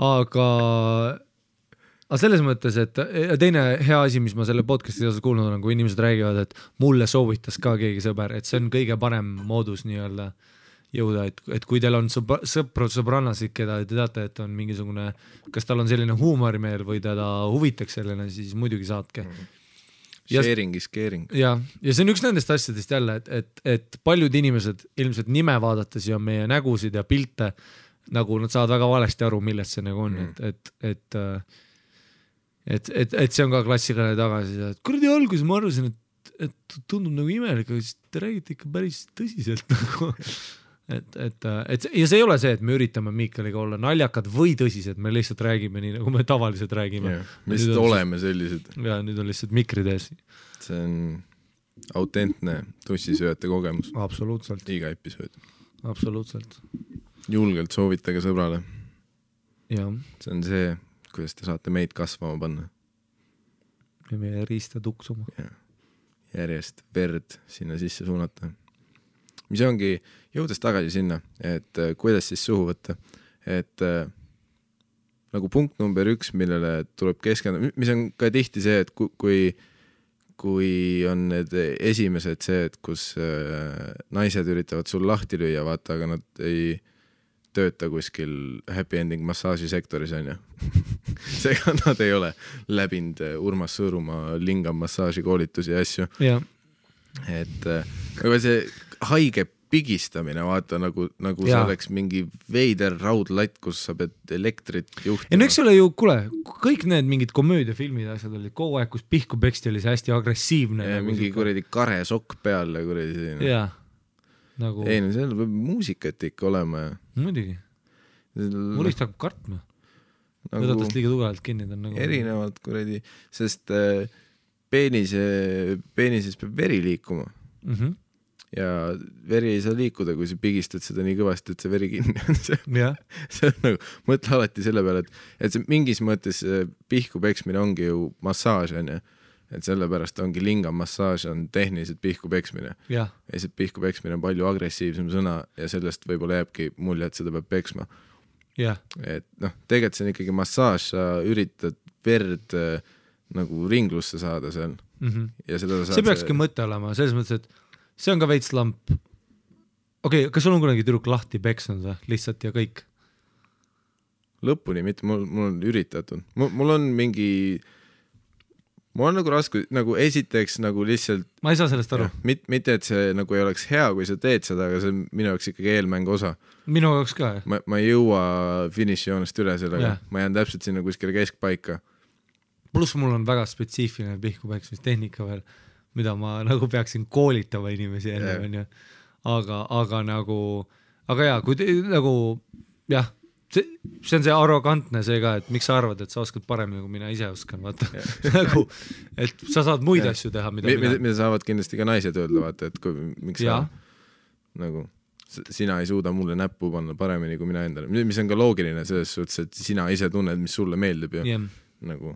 S2: Aga selles mõttes, et teine hea asi, mis ma selle podcasti osas kuulnud olen, kui inimesed räägivad, et mulle soovitas ka keegi sõber, et see on kõige parem moodus nii-öelda jõuda, et kui teil on sõprannasid, keda te teate, et on mingisugune, kas tal on selline huumorimeel või teda huvitaks selline, siis muidugi saatke.
S1: Sharing is caring.
S2: Ja see on üks nendest asjadest jälle, et paljud inimesed ilmselt nime vaadates ja meie nägusid ja pilte, nagu nad saavad väga valesti aru, millest see nagu on, et see on ka klassikaline tagasi, et kuradi alguses ma arvasin, et tundub nagu imelik, aga siis te räägite ikka päris tõsiselt nagu. Ja see ei ole see, et me üritame Miikaliga olla naljakad või tõsised, me lihtsalt räägime nii, nagu me tavaliselt räägime.
S1: Me lihtsalt oleme sellised.
S2: Ja nüüd on lihtsalt mikrid ees.
S1: See on autentne tussisööjate kogemus.
S2: Absoluutselt.
S1: Iga episood.
S2: Absoluutselt.
S1: Julgelt soovitage sõbrale.
S2: Ja. See
S1: on see, kuidas te saate meid kasvama panna.
S2: Ja meie riista tuksuma.
S1: Ja. Järjest verd sinna sisse suunata. Mis ongi jõudes tagasi sinna, et kuidas siis suhu võtta, et nagu punkt number 1, millele tuleb keskenduda, mis on ka tihti see, et kui on need esimesed see, et kus naised üritavad sul lahti lüüa, vaata, aga nad ei tööta kuskil happy ending massaažisektoris, on ju. Seega nad ei ole läbinud Urmas Sõõrumaa lingam massaaži koolitusi ja asju.
S2: Ja.
S1: Et see haige pigistamine, vaata, nagu see oleks mingi veider raudlatt, kus sa pead elektrit juhtima.
S2: Ja no eks ole ju, kuule, kõik need mingid komöödiafilmid asjad olid kogu aeg, kus pihku peksti oli see hästi agressiivne.
S1: Ja
S2: nagu
S1: mingi kuradi kare sokk peal ja kuradi.
S2: Jaa. Nagu...
S1: Ei, no seal peab muusikat ikka olema ja...
S2: Muidugi. Mul lihtsalt hakkab kartma.
S1: Nagu...
S2: Võdatast liiga tugevalt kinni. Nagu...
S1: Erinevalt kuradi, sest peenises peab veri liikuma. Ja veri ei saa liikuda, kui sa pigistad seda nii kõvasti, et see veri kinni on. See on nagu, mõtle alati selle peale, et see mingis mõttes pihku peksmine ongi ju massaaž, on ju. Et sellepärast ongi lingam massaaž on tehniliselt pihku peksmine. Ja see pihku peksmine on palju agressiivsem sõna ja sellest võib-olla jääbki mulje, et seda peab peksma. Et noh, tegelikult see on ikkagi massaaž, sa üritad verd nagu ringlusse saada seal. Ja seda
S2: see peakski mõte olema, selles mõttes, et see on ka veits lamp. Okei, kas sul on kunagi tüdruk lahti peksnud või? Lihtsalt ja kõik?
S1: Lõpuni, mitte, mul on üritatud. Mul on mingi... Mul on nagu raske, nagu esiteks nagu lihtsalt...
S2: Ma ei saa sellest aru.
S1: Mitte, et see nagu ei oleks hea, kui sa teed seda, aga see on minu jaoks ikkagi eelmängu osa.
S2: Minu jaoks ka, jah.
S1: Ma ei jõua finišijoonest üle sellega. Ma jään täpselt sinna kuskile keskpaika.
S2: Pluss mul on väga spetsiifiline pihkupeksmistehnika veel, mida ma nagu peaksin koolitama inimesi enne, on ju. Aga nagu... Aga jaa, kui nagu... Jah, see on see arrogantne see ka, et miks sa arvad, et sa oskad paremini, kui mina ise oskan, vaata. Nagu, et sa saad muid asju teha,
S1: mida saavad kindlasti ka naised öelda, vaata, et miks sa nagu, sina ei suuda mulle näppu panna paremini kui mina endale, mis on ka loogiline selles suhtes, et sina ise tunned, mis sulle meeldib ja nagu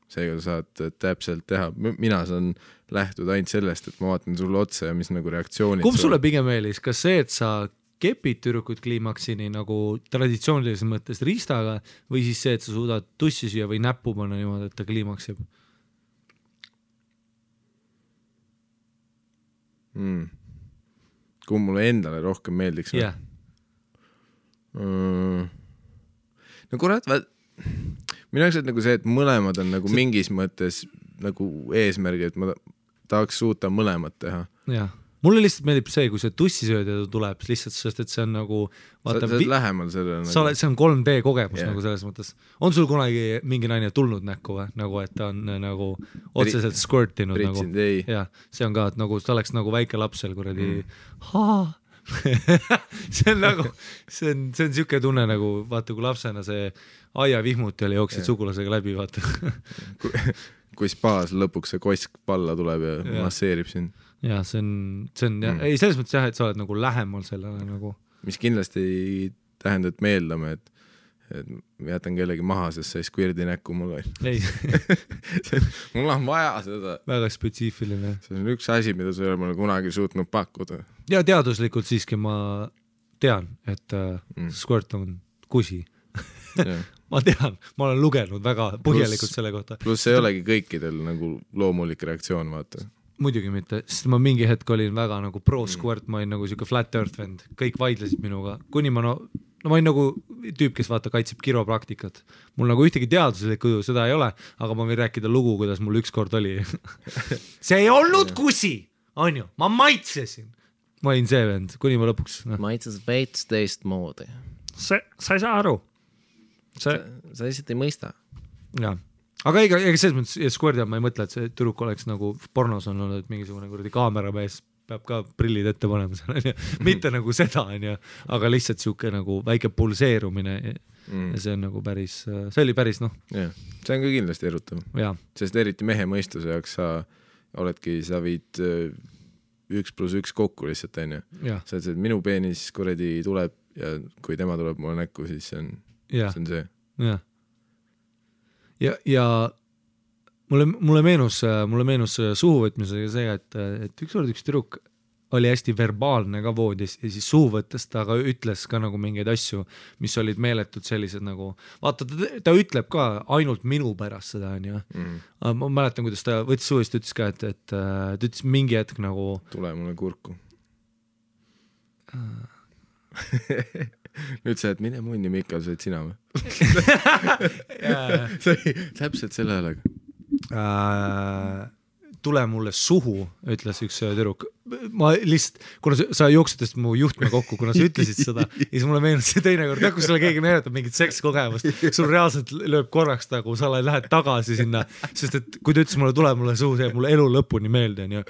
S1: seega saad täpselt teha. Mina saan lähtuda ainult sellest, et ma vaatan sulle otsa ja mis nagu reaktsioonid.
S2: Kumb sulle pigem eelis, kas see, et sa kepid tüdrukud kliimaksini nagu traditsioonilises mõttes riistaga või siis see, et sa suudad tussi süüa või näppu panna niimoodi, et ta kliimaksib?
S1: Kui mulle endale rohkem meeldiks?
S2: Yeah.
S1: No kurat, minu jaoks on nagu see, et mõlemad on nagu mingis mõttes nagu eesmärgi, et ma tahaks suuta mõlemat teha.
S2: Jah. Mulle lihtsalt meeldib see, kui see tussisööd tuleb lihtsalt, sest et see on nagu vaata,
S1: sa oled lähemal sellele
S2: nagu... see on 3D kogemus nagu selles mõttes. On sul kunagi mingi naine tulnud näkku või? Nagu, et ta on nagu otseselt squirtinud nagu. Ja, see on ka, et nagu ta oleks nagu väike lapsel kuradi see on nagu see on siuke tunne nagu vaata, kui lapsena see aia vihmuti oli jooksid sugulasega läbi, vaata.
S1: kui spaas lõpuks see kosk palla tuleb ja masseerib sind.
S2: Ja see on ei selles mõttes jah, et sa oled nagu lähemal sellele nagu.
S1: Mis kindlasti ei tähenda, et me eeldame, et ma jätan kellegi maha, sest see squirdi näkku mul on.
S2: Ei.
S1: Mul on vaja seda.
S2: Väga spetsiifiline.
S1: See on üks asi, mida sa ei ole mulle kunagi suutnud pakkuda.
S2: Ja teaduslikult siiski ma tean, et squirt on kusi. Ma tean, ma olen lugenud väga põhjalikult selle kohta.
S1: Pluss ei olegi kõikidel nagu loomulik reaktsioon, vaata.
S2: Muidugi mitte, sest ma mingi hetk olin väga nagu pro-squirt, ma olin nagu siuke flat earth vend, kõik vaidlesid minuga, kuni ma ma olin nagu tüüp, kes vaata kaitseb kiropraktikat. Mul nagu ühtegi teaduslikku seda ei ole, aga ma võin rääkida lugu, kuidas mul ükskord oli. See ei olnud kusi, on ju, ma maitsesin. Ma olin see vend, kuni ma lõpuks.
S1: Maitses veits teist moodi.
S2: Sa ei saa aru.
S1: Sa lihtsalt ei mõista.
S2: Jaa. Aga ega selles mõttes, ja squirdi ma ei mõtle, et see tüdruk oleks nagu pornos on olnud, et mingisugune kuradi kaameramees peab ka prillid ette panema seal, mitte nagu seda, aga lihtsalt siuke nagu väike pulseerumine ja see on nagu päris, see oli päris noh.
S1: Yeah. See on ka kindlasti erutav. Sest eriti mehe mõistuse jaoks sa viid 1+1 kokku lihtsalt, on ju. Sa et minu peenis kuradi tuleb ja kui tema tuleb mulle näkku, siis see on see.
S2: Jah. Ja mulle meenus suhuvõtmisega see, et üks tüdruk oli hästi verbaalne ka voodis ja siis suu võttes ta ka ütles ka nagu mingeid asju, mis olid meeletud sellised nagu, vaata ta ütleb ka ainult minu pärast seda on ju. Ma mäletan, kuidas ta võttis suust, ütles ka, et ta ütles mingi hetk nagu
S1: tule mulle kurku. Nüüd sa, et mine munni, Mikal, sa oled sina või? Täpselt selle häälega.
S2: Tule mulle suhu, ütles üks tüdruk. Ma lihtsalt, kuna sa jooksutest mu juhtme kokku, kuna sa ütlesid seda, siis mulle meenus see teine kord, kui sulle keegi meenutab mingit sekskogemust, sul reaalselt lööb korraks nagu, sa lähed tagasi sinna, sest et kui ta ütles mulle, tule mulle suhu, see mulle elu lõpuni meelde on ju.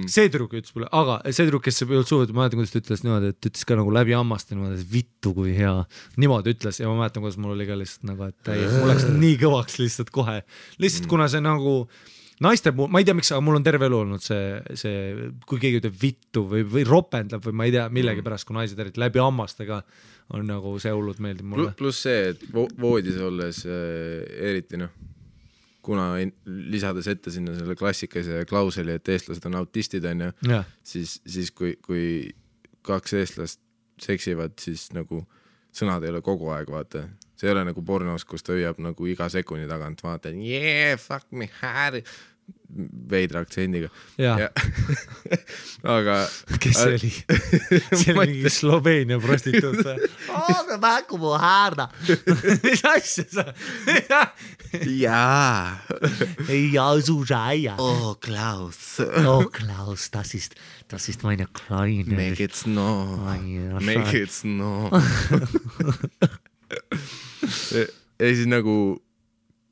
S2: See tüdruk ütles mulle, aga see tüdruk, kes ei olnud suhu, ma mäletan, kuidas ta ütles niimoodi, et ütles ka nagu läbi ammast niimoodi, et vittu kui hea. Niimoodi ütles ja ma mäletan, kuidas mul oli ka lihtsalt nagu, et mul läks nii kõvaks lihtsalt kohe. Lihtsalt kuna see nagu naiste puhul, ma ei tea miks, aga mul on terve elu olnud see kui keegi ütleb vittu või ropendab või ma ei tea millegi pärast, kui naised eriti läbi ammastega on nagu see hullud meeldib mulle.
S1: Plus see, et voodis olles eriti kuna lisades ette sinna selle klassikase klauseli, et eestlased on autistid on ju, siis kui kaks eestlast seksivad, siis nagu sõnad ei ole kogu aeg, vaata. See ei ole nagu pornos, kus ta hüüab nagu iga sekundi tagant, vaata, yeah, fuck me, Harry, veidra aktsendiga.
S2: Ja.
S1: Aga...
S2: Kes see oli? See oli mingi Sloveenia prostituut. Aga määku mu häärda. Mis asja sa?
S1: Jaa.
S2: Ja, su säia.
S1: Oh, Klaus.
S2: Oh, Klaus, das ist meine Kleine.
S1: Make it snow. Make it snow. Ja siis nagu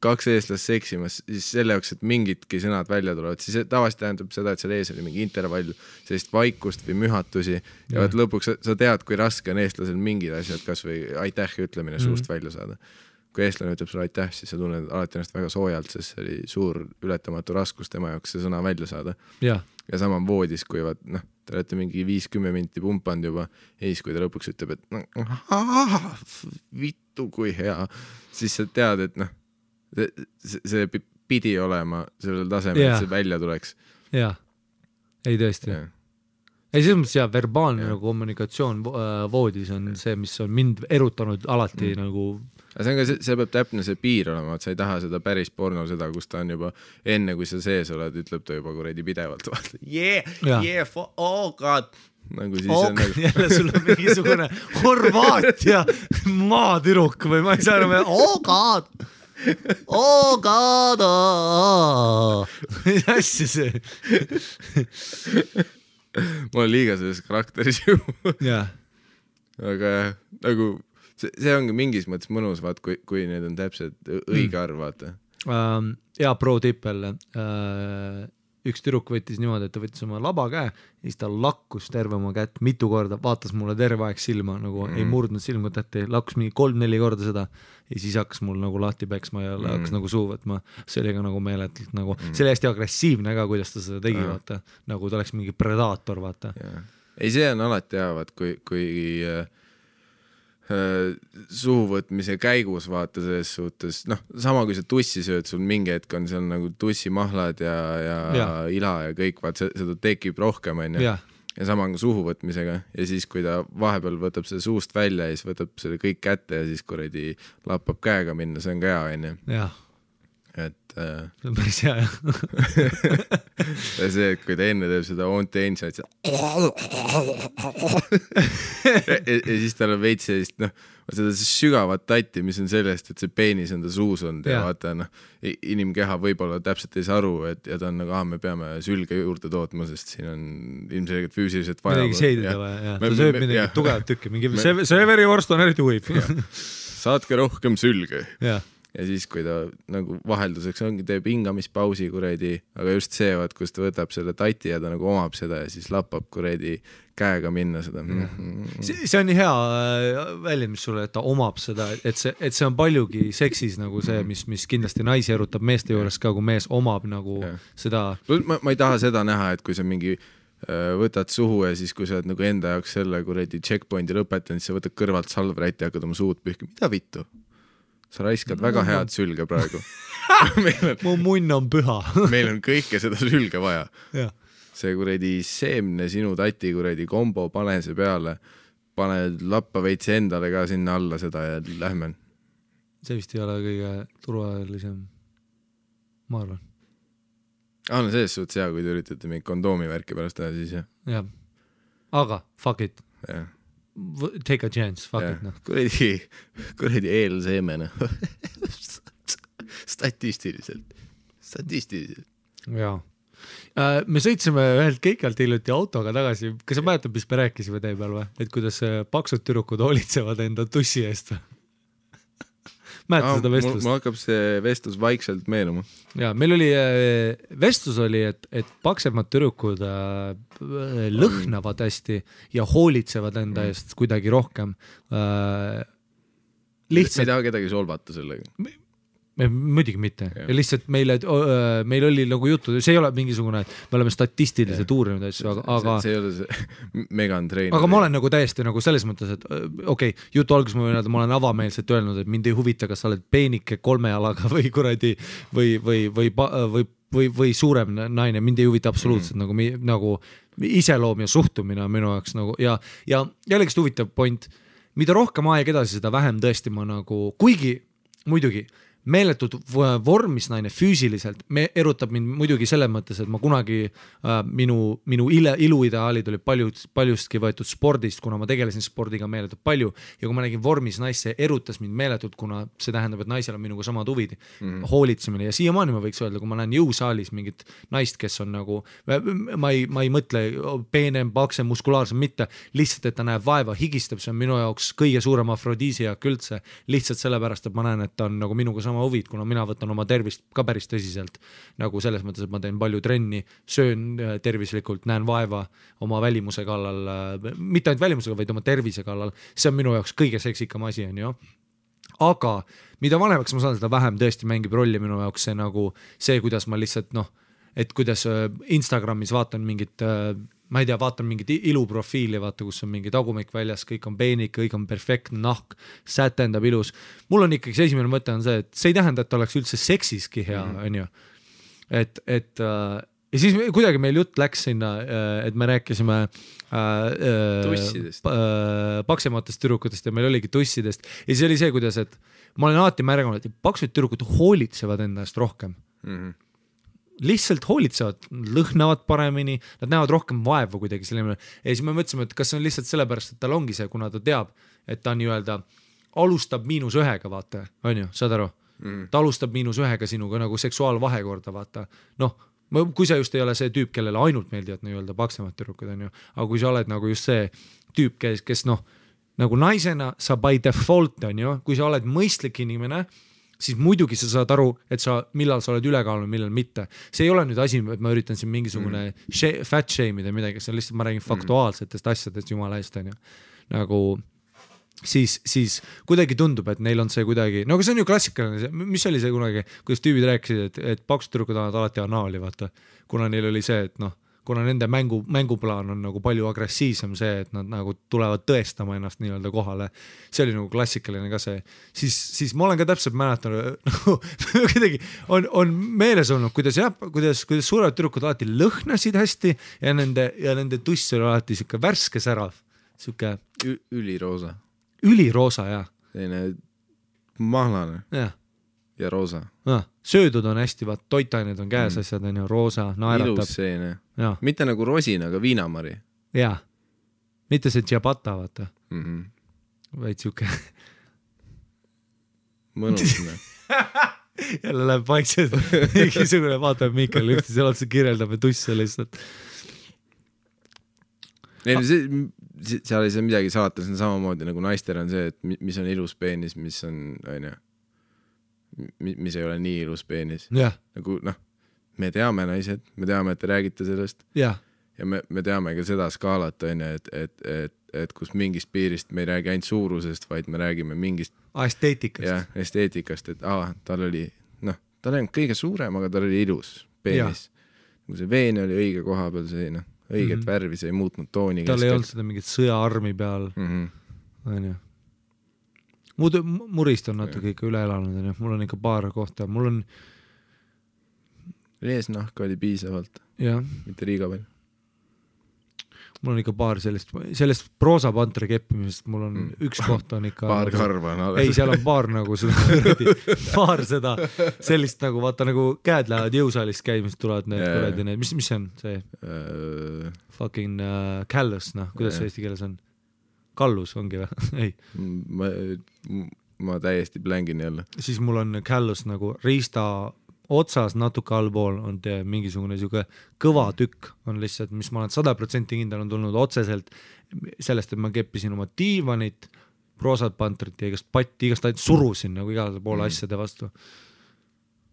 S1: kaks eestlast seksimas, siis selle jaoks, et mingitki sõnad välja tulevad, siis tavaliselt tähendab seda, et seal ees oli mingi intervall, sellist vaikust või mühatusi ja lõpuks sa tead, kui raske on eestlasel mingid asjad, kas või aitäh ütlemine suust välja saada. Kui eestlane ütleb sulle aitäh, siis sa tunned alati ennast väga soojalt, sest see oli suur ületamatu raskus tema jaoks see sõna välja saada. Ja sama voodis, kui te olete mingi 5-10 minti pumpanud juba ja siis, kui ta lõpuks ütleb, et vittu kui hea, siis sa tead, et see pidi olema sellel tasemel, et see välja tuleks.
S2: Jaa, ei tõesti. Ei, selles mõttes verbaalne kommunikatsioon voodis on see, mis on mind erutanud alati nagu...
S1: See on ka, see peab täpne see piir olema, et sa ei taha seda päris porno seda, kus ta on juba enne, kui sa sees oled, ütleb ta juba kuredi pidevalt. Oh god! Nagu siis on nagu...
S2: Jälle sul on mingisugune Horvaatia maatüruk või ma ei saa enam... Oh god! Oh god! Mis asja see?
S1: Ma olen liiga selles karakteris ju. Aga nagu... See ongi mingis mõttes mõnus, vaat, kui need on täpselt õige arv, vaata.
S2: Ja pro tippel. Üks tüdruk võttis niimoodi, et ta võttis oma laba käe ja siis ta lakkus terve oma kätt mitu korda, vaatas mulle terve aeg silma, nagu ei murdnud silmut ette, lakkus mingi 3-4 korda seda ja siis hakkas mul nagu lahti peksma ja hakkas nagu suu võtma. See oli ka nagu meeletult nagu, see oli hästi agressiivne ka, kuidas ta seda tegi, vaata. Nagu ta oleks mingi predaator, vaata.
S1: Ei, see on alati hea, vaat, kui suuvõtmise käigus vaata selles suhtes, sama kui sa tussi sööd, sul mingi hetk on seal nagu tussimahlad ja ila ja kõik, vaat seda tekib rohkem on ju. Ja sama on suhuvõtmisega ja siis kui ta vahepeal võtab selle suust välja ja siis võtab selle kõik kätte ja siis kuredi lappab käega minna, see on ka hea on ju. Et
S2: see on päris hea
S1: ja see, et kui ta enne teeb seda on-tense ja siis tal on veits sellist seda sügavat tatti, mis on sellest, et see peenis on ta suus on ja vaata inimkeha võib-olla täpselt ei saa aru ja ta on nagu, me peame sülge juurde tootma, sest siin on ilmselgelt füüsiliselt vaja
S2: midagi seidida vaja, ta sööb midagi tugevat tükki, mingi severivorst on eriti huib
S1: saatke rohkem sülge ja siis, kui ta nagu vahelduseks ongi, teeb hingamispausi kuredi, aga just see, kus ta võtab selle tati ja ta nagu omab seda ja siis lappab kuredi käega minna seda.
S2: See on nii hea väljend, mis sulle, et ta omab seda, et see on paljugi seksis nagu see, mis kindlasti naisi erutab meeste juures ka, kui mees omab nagu seda.
S1: Ma ei taha seda näha, et kui sa mingi võtad suhu ja siis, kui sa oled nagu enda jaoks selle kuredi checkpointi lõpetanud, siis sa võtad kõrvalt salvrätti ja hakkad oma suud pühki. Mida vittu? Sa raiskad väga head sülge praegu.
S2: Mu munn on püha.
S1: Meil on kõike seda sülge vaja. see kuradi seemne sinu tati kuradi kombo, pane see peale, pane lappa veitsi endale ka sinna alla seda ja lähme.
S2: See vist ei ole kõige turvalisem, ma arvan.
S1: No selles suhtes hea, kui te üritate mingi kondoomi värki pärast teha, siis jah.
S2: Jah, aga fuck it.
S1: Ja.
S2: Take a chance, fuck it. No.
S1: Kuradi eelseemene. Statistiliselt.
S2: Jaa. Me sõitsime ühelt keikalt hiljuti autoga tagasi. Kas sa mäletad, mis me rääkisime tee peal või? Et kuidas paksud türukud hoolitsevad enda tussi eest? Mäletad seda vestlust?
S1: Mul hakkab see vestlus vaikselt meenuma.
S2: Ja, meil oli, vestlus oli, et paksemad türukud lõhnavad hästi ja hoolitsevad enda eest kuidagi rohkem.
S1: Lihtsalt... Me ei taha kedagi solvata sellega.
S2: Muidugi mitte. Ja lihtsalt meil oli nagu juttu, see ei ole mingisugune, me oleme statistiliselt uurinud asju, aga
S1: see ei ole see Megan Trainer.
S2: Aga ma olen nagu täiesti nagu selles mõttes, et okei, jutu alguses ma olen avameelselt öelnud, et mind ei huvita, kas sa oled peenike 3 jalaga või kuradi või suurem naine, mind ei huvita absoluutselt nagu iseloom ja suhtumine minu jaoks nagu ja jällegi huvitav point, mida rohkem aeg edasi, seda vähem tõesti ma nagu, kuigi muidugi meeletud vormis naine füüsiliselt, me erutab mind muidugi selles mõttes, et ma kunagi minu iluideaalid oli paljustki võetud spordist, kuna ma tegelesin spordiga meeletult palju ja kui ma nägin vormis naisse, erutas mind meeletult, kuna see tähendab, et naisel on minuga samad huvid, hoolitsemine ja siiamaani ma võiks öelda, kui ma näen jõusaalis mingit naist, kes on nagu, ma ei mõtle peenem, paksem, muskulaarsem, mitte lihtsalt, et ta näeb vaeva, higistab, see on minu jaoks kõige suurem afrodiisiak üldse, lihtsalt sellepärast, et ma näen, et ta on nagu minuga sama huvid, kuna mina võtan oma tervist ka päris tõsiselt, nagu selles mõttes, et ma teen palju trenni, söön tervislikult, näen vaeva oma välimuse kallal, mitte ainult välimusega, vaid oma tervise kallal, see on minu jaoks kõige seksikam asi, on ju. Aga mida vanemaks ma saan, seda vähem tõesti mängib rolli minu jaoks see nagu see, kuidas ma lihtsalt et kuidas Instagramis vaatan mingit ma ei tea, vaatan mingit iluprofiili, vaata, kus on mingi tagumik väljas, kõik on peenik, kõik on perfektne nahk, sätendab ilus. Mul on ikkagi see esimene mõte on see, et see ei tähenda, et oleks üldse seksiski hea, on ju. Ja siis kuidagi meil jutt läks sinna, et me rääkisime paksematest tüdrukutest ja meil oligi tussidest. Ja siis oli see, kuidas, et ma olen alati märganud, et paksud tüdrukud hoolitsevad enda eest rohkem. Lihtsalt hoolitsevad, lõhnavad paremini, nad näevad rohkem vaeva kuidagi selline. Ja siis me mõtlesime, et kas see on lihtsalt sellepärast, et tal ongi see, kuna ta teab, et ta nii-öelda alustab -1, vaata, on ju, saad aru? Ta alustab -1 sinuga nagu seksuaalvahekorda, vaata. Kui sa just ei ole see tüüp, kellele ainult meeldivad nii-öelda paksemad tüdrukud, on ju, aga kui sa oled nagu just see tüüp, kes nagu naisena sa by default, on ju, kui sa oled mõistlik inimene, siis muidugi sa saad aru, et millal sa oled ülekaalune, millal mitte. See ei ole nüüd asi, et ma üritan siin mingisugune fat shame'ida midagi, see on lihtsalt, ma räägin faktuaalsetest asjadest jumala eest, on ju. Nagu siis kuidagi tundub, et neil on see kuidagi, aga see on ju klassikaline, mis oli see kunagi, kuidas tüübid rääkisid, et paksutürukud annavad alati anaali, vaata, kuna neil oli see, et kuna nende mänguplaan on nagu palju agressiivsem see, et nad nagu tulevad tõestama ennast nii-öelda kohale, see oli nagu klassikaline ka see, siis ma olen ka täpselt mäletanud, kuidagi on meeles olnud, kuidas suured türukud alati lõhnasid hästi ja nende tuss oli alati siuke värske särav, siuke üliroosa, jah.
S1: Selline mahlane ja roosa.
S2: Söödud on hästi, vaat toitained on käes asjad, on ju, roosa, naeratab.
S1: Ilus seene. Mitte nagu rosin, aga viinamari.
S2: Jaa, mitte see tšabata, vaata. Vaid siuke.
S1: Mõnusne.
S2: Jälle läheb vaikselt. Mingisugune vaatab Miikal ühti, seal otsa kirjeldab ja tusse lihtsalt.
S1: Seal ei saa midagi salata, see on samamoodi nagu naistel on see, et mis on ilus peenis, mis on, mis ei ole nii ilus peenis. Nagu, me teame naised, me teame, et te räägite sellest ja me teame ka seda skaalat, et kus mingist piirist me ei räägi ainult suurusest, vaid me räägime mingist esteetikast, et tal oli, tal ei olnud kõige suurem, aga tal oli ilus peenis. Kui see veen oli õige koha peal, see õiget värvi, see ei muutnud tooni.
S2: Tal ei olnud seda mingit sõjaarmi peal. Murist on natuke ikka üle elanud, mul on ikka paar kohta, mul on
S1: eesnahk oli piisavalt, mitte liiga palju.
S2: mul on ikka paar sellest proosapantri keppimisest, mul on üks koht on ikka
S1: paar karva on alles.
S2: ei, seal on paar nagu seda paar seda sellist nagu vaata nagu käed lähevad jõusaalist käimist tulevad need kuradi need, mis see on see fucking callus, noh, kuidas see eesti keeles on? Kallus ongi või? ei.
S1: Ma täiesti blängin jälle.
S2: Siis mul on callus nagu riista otsas natuke allpool on mingisugune siuke kõva tükk on lihtsalt, mis ma olen 100% kindel on tulnud otseselt sellest, et ma keppisin oma diivanit, proosat pantrit ja igast patti, igast ainult surusin nagu igale poole asjade vastu.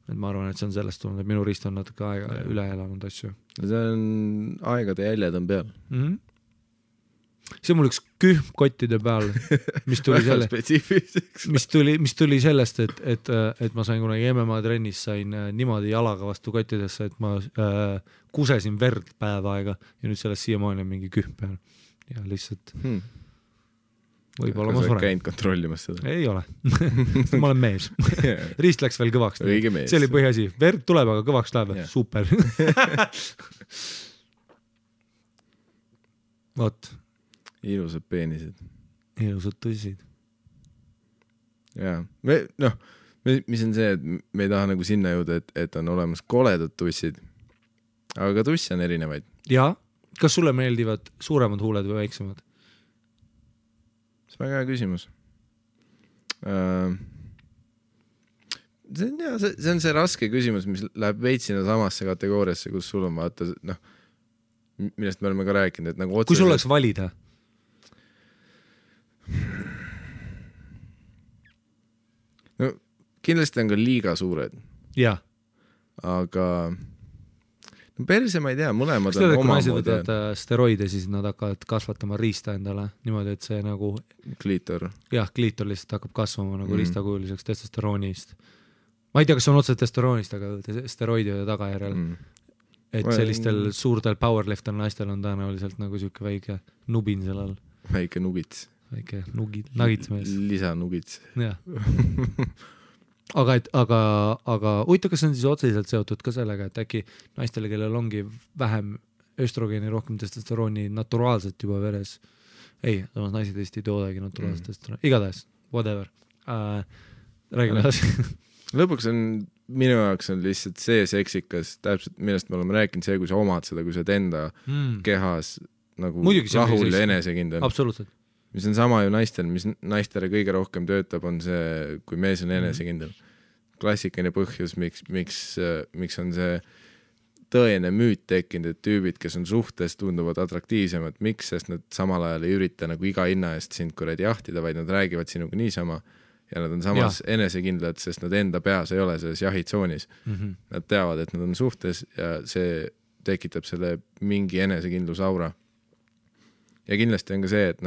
S2: Et ma arvan, et see on sellest tulnud, et minu riist on natuke aega üle elanud asju.
S1: See on aegade jäljed on peal.
S2: See on mul üks kühm kottide peal, mis tuli mis tuli sellest, et ma sain kunagi MMA trennis sain niimoodi jalaga vastu kottidesse, et ma kusesin verd päev aega ja nüüd sellest siiamaani on mingi kühm peal ja lihtsalt võib-olla ma suren.
S1: Käinud kontrollimas seda?
S2: Ei ole. Ma olen mees. Riist läks veel kõvaks. See oli põhiasi. Verd tuleb, aga kõvaks läheb. Super. Vot.
S1: Ilusad peenised.
S2: Ilusad tõsid.
S1: Jaa. Mis on see, et me ei taha nagu sinna jõuda, et on olemas koledad tussid, aga ka tussi on erinevaid.
S2: Jaa. Kas sulle meeldivad suuremad huuled või väiksemad?
S1: See on väga hea küsimus. See on see raske küsimus, mis läheb veitsina samasse kategooriasse, kus sul on vaata, millest me oleme ka rääkinud, et nagu otseselt...
S2: Kui sul oleks valida?
S1: No, kindlasti on ka liiga suured.
S2: Jah.
S1: Aga perse ma ei tea, mõlemad
S2: on oma moodi. Võtavad steroide, siis nad hakkavad kasvatama riista endale niimoodi, et see nagu...
S1: Kliitor.
S2: Jah, kliitor lihtsalt hakkab kasvama nagu riistakujuliseks testosteroonist. Ma ei tea, kas on otse testosteroonist, aga steroidide tagajärjel. Et sellistel suurtel powerlifter naistel on tõenäoliselt nagu siuke väike nubin sellel.
S1: Väike nugits.
S2: Väike nagitsmees.
S1: Lisa nugits.
S2: Jah. Aga huvitav, kas on siis otseselt seotud ka sellega, et äkki naistele, kellel ongi vähem östrogeeni, rohkem testosterooni naturaalselt juba veres. Ei, samas naised Eesti ei toodagi naturaalselt testosterooni. Igatahes, whatever. Räägime edasi.
S1: Lõpuks on, minu jaoks on lihtsalt see seksikas, täpselt millest me oleme rääkinud, see, kui sa omad seda, kui sa enda kehas nagu muidugi rahul ja enesekindel.
S2: Absoluutselt.
S1: Mis on sama ju naistel, mis naistele kõige rohkem töötab, on see, kui mees on enesekindel. Klassikaline põhjus, miks on see tõene müüt tekkinud, et tüübid, kes on suhtes, tunduvad atraktiivsemad. Miks? Sest nad samal ajal ei ürita nagu iga hinna eest sind kuradi jahtida, vaid nad räägivad sinuga niisama ja nad on samas enesekindlad, sest nad enda peas ei ole selles jahitsoonis. Nad teavad, et nad on suhtes ja see tekitab selle mingi enesekindlus aura. Ja kindlasti on ka see, et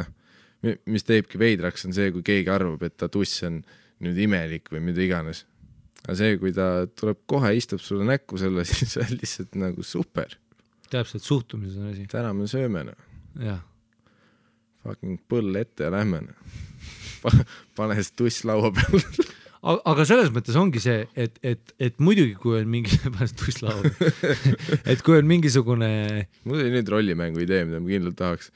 S1: mis teebki veidraks, on see, kui keegi arvab, et ta tuss on nüüd imelik või mida iganes. Aga see, kui ta tuleb kohe, istub sulle näkku selle, siis on lihtsalt nagu super.
S2: Täpselt, suhtumises on asi.
S1: Täna me sööme.
S2: Jah.
S1: Fucking põll ette ja lähme. Pane see tuss laua peal.
S2: Aga selles mõttes ongi see, et muidugi, kui on mingi tuss laua et kui on mingisugune...
S1: Mul oli nüüd rollimängu idee, mida ma kindlalt tahaks.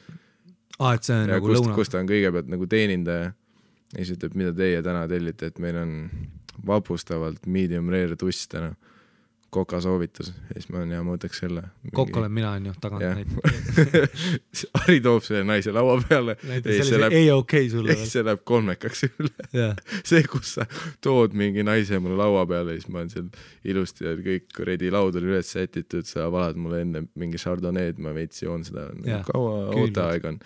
S2: Et see on
S1: ja
S2: nagu lõuna.
S1: Kus ta on kõigepealt nagu teenindaja ja siis ütleb, mida teie täna tellite, et meil on vapustavalt medium rare tuss täna. Koka soovitus. Ja siis ma võtaks selle.
S2: Kokk olen mina, on ju, tagant
S1: näit. Ari toob selle naise laua peale.
S2: Ei okei sulle.
S1: See läheb kolmekaks üle. See, kus sa tood mingi naise mulle laua peale, siis ma olen seal ilusti ja kõik redi laud oli üles sätitud, sa valad mulle enne mingi chardonnay'd, ma veits joon seda. Kaua ooteaeg on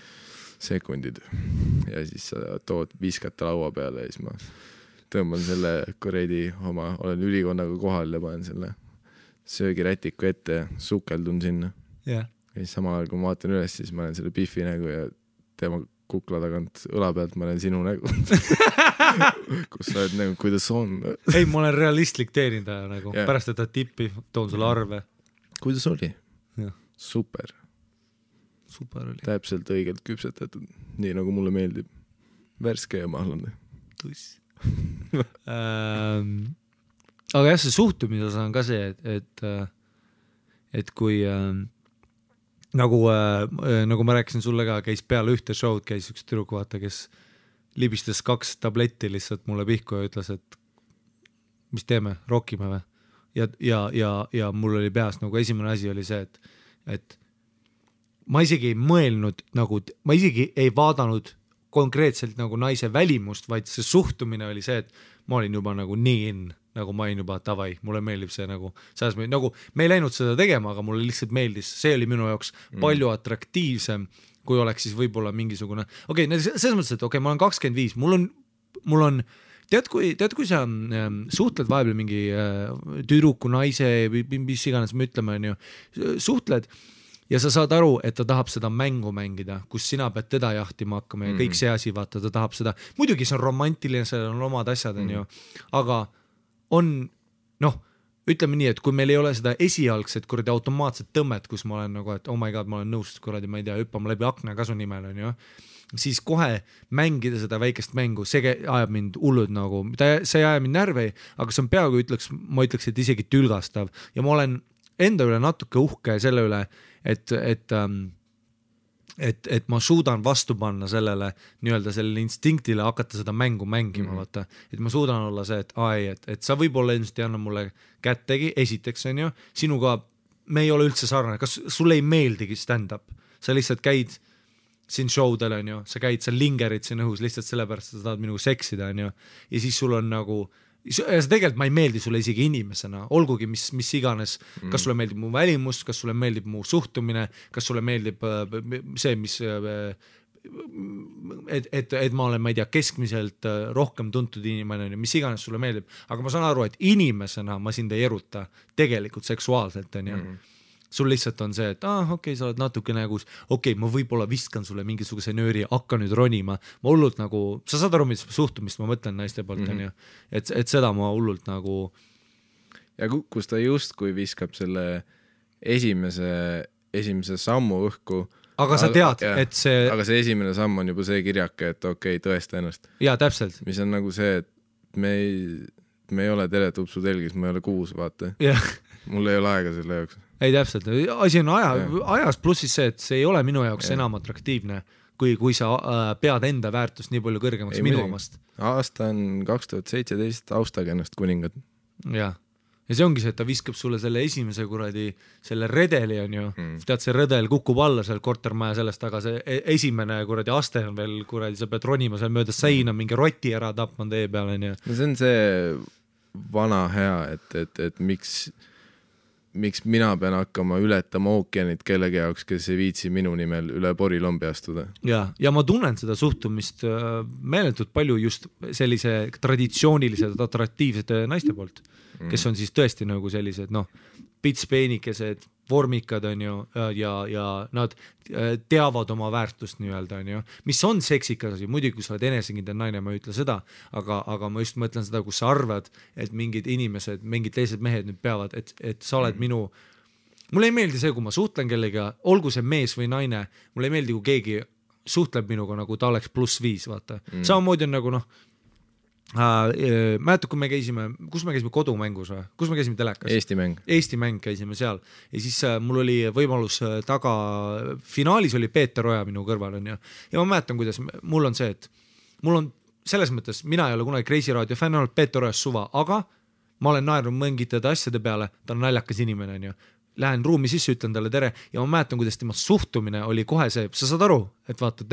S1: sekundid. Ja siis sa tood viskata laua peale ja siis ma tõmban selle kuredi oma, olen ülikonnaga kohal ja panen selle söögirätiku ette ja sukeldun sinna. Ja siis samal ajal, kui ma vaatan üles, siis ma olen selle Biffi nägu ja tema kukla tagant õla pealt ma olen sinu nägu. Kus sa oled nägu, kuidas on?
S2: Ei, ma olen realistlik teenindaja nagu. Pärast, et ta tippi, toon sulle arve.
S1: Kuidas oli? Super.
S2: Super oli.
S1: Täpselt õigelt küpsetatud, nii nagu mulle meeldib. Värske ja mahlane.
S2: Tuss. Aga jah, see suhtumises on ka see, et kui nagu ma rääkisin sulle ka, käis peale ühte show'd, käis üks tüdruk, vaata, kes libistas 2 tabletti lihtsalt mulle pihku ja ütles, et mis teeme, rokime või? Ja mul oli peas nagu esimene asi oli see, et ma isegi ei mõelnud nagu, ma isegi ei vaadanud konkreetselt nagu naise välimust, vaid see suhtumine oli see, et ma olin juba nagu nii in, nagu ma olin juba davai, mulle meeldib see nagu me ei läinud seda tegema, aga mulle lihtsalt meeldis, see oli minu jaoks palju atraktiivsem, kui oleks siis võib-olla mingisugune, selles mõttes, et ma olen 25, mul on tead, kui sa suhtled vahepeal mingi tüdruku, naise või mis iganes me ütleme, suhtled ja sa saad aru, et ta tahab seda mängu mängida, kus sina pead teda jahtima hakkama ja kõik see asi, vaata, ta tahab seda, muidugi see on romantiline, seal on omad asjad, aga on, ütleme nii, et kui meil ei ole seda esialgset kuradi automaatset tõmmet, kus ma olen nagu, et oh my god, ma olen nõus kuradi, ma ei tea, hüppama läbi akna kasu nimel, siis kohe mängida seda väikest mängu, see ajab mind hullud nagu, see ei aja mind närvi, aga see on peaaegu ma ütleks, et isegi tülgastav ja ma olen enda üle natuke uhke selle üle, et ma suudan vastu panna sellele nii-öelda sellele instinktile hakata seda mängu mängima, vaata, et ma suudan olla see, et sa võib-olla ilmselt ei anna mulle kättegi, esiteks on ju, sinuga me ei ole üldse sarnane, kas sulle ei meeldigi stand-up, sa lihtsalt käid siin showdel on ju, sa käid, sa lingerid siin õhus lihtsalt sellepärast, et sa tahad minuga seksida on ju, ja siis sul on nagu, ja tegelikult ma ei meeldi sulle isegi inimesena, olgugi mis iganes, kas sulle meeldib mu välimus, kas sulle meeldib mu suhtumine, kas sulle meeldib see, mis et ma olen, ma ei tea, keskmiselt rohkem tuntud inimene, mis iganes sulle meeldib, aga ma saan aru, et inimesena ma sind ei eruta tegelikult seksuaalselt on ju. Sul lihtsalt on see, et okei, sa oled natuke nagu, ma võib-olla viskan sulle mingisuguse nööri, hakka nüüd ronima, ma hullult nagu, sa saad aru, mis suhtumist ma mõtlen naiste poolt on ju, et seda ma hullult nagu.
S1: Ja kus ta justkui viskab selle esimese sammu õhku.
S2: Aga sa tead, et see.
S1: Aga see esimene samm on juba see kirjake, et tõesta ennast.
S2: Jaa, täpselt.
S1: Mis on nagu see, et me ei ole teletupsu telgis, ma ei ole kuus, vaata. Mul ei ole aega selle jaoks.
S2: Ei täpselt, asi on ajas pluss siis see, et see ei ole minu jaoks enam atraktiivne, kui sa pead enda väärtust nii palju kõrgemaks minu omast.
S1: Aasta on 2017, austage ennast kuningad.
S2: Ja see ongi see, et ta viskab sulle selle esimese kuradi, selle redeli on ju, tead see redel kukub alla seal kortermaja sellest, aga see esimene kuradi aste on veel kuradi, sa pead ronima seal mööda seina, mingi roti ära tapma tee peale on ju.
S1: No see on see vana hea, et miks mina pean hakkama ületama ookeanit kellegi jaoks, kes ei viitsi minu nimel üle porilombi astuda.
S2: Ja ma tunnen seda suhtumist meeletult palju just sellise traditsioonilised, atraktiivsed naiste poolt, kes on siis tõesti nagu sellised, pitspeenikesed, vormikad on ju, ja nad teavad oma väärtust nii-öelda on ju, mis on seksikas asi, muidugi kui sa oled enesekindel naine, ma ei ütle seda, aga ma just mõtlen seda, kus sa arvad, et mingid inimesed, mingid teised mehed nüüd peavad, et sa oled minu, mulle ei meeldi see, kui ma suhtlen kellega, olgu see mees või naine, mulle ei meeldi, kui keegi suhtleb minuga, nagu ta oleks +5, vaata. Samamoodi on nagu mäletad, kui me käisime, kus me käisime kodumängus või? Kus me käisime telekas? Eesti mäng käisime seal ja siis mul oli võimalus taga, finaalis oli Peeter Oja minu kõrval on ju, ja ma mäletan, kuidas mul on see, et mul on selles mõttes, mina ei ole kunagi Kreisi Raadio fänn olnud Peeter Ojas suva, aga ma olen naernud mõngitada asjade peale, ta on naljakas inimene on ju, lähen ruumi sisse, ütlen talle tere ja ma mäletan, kuidas tema suhtumine oli kohe see, sa saad aru, et vaata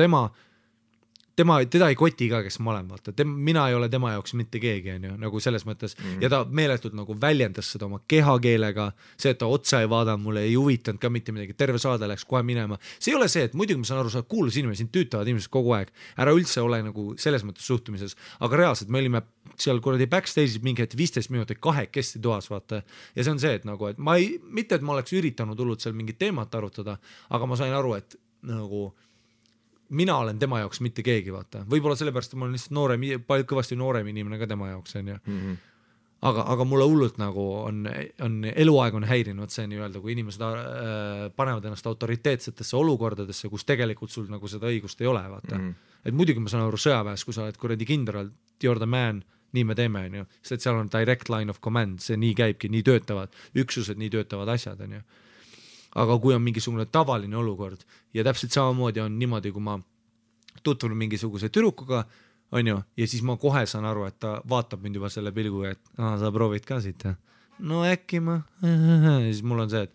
S2: teda ei koti ka, kes ma olen, vaata, mina ei ole tema jaoks mitte keegi, on ju, nagu selles mõttes, ja ta meeletult nagu väljendas seda oma kehakeelega, see, et ta otsa ei vaada, mulle ei huvitanud ka mitte midagi, terve saade läks kohe minema, see ei ole see, et muidugi ma saan aru, sa oled kuulus inimene, sind tüütavad inimesed kogu aeg, ära üldse ole nagu selles mõttes suhtumises, aga reaalselt me olime seal kuradi backstage'is mingi 15 minutit kahekesti toas, vaata, ja see on see, et nagu, et mitte, et ma oleks üritanud hullult seal mingit teemat arutada, aga ma sain aru, et nagu mina olen tema jaoks mitte keegi, vaata. Võib-olla sellepärast, et ma olen lihtsalt kõvasti noorem inimene ka tema jaoks, on ju. Aga mulle hullult nagu on eluaeg on häirinud see nii-öelda, kui inimesed panevad ennast autoriteetsetesse olukordadesse, kus tegelikult sul nagu seda õigust ei ole, vaata. Et muidugi ma saan aru sõjaväes, kui sa oled kuradi kindral, you're the man, nii me teeme, on ju. Sest seal on direct line of command, see nii käibki, nii töötavad üksused, nii töötavad asjad, on ju. aga kui on mingisugune tavaline olukord ja täpselt samamoodi on niimoodi, kui ma tutvun mingisuguse tüdrukuga, on ju, ja siis ma kohe saan aru, et ta vaatab mind juba selle pilguga, et sa proovid ka siit, no äkki ma, siis mul on see, et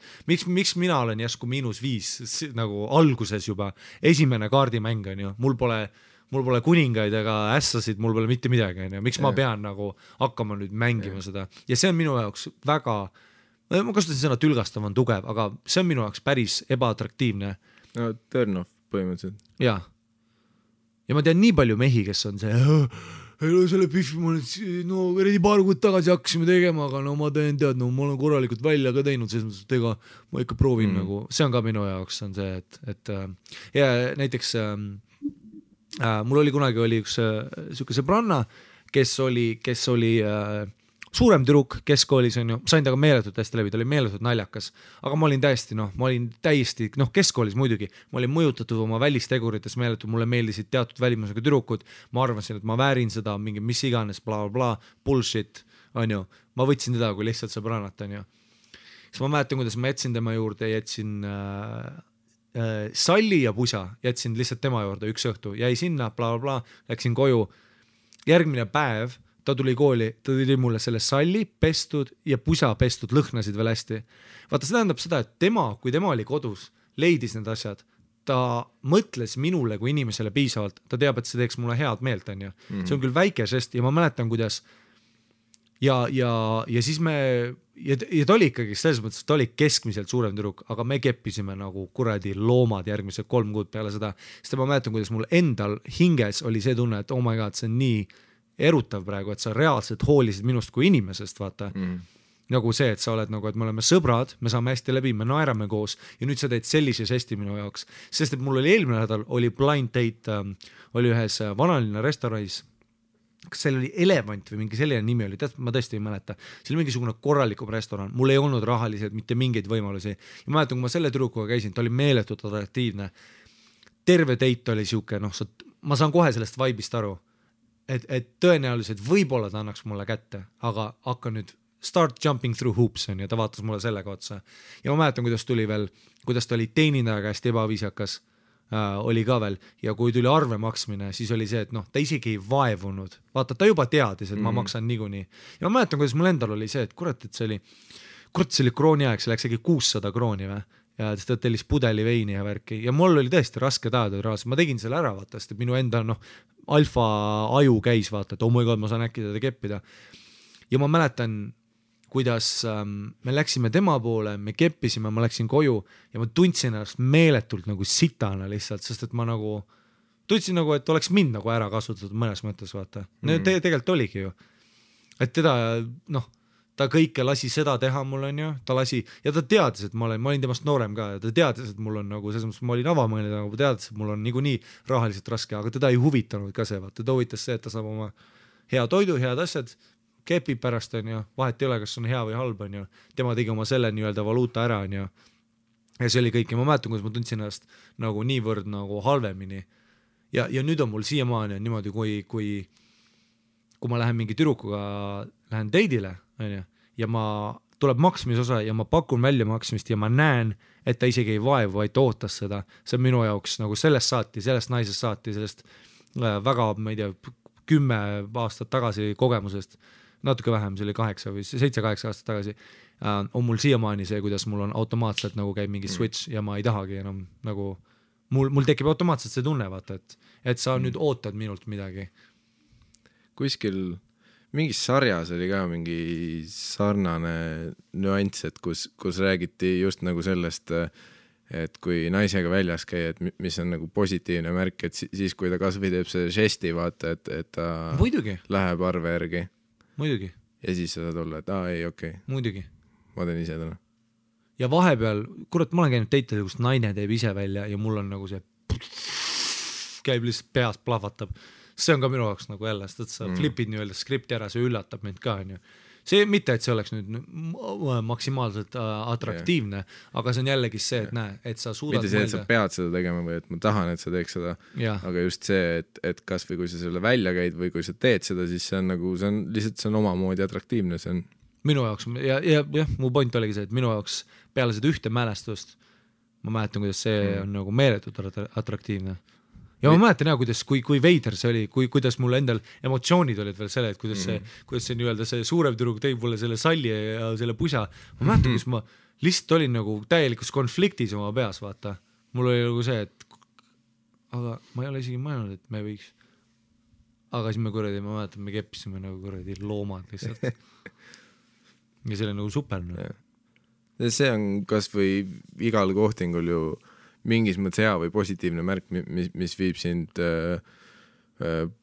S2: miks mina olen järsku -5 nagu alguses juba, esimene kaardimäng on ju, mul pole kuningaid ega ässasid, mul pole mitte midagi, on ju, miks ma pean nagu hakkama nüüd mängima seda ja see on minu jaoks väga, ma kasutasin sõna tülgastav on tugev, aga see on minu jaoks päris ebaatraktiivne.
S1: No turn off põhimõtteliselt.
S2: Jaa. Ja ma tean nii palju mehi, kes on see, selle pihvi ma nüüd, no eriti paar kuud tagasi hakkasime tegema, aga no ma teen tead, no ma olen korralikult välja ka teinud, selles mõttes, et ega ma ikka proovin nagu, see on ka minu jaoks on see, et ja näiteks mul oli kunagi üks siuke sõbranna, kes oli suurem tüdruk keskkoolis on ju, sain temaga meeletult hästi läbi, ta oli meeletult naljakas, aga ma olin täiesti, keskkoolis muidugi, ma olin mõjutatud oma välistegurites meeletult, mulle meeldisid teatud välimusega tüdrukud, ma arvasin, et ma väärin seda, mingi mis iganes, bla, bla, bullshit, on ju, ma võtsin teda kui lihtsalt sõbrannat, on ju. Siis ma mäletan, kuidas ma jätsin tema juurde, jätsin salli ja pusa, jätsin lihtsalt tema juurde üks õhtu, jäi sinna, bla, bla, läksin koju, järgmine päev ta tuli kooli, ta tuli mulle selle salli pestud ja pusa pestud, lõhnasid veel hästi. Vaata, see tähendab seda, et kui tema oli kodus, leidis need asjad, ta mõtles minule kui inimesele piisavalt, ta teab, et see teeks mulle head meelt, on ju. See on küll väike žest ja ma mäletan, kuidas ja siis ja ta oli ikkagi selles mõttes, ta oli keskmiselt suurem tüdruk, aga me keppisime nagu kuradi loomad järgmised 3 kuud peale seda, sest ma mäletan, kuidas mul endal hinges oli see tunne, et oh my god, see on nii erutav praegu, et sa reaalselt hoolisid minust kui inimesest, vaata. Nagu see, et sa oled nagu, et me oleme sõbrad, me saame hästi läbi, me naerame koos ja nüüd sa teed sellise žesti minu jaoks. Sest et mul oli eelmine nädal, oli blind date, oli ühes vanalinna restoranis, kas seal oli Elevant või mingi selline nimi oli, ma tõesti ei mäleta. See oli mingisugune korralikum restoran, mul ei olnud rahaliselt mitte mingeid võimalusi. Ja ma mäletan, kui ma selle tüdrukuga käisin, ta oli meeletult atraktiivne. Terve date oli siuke, ma saan kohe sellest vaibist aru. Et tõenäoliselt võib-olla ta annaks mulle kätte, aga hakka nüüd start jumping through hoops on ja ta vaatas mulle sellega otsa. Ja ma mäletan, kuidas ta oli teenindaja käest ebaviisakas, oli ka veel ja kui tuli arve maksmine, siis oli see, et ta isegi ei vaevunud. Vaata, ta juba teadis, et ma maksan niikuinii. Ja ma mäletan, kuidas mul endal oli see, et kurat, see oli krooni aeg, see läks äkki 600 krooni või? Ja ta tellis pudeli veini ja värki ja mul oli tõesti raske tajada raas, ma tegin selle ära vaata, sest minu enda alfa aju käis vaata, et oh my god, ma saan äkki teda keppida ja ma mäletan, kuidas me läksime tema poole, me keppisime, ma läksin koju ja ma tundsin ennast meeletult nagu sitana lihtsalt, sest et ma tundsin nagu, et oleks mind nagu ära kasutatud mõnes mõttes vaata, tegelikult oligi ju, et teda ta kõike lasi seda teha mul on ju, ta lasi ja ta teadis, et ma olin temast noorem ka ja ta teadis, et mul on nagu selles mõttes, ma olin avamõelnud, aga ta teadis, et mul on niikuinii rahaliselt raske, aga teda ei huvitanud ka see, vaata, ta huvitas see, et ta saab oma hea toidu, head asjad, kepib pärast on ju, vahet ei ole, kas on hea või halb on ju, tema tegi oma selle nii-öelda valuuta ära on ju ja see oli kõik ja ma mäletan, kuidas ma tundsin ennast nagu niivõrd nagu halvemini ja nüüd on mul siiamaani on niimoodi, kui ma lähen mingi tüdrukuga, lähen date'ile ja ma tuleb maksmisosa ja ma pakun välja maksmist ja ma näen, et ta isegi ei vaevu, vaid ootas seda. See on minu jaoks nagu sellest naisest saati, sellest väga, ma ei tea, 10 aastat tagasi kogemusest, natuke vähem, see oli 7-8 aastat tagasi, on mul siiamaani see, kuidas mul on automaatselt nagu käib mingi switch ja ma ei tahagi enam nagu, mul tekib automaatselt see tunne, vaata, et sa nüüd ootad minult midagi.
S1: Kuskil mingis sarjas oli ka mingi sarnane nüanss, et kus räägiti just nagu sellest, et kui naisega väljas käia, et mis on nagu positiivne märk, et siis kui ta kasvõi teeb see žesti, vaata, et ta
S2: muidugi
S1: läheb arve järgi.
S2: Muidugi.
S1: Ja siis sa saad olla, et ei, okei.
S2: Muidugi.
S1: Ma teen ise täna.
S2: Ja vahepeal, kurat, ma olen käinud teitele, kus naine teeb ise välja ja mul on nagu see käib lihtsalt peas plahvatab. See on ka minu jaoks nagu jälle, sest sa flipid nii-öelda skripti ära, see üllatab mind ka, on ju. See mitte, et see oleks nüüd maksimaalselt atraktiivne, aga see on jällegi see, et näe, et sa suudad
S1: mitte see, et sa pead seda tegema või et ma tahan, et sa teeks seda, aga just see, et kas või kui sa selle välja käid või kui sa teed seda, siis see on nagu, see on lihtsalt, see on omamoodi atraktiivne, see on
S2: minu jaoks ja mu point oligi see, et minu jaoks peale seda ühte mälestust ma mäletan, kuidas see on nagu meeletult atraktiivne. Ja ma mäletan kuidas, kui veider see oli, kuidas mul endal emotsioonid olid veel selle, et kuidas see nii-öelda see suurem tüdruk tõi mulle selle salli ja selle pusa. Ma mäletan, kus ma lihtsalt olin nagu täielikus konfliktis oma peas, vaata. Mul oli nagu see, et aga ma ei ole isegi mõelnud, et me võiks. Aga siis ma mäletan, me keppisime nagu kuradi loomad lihtsalt. Ja see oli nagu super.
S1: See on kas või igal kohtingul ju mingis mõttes hea või positiivne märk, mis viib sind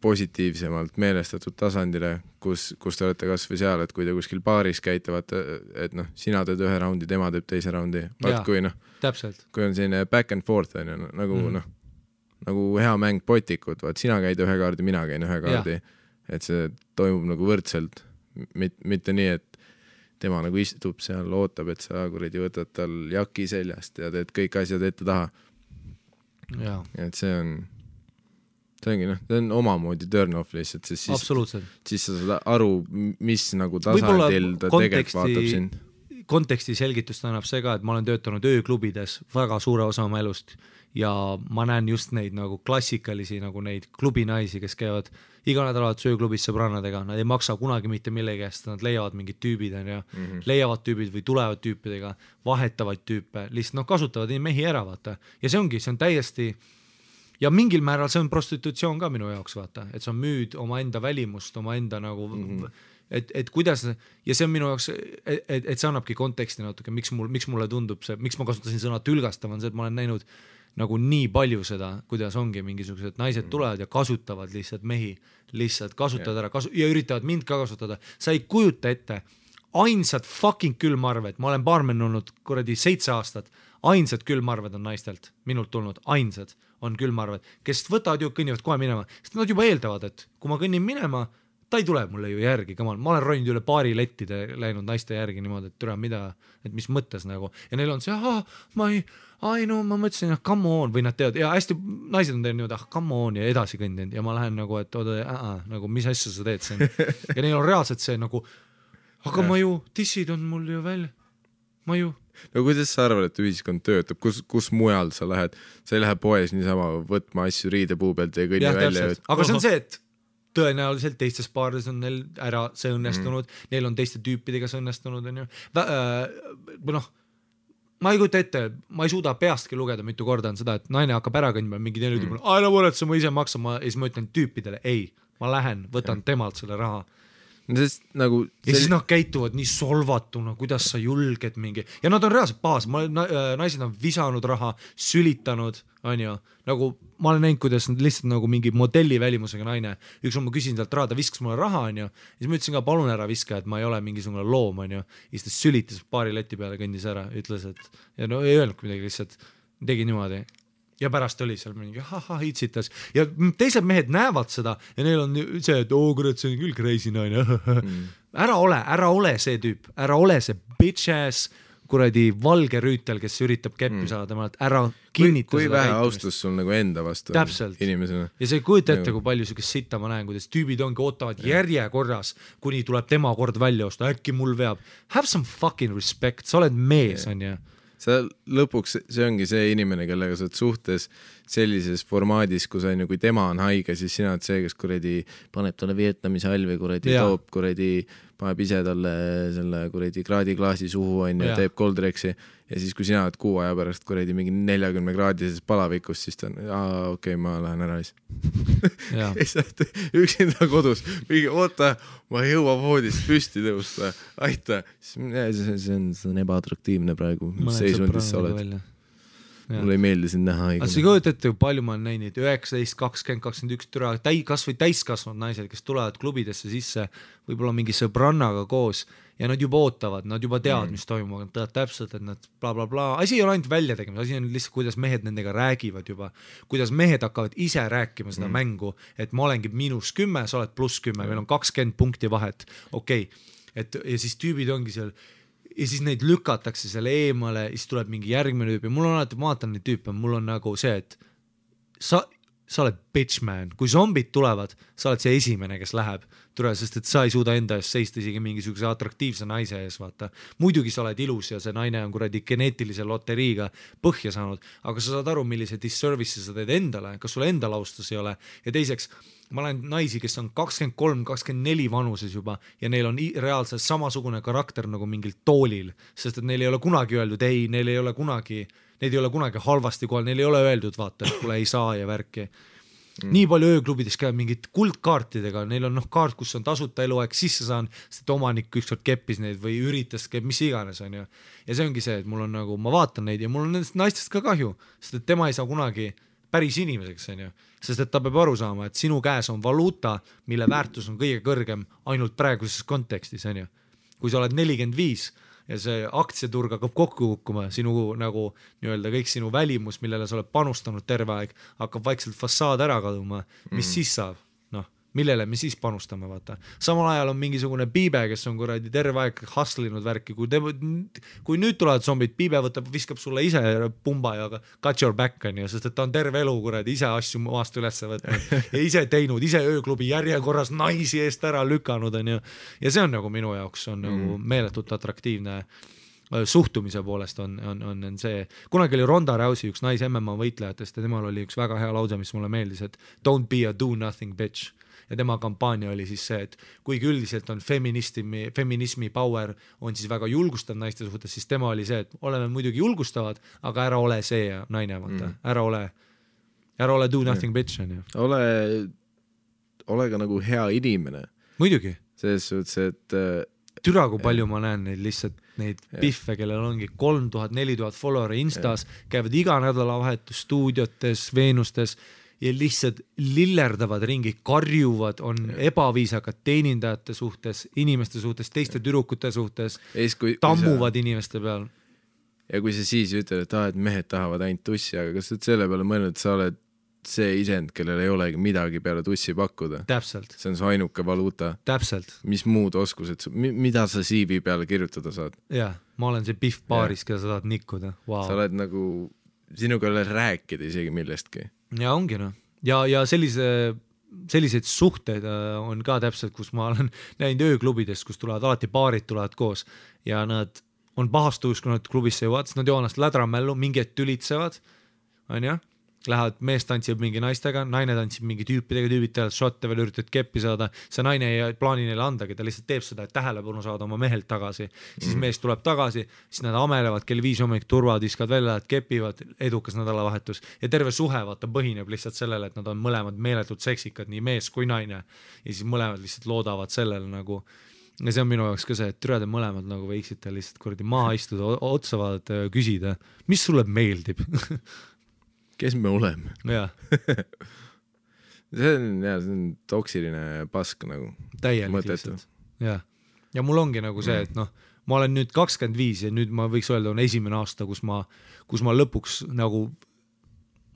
S1: positiivsemalt meelestatud tasandile, kus te olete kas või seal, et kui te kuskil baaris käitavad, et sina teed ühe raundi, tema teeb teise raundi, vaat kui kui on selline back and forth nagu hea mäng potikud, vaat sina käid ühe kaardi, mina käin ühe kaardi, et see toimub nagu võrdselt, mitte nii, et tema nagu istub seal, ootab, et sa kuradi võtad tal jaki seljast ja teed kõik asjad ette taha. Et see on omamoodi turn off lihtsalt, siis sa saad aru, mis nagu tasandil ta tegelikult vaatab sind.
S2: Konteksti selgitust annab see ka, et ma olen töötanud ööklubides väga suure osa oma elust ja ma näen just neid nagu klassikalisi nagu neid klubinaisi, kes käivad iga nädalat sööklubis sõbrannadega, nad ei maksa kunagi mitte millegi eest, nad leiavad mingid tüübid leiavad tüübid või tulevad tüüpidega, vahetavad tüüpe, lihtsalt kasutavad mehi ära, vaata. Ja see on täiesti ja mingil määral see on prostitutsioon ka minu jaoks, vaata, et sa müüd oma enda välimust, oma enda nagu et kuidas ja see on minu jaoks, et see annabki konteksti natuke, miks mulle tundub see, miks ma kasutasin sõna tülgastav, on see, et ma olen näinud nagu nii palju seda, kuidas ongi mingisugused naised tulevad ja kasutavad lihtsalt mehi, lihtsalt kasutavad ära ja üritavad mind ka kasutada. Sa ei kujuta ette, ainsad fucking külmarved, ma olen baarmen olnud kuradi 7 aastat, ainsad külmarved on naistelt, minult tulnud, ainsad on külmarved, kes võtavad ju, kõnnivad kohe minema, sest nad juba eeldavad, et kui ma kõnnin minema, ta ei tule mulle ju järgi, ma olen roninud üle paari lettide läinud naiste järgi niimoodi, et türa mida, et mis mõttes nagu, ja neil on see, ma mõtlesin, come on, või nad teevad, ja hästi naised on teinud, come on, ja edasi kõndinud, ja ma lähen nagu, et nagu mis asja sa teed siin, ja neil on reaalselt see nagu, aga ma ju, tissid on mul ju välja, ma ju.
S1: No kuidas sa arvad, et ühiskond töötab, kus mujal sa lähed, sa ei lähe poes niisama võtma asju riidepuu pealt ja kõnni välja.
S2: Aga see on see, et tõenäoliselt teistes paarides on neil ära see õnnestunud, neil on teiste tüüpidega see õnnestunud, on ju. Ma ei kujuta ette, ma ei suuda peastki lugeda mitu korda on seda, et naine hakkab ära kõndma, mingi teine ütleb, ära võretse, ma ise maksan, ja siis ma ütlen tüüpidele, ei, ma lähen, võtan temalt selle raha.
S1: Nagu
S2: ja siis nad käituvad nii solvatuna, kuidas sa julged mingi, ja nad on reaalselt paas, naised on visanud raha, sülitanud, on ju, nagu ma olen näinud, kuidas nad lihtsalt nagu mingi modelli välimusega naine, üks on ma küsin talt raha, ta viskas mulle raha, on ju, ja siis ma ütlesin ka, palun ära viska, et ma ei ole mingisugune loom, on ju, ja siis ta sülitas paari leti peale, kõndis ära, ütles, et ja no ei öelnud midagi, lihtsalt tegi niimoodi. Ja pärast oli seal mingi hitsitas ja teised mehed näevad seda ja neil on see, et kurat, see on küll crazy naine. Ära ole see tüüp, ära ole see bitch ass kuradi valge rüütel, kes üritab keppi saada temalt, ära kinnita
S1: kui vähe austus sul nagu enda vastu inimesena.
S2: Ja see ei kujuta ette, kui palju sükest sitta ma näen, kuidas tüübid ongi ootavad järjekorras, kuni tuleb tema kord välja osta, äkki mul veab. Have some fucking respect, sa oled mees, on ju.
S1: Sa lõpuks, see ongi see inimene, kellega sa oled suhtes sellises formaadis, kus on ju, kui tema on haige, siis sina oled see, kes kuradi paneb talle Vietnami salvi, kuradi toob, kuradi paneb ise talle selle kuradi kraadiklaasi suhu on ja teeb Coldrexi ja siis kui sina oled 6 aja pärast kuradi mingi 40 kraadises palavikus, siis ta on, okei, ma lähen ära lihtsalt. Üksinda kodus, mingi oota, ma ei jõua voodist püsti tõusta, aita, see on ebaatraktiivne praegu, mis seisundis sa oled. Mulle ei meeldi sind näha haigena.
S2: Sa ei kujuta ette, kui palju ma olen näinud 19, 20, 21 türa, kas või täiskasvanud naised, kes tulevad klubidesse sisse võib-olla mingi sõbrannaga koos ja nad juba ootavad, nad juba teavad, mis toimub, nad teavad täpselt, et nad bla bla bla. Asi ei ole ainult välja tegema, asi on lihtsalt, kuidas mehed nendega räägivad juba, kuidas mehed hakkavad ise rääkima seda mängu, et ma olengi -10, sa oled +10, meil on 20 punkti vahet, okei. Et, ja siis tüübid ongi seal ja siis neid lükatakse selle eemale, siis tuleb mingi järgmine tüüp ja mul on alati, ma vaatan neid tüüpe, mul on nagu see, et sa oled bitch man, kui zombid tulevad, sa oled see esimene, kes läheb, sest et sa ei suuda enda eest seista isegi mingisuguse atraktiivse naise ees, vaata. Muidugi sa oled ilus ja see naine on kuradi geneetilise loteriiga põhja saanud, aga sa saad aru, millise disservice'i sa teed endale, kas sul endal austus ei ole ja teiseks, ma olen naisi, kes on 23-24 vanuses juba ja neil on reaalselt samasugune karakter nagu mingil toolil, sest et neil ei ole kunagi öeldud ei, neil ei ole kunagi halvasti kohal, neil ei ole öeldud, vaata, et kuule ei saa ja värki. Nii palju ööklubides käib mingid kuldkaartidega, neil on kaart, kus on tasuta eluaeg sisse saan, sest omanik ükskord keppis neid või üritas, mis iganes on ju. Ja see ongi see, et mul on nagu, ma vaatan neid ja mul on nendest naistest ka kahju, sest et tema ei saa kunagi päris inimeseks, on ju. Sest et ta peab aru saama, et sinu käes on valuuta, mille väärtus on kõige kõrgem ainult praeguses kontekstis, on ju. Kui sa oled 45 ja see aktsiaturg hakkab kokku kukkuma, sinu nagu nii-öelda kõik sinu välimus, millele sa oled panustanud terve aeg, hakkab vaikselt fassaad ära kaduma, mis siis saab? Noh, millele me siis panustame, vaata. Samal ajal on mingisugune Piibe, kes on kuradi terve aeg hustlinud värki, kui nüüd tulevad zombid, Piibe viskab sulle ise pumba ja got your back on ju, sest et ta on terve elu kuradi ise asju maast üles võtnud ja ise teinud, ise ööklubi järjekorras naisi eest ära lükanud on ju. Ja see on nagu minu jaoks on nagu meeletult atraktiivne suhtumise poolest on see. Kunagi oli Ronda Rousey üks nais MMA võitlejatest ja temal oli üks väga hea lause, mis mulle meeldis, et don't be a do nothing bitch. Ja tema kampaania oli siis see, et kuigi üldiselt on feminismi power on siis väga julgustav naiste suhtes, siis tema oli see, et oleme muidugi julgustavad, aga ära ole see naine, vaata. Ära ole do nothing bitch on ju.
S1: Ole ka nagu hea inimene.
S2: Muidugi.
S1: Selles suhtes, et
S2: türa, kui palju ma näen neid lihtsalt neid piffe, kellel ongi 3000-4000 followeri Instas, käivad iga nädalavahetus stuudiotes, Veenustes ja lihtsalt lillerdavad ringi, karjuvad, on ebaviisakad teenindajate suhtes, inimeste suhtes, teiste tüdrukute suhtes, tammuvad inimeste peal.
S1: Ja kui sa siis ütled, et mehed tahavad ainult tussi, aga kas sa selle peale mõelnud, et sa oled see isend, kellel ei olegi midagi peale tussi pakkuda?
S2: Täpselt.
S1: See on su ainuke valuuta.
S2: Täpselt.
S1: Mis muud oskused, mida sa CV peale kirjutada saad?
S2: Jah, ma olen see piff baaris, keda sa tahad nikkuda. Wow.
S1: Sa oled nagu, sinuga ei ole rääkida isegi millestki.
S2: Ja ongi noh. Ja selliseid suhteid on ka täpselt, kus ma olen näinud ööklubidest, kus tulevad alati paarid tulevad koos ja nad on pahastus, kui nad klubisse jõuavad, nad joonast lädramällu, mingid tülitsevad, on ju, lähevad, mees tantsib mingi naistega, naine tantsib mingi tüüpidega, tüübid teevad šotte veel üritavad keppi saada, see naine ei plaani neile andagi, ta lihtsalt teeb seda, et tähelepanu saada oma mehelt tagasi, siis mees tuleb tagasi, siis nad amelevad kell 5 hommik turvad, viskavad välja, et kepivad, edukas nädalavahetus ja terve suhe vaata põhineb lihtsalt sellele, et nad on mõlemad meeletult seksikad, nii mees kui naine ja siis mõlemad lihtsalt loodavad sellele nagu ja see on minu jaoks ka see, et türade mõlemad nagu võiksite lihtsalt kuradi maha istuda, otsa vaadata ja küsida, mis sulle meeldib
S1: kes me oleme?
S2: Jah.
S1: see on toksiline pask nagu.
S2: Täielik lihtsalt. Ja mul ongi nagu see, et noh, ma olen nüüd 25 ja nüüd ma võiks öelda on esimene aasta, kus ma lõpuks nagu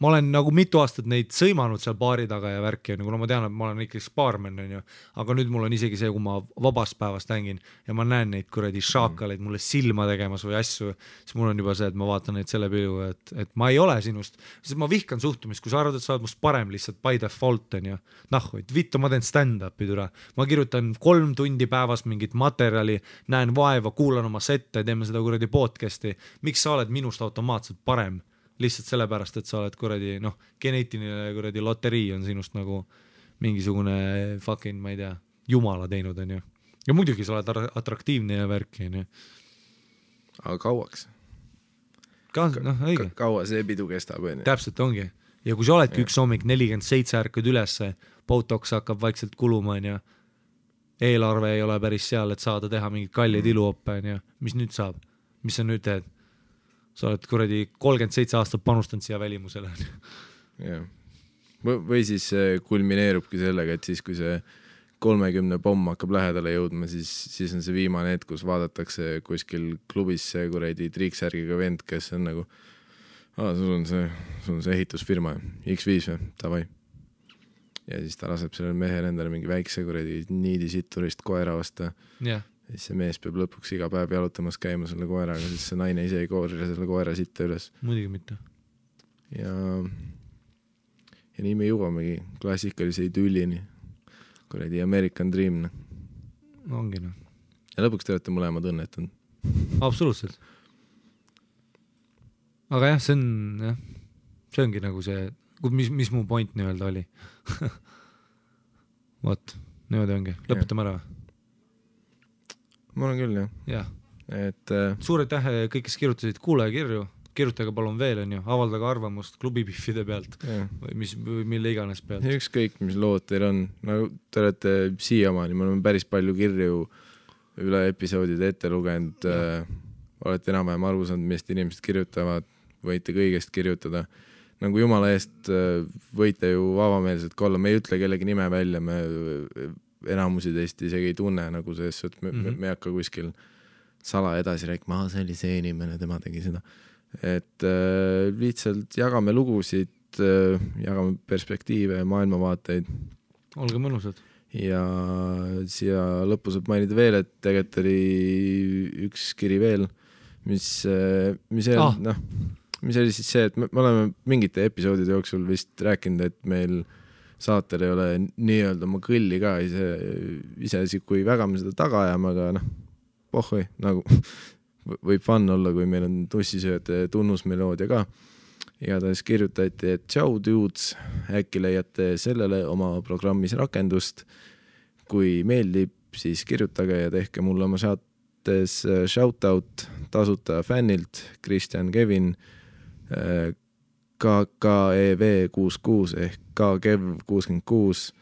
S2: ma olen nagu mitu aastat neid sõimanud seal baari taga ja värki, kuna ma tean, et ma olen ikkagi baarmen, on ju, aga nüüd mul on isegi see, kui ma vabast päevast hängin ja ma näen neid kuradi šaakaleid mulle silma tegemas või asju, siis mul on juba see, et ma vaatan neid selle pilgu, et ma ei ole sinust, sest ma vihkan suhtumist, kui sa arvad, et sa oled must parem lihtsalt by default, on ju, vittu, ma teen stand-upi türa, ma kirjutan 3 tundi päevas mingit materjali, näen vaeva, kuulan oma sette, teeme seda kuradi podcasti, miks sa oled minust automaatselt parem? Lihtsalt sellepärast, et sa oled kuradi, noh, geneetiline kuradi loterii on sinust nagu mingisugune fucking, ma ei tea, jumala teinud, on ju. Ja muidugi sa oled atraktiivne ja värki, on ju.
S1: Aga kauaks?
S2: Noh, õige.
S1: Kaua see pidu kestab, on ju?
S2: Täpselt ongi. Ja kui sa oledki üks hommik 47 ärkad ülesse, Botox hakkab vaikselt kuluma, on ju, eelarve ei ole päris seal, et saada teha mingid kallid iluoppe, on ju, mis nüüd saab? Mis sa nüüd teed? Sa oled kuradi 37 aastat panustanud siia välimusele.
S1: Jah. Või siis kulmineerubki sellega, et siis kui see 30 pomm hakkab lähedale jõudma, siis on see viimane hetk, kus vaadatakse kuskil klubis see kuradi triiksärgiga vend, kes on nagu sul on see ehitusfirma X5 või, tavai. Ja siis ta laseb sellele mehele endale mingi väikse kuradi niidisitturist koera osta.
S2: Jah.
S1: Siis see mees peab lõpuks iga päev jalutamas käima selle koeraga, siis see naine ise ei koorile selle koera sitta üles.
S2: Muidugi mitte.
S1: ja nii me jõuamegi klassikalise idüllini, kuradi American Dream.
S2: Ongi noh.
S1: Ja lõpuks te olete mõlemad õnnetanud.
S2: Absoluutselt. Aga jah, see ongi nagu see, mis mu point nii-öelda oli. Vot, niimoodi ongi. Lõpetame ära.
S1: Ma olen küll, jah.
S2: Jah.
S1: Et,
S2: suur aitäh kõik, kes kirjutasid kuulajakirju. Kirjutage palun veel, on ju, avaldage arvamust klubipiffide pealt või mille iganes pealt.
S1: Ükskõik, mis lood teil on. Nagu te olete siiamaani, me oleme päris palju kirju üle episoodide ette lugenud. Olete enam-vähem aru saanud, millest inimesed kirjutavad, võite kõigest kirjutada. Nagu jumala eest võite ju avameelselt olla, me ei ütle kellegi nime välja, me enamusi teist isegi ei tunne, nagu see, et me ei hakka kuskil sala edasi rääkima, see oli see inimene, tema tegi seda. Et lihtsalt jagame lugusid, jagame perspektiive ja maailmavaateid.
S2: Olge mõnusad.
S1: Ja siia lõppu saab mainida veel, et tegelikult oli üks kiri veel, mis oli siis see, et me oleme mingite episoodide jooksul vist rääkinud, et meil saatel ei ole nii-öelda oma kõlli ka ise kui väga me seda taga ajame, aga pohhoi, nagu võib fun olla, kui meil on tussisööjate tunnusmeloodia ka. Ja ta siis kirjutati, et tšau dudes, äkki leiate sellele oma programmis rakendust. Kui meeldib, siis kirjutage ja tehke mulle oma saates shoutout tasuta fännilt Kristjan Kevin KKEV66 ehk KKEV66.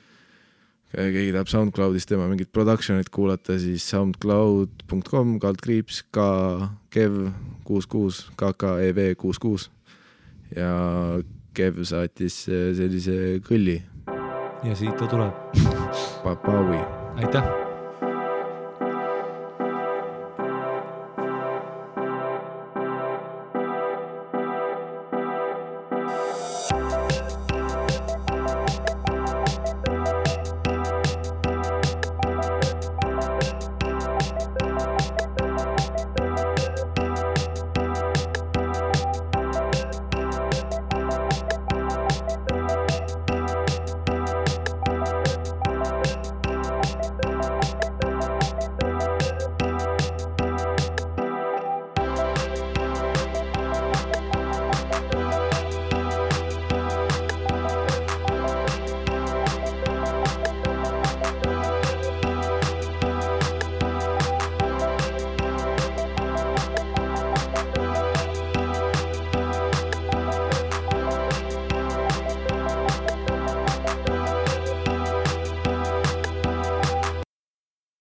S1: Keegi tahab SoundCloudist tema mingit productionit kuulata, siis soundcloud.com KKEV66 KKEV66 ja Kev saatis sellise kõlli.
S2: Ja siit ta tuleb.
S1: Papaui.
S2: Aitäh!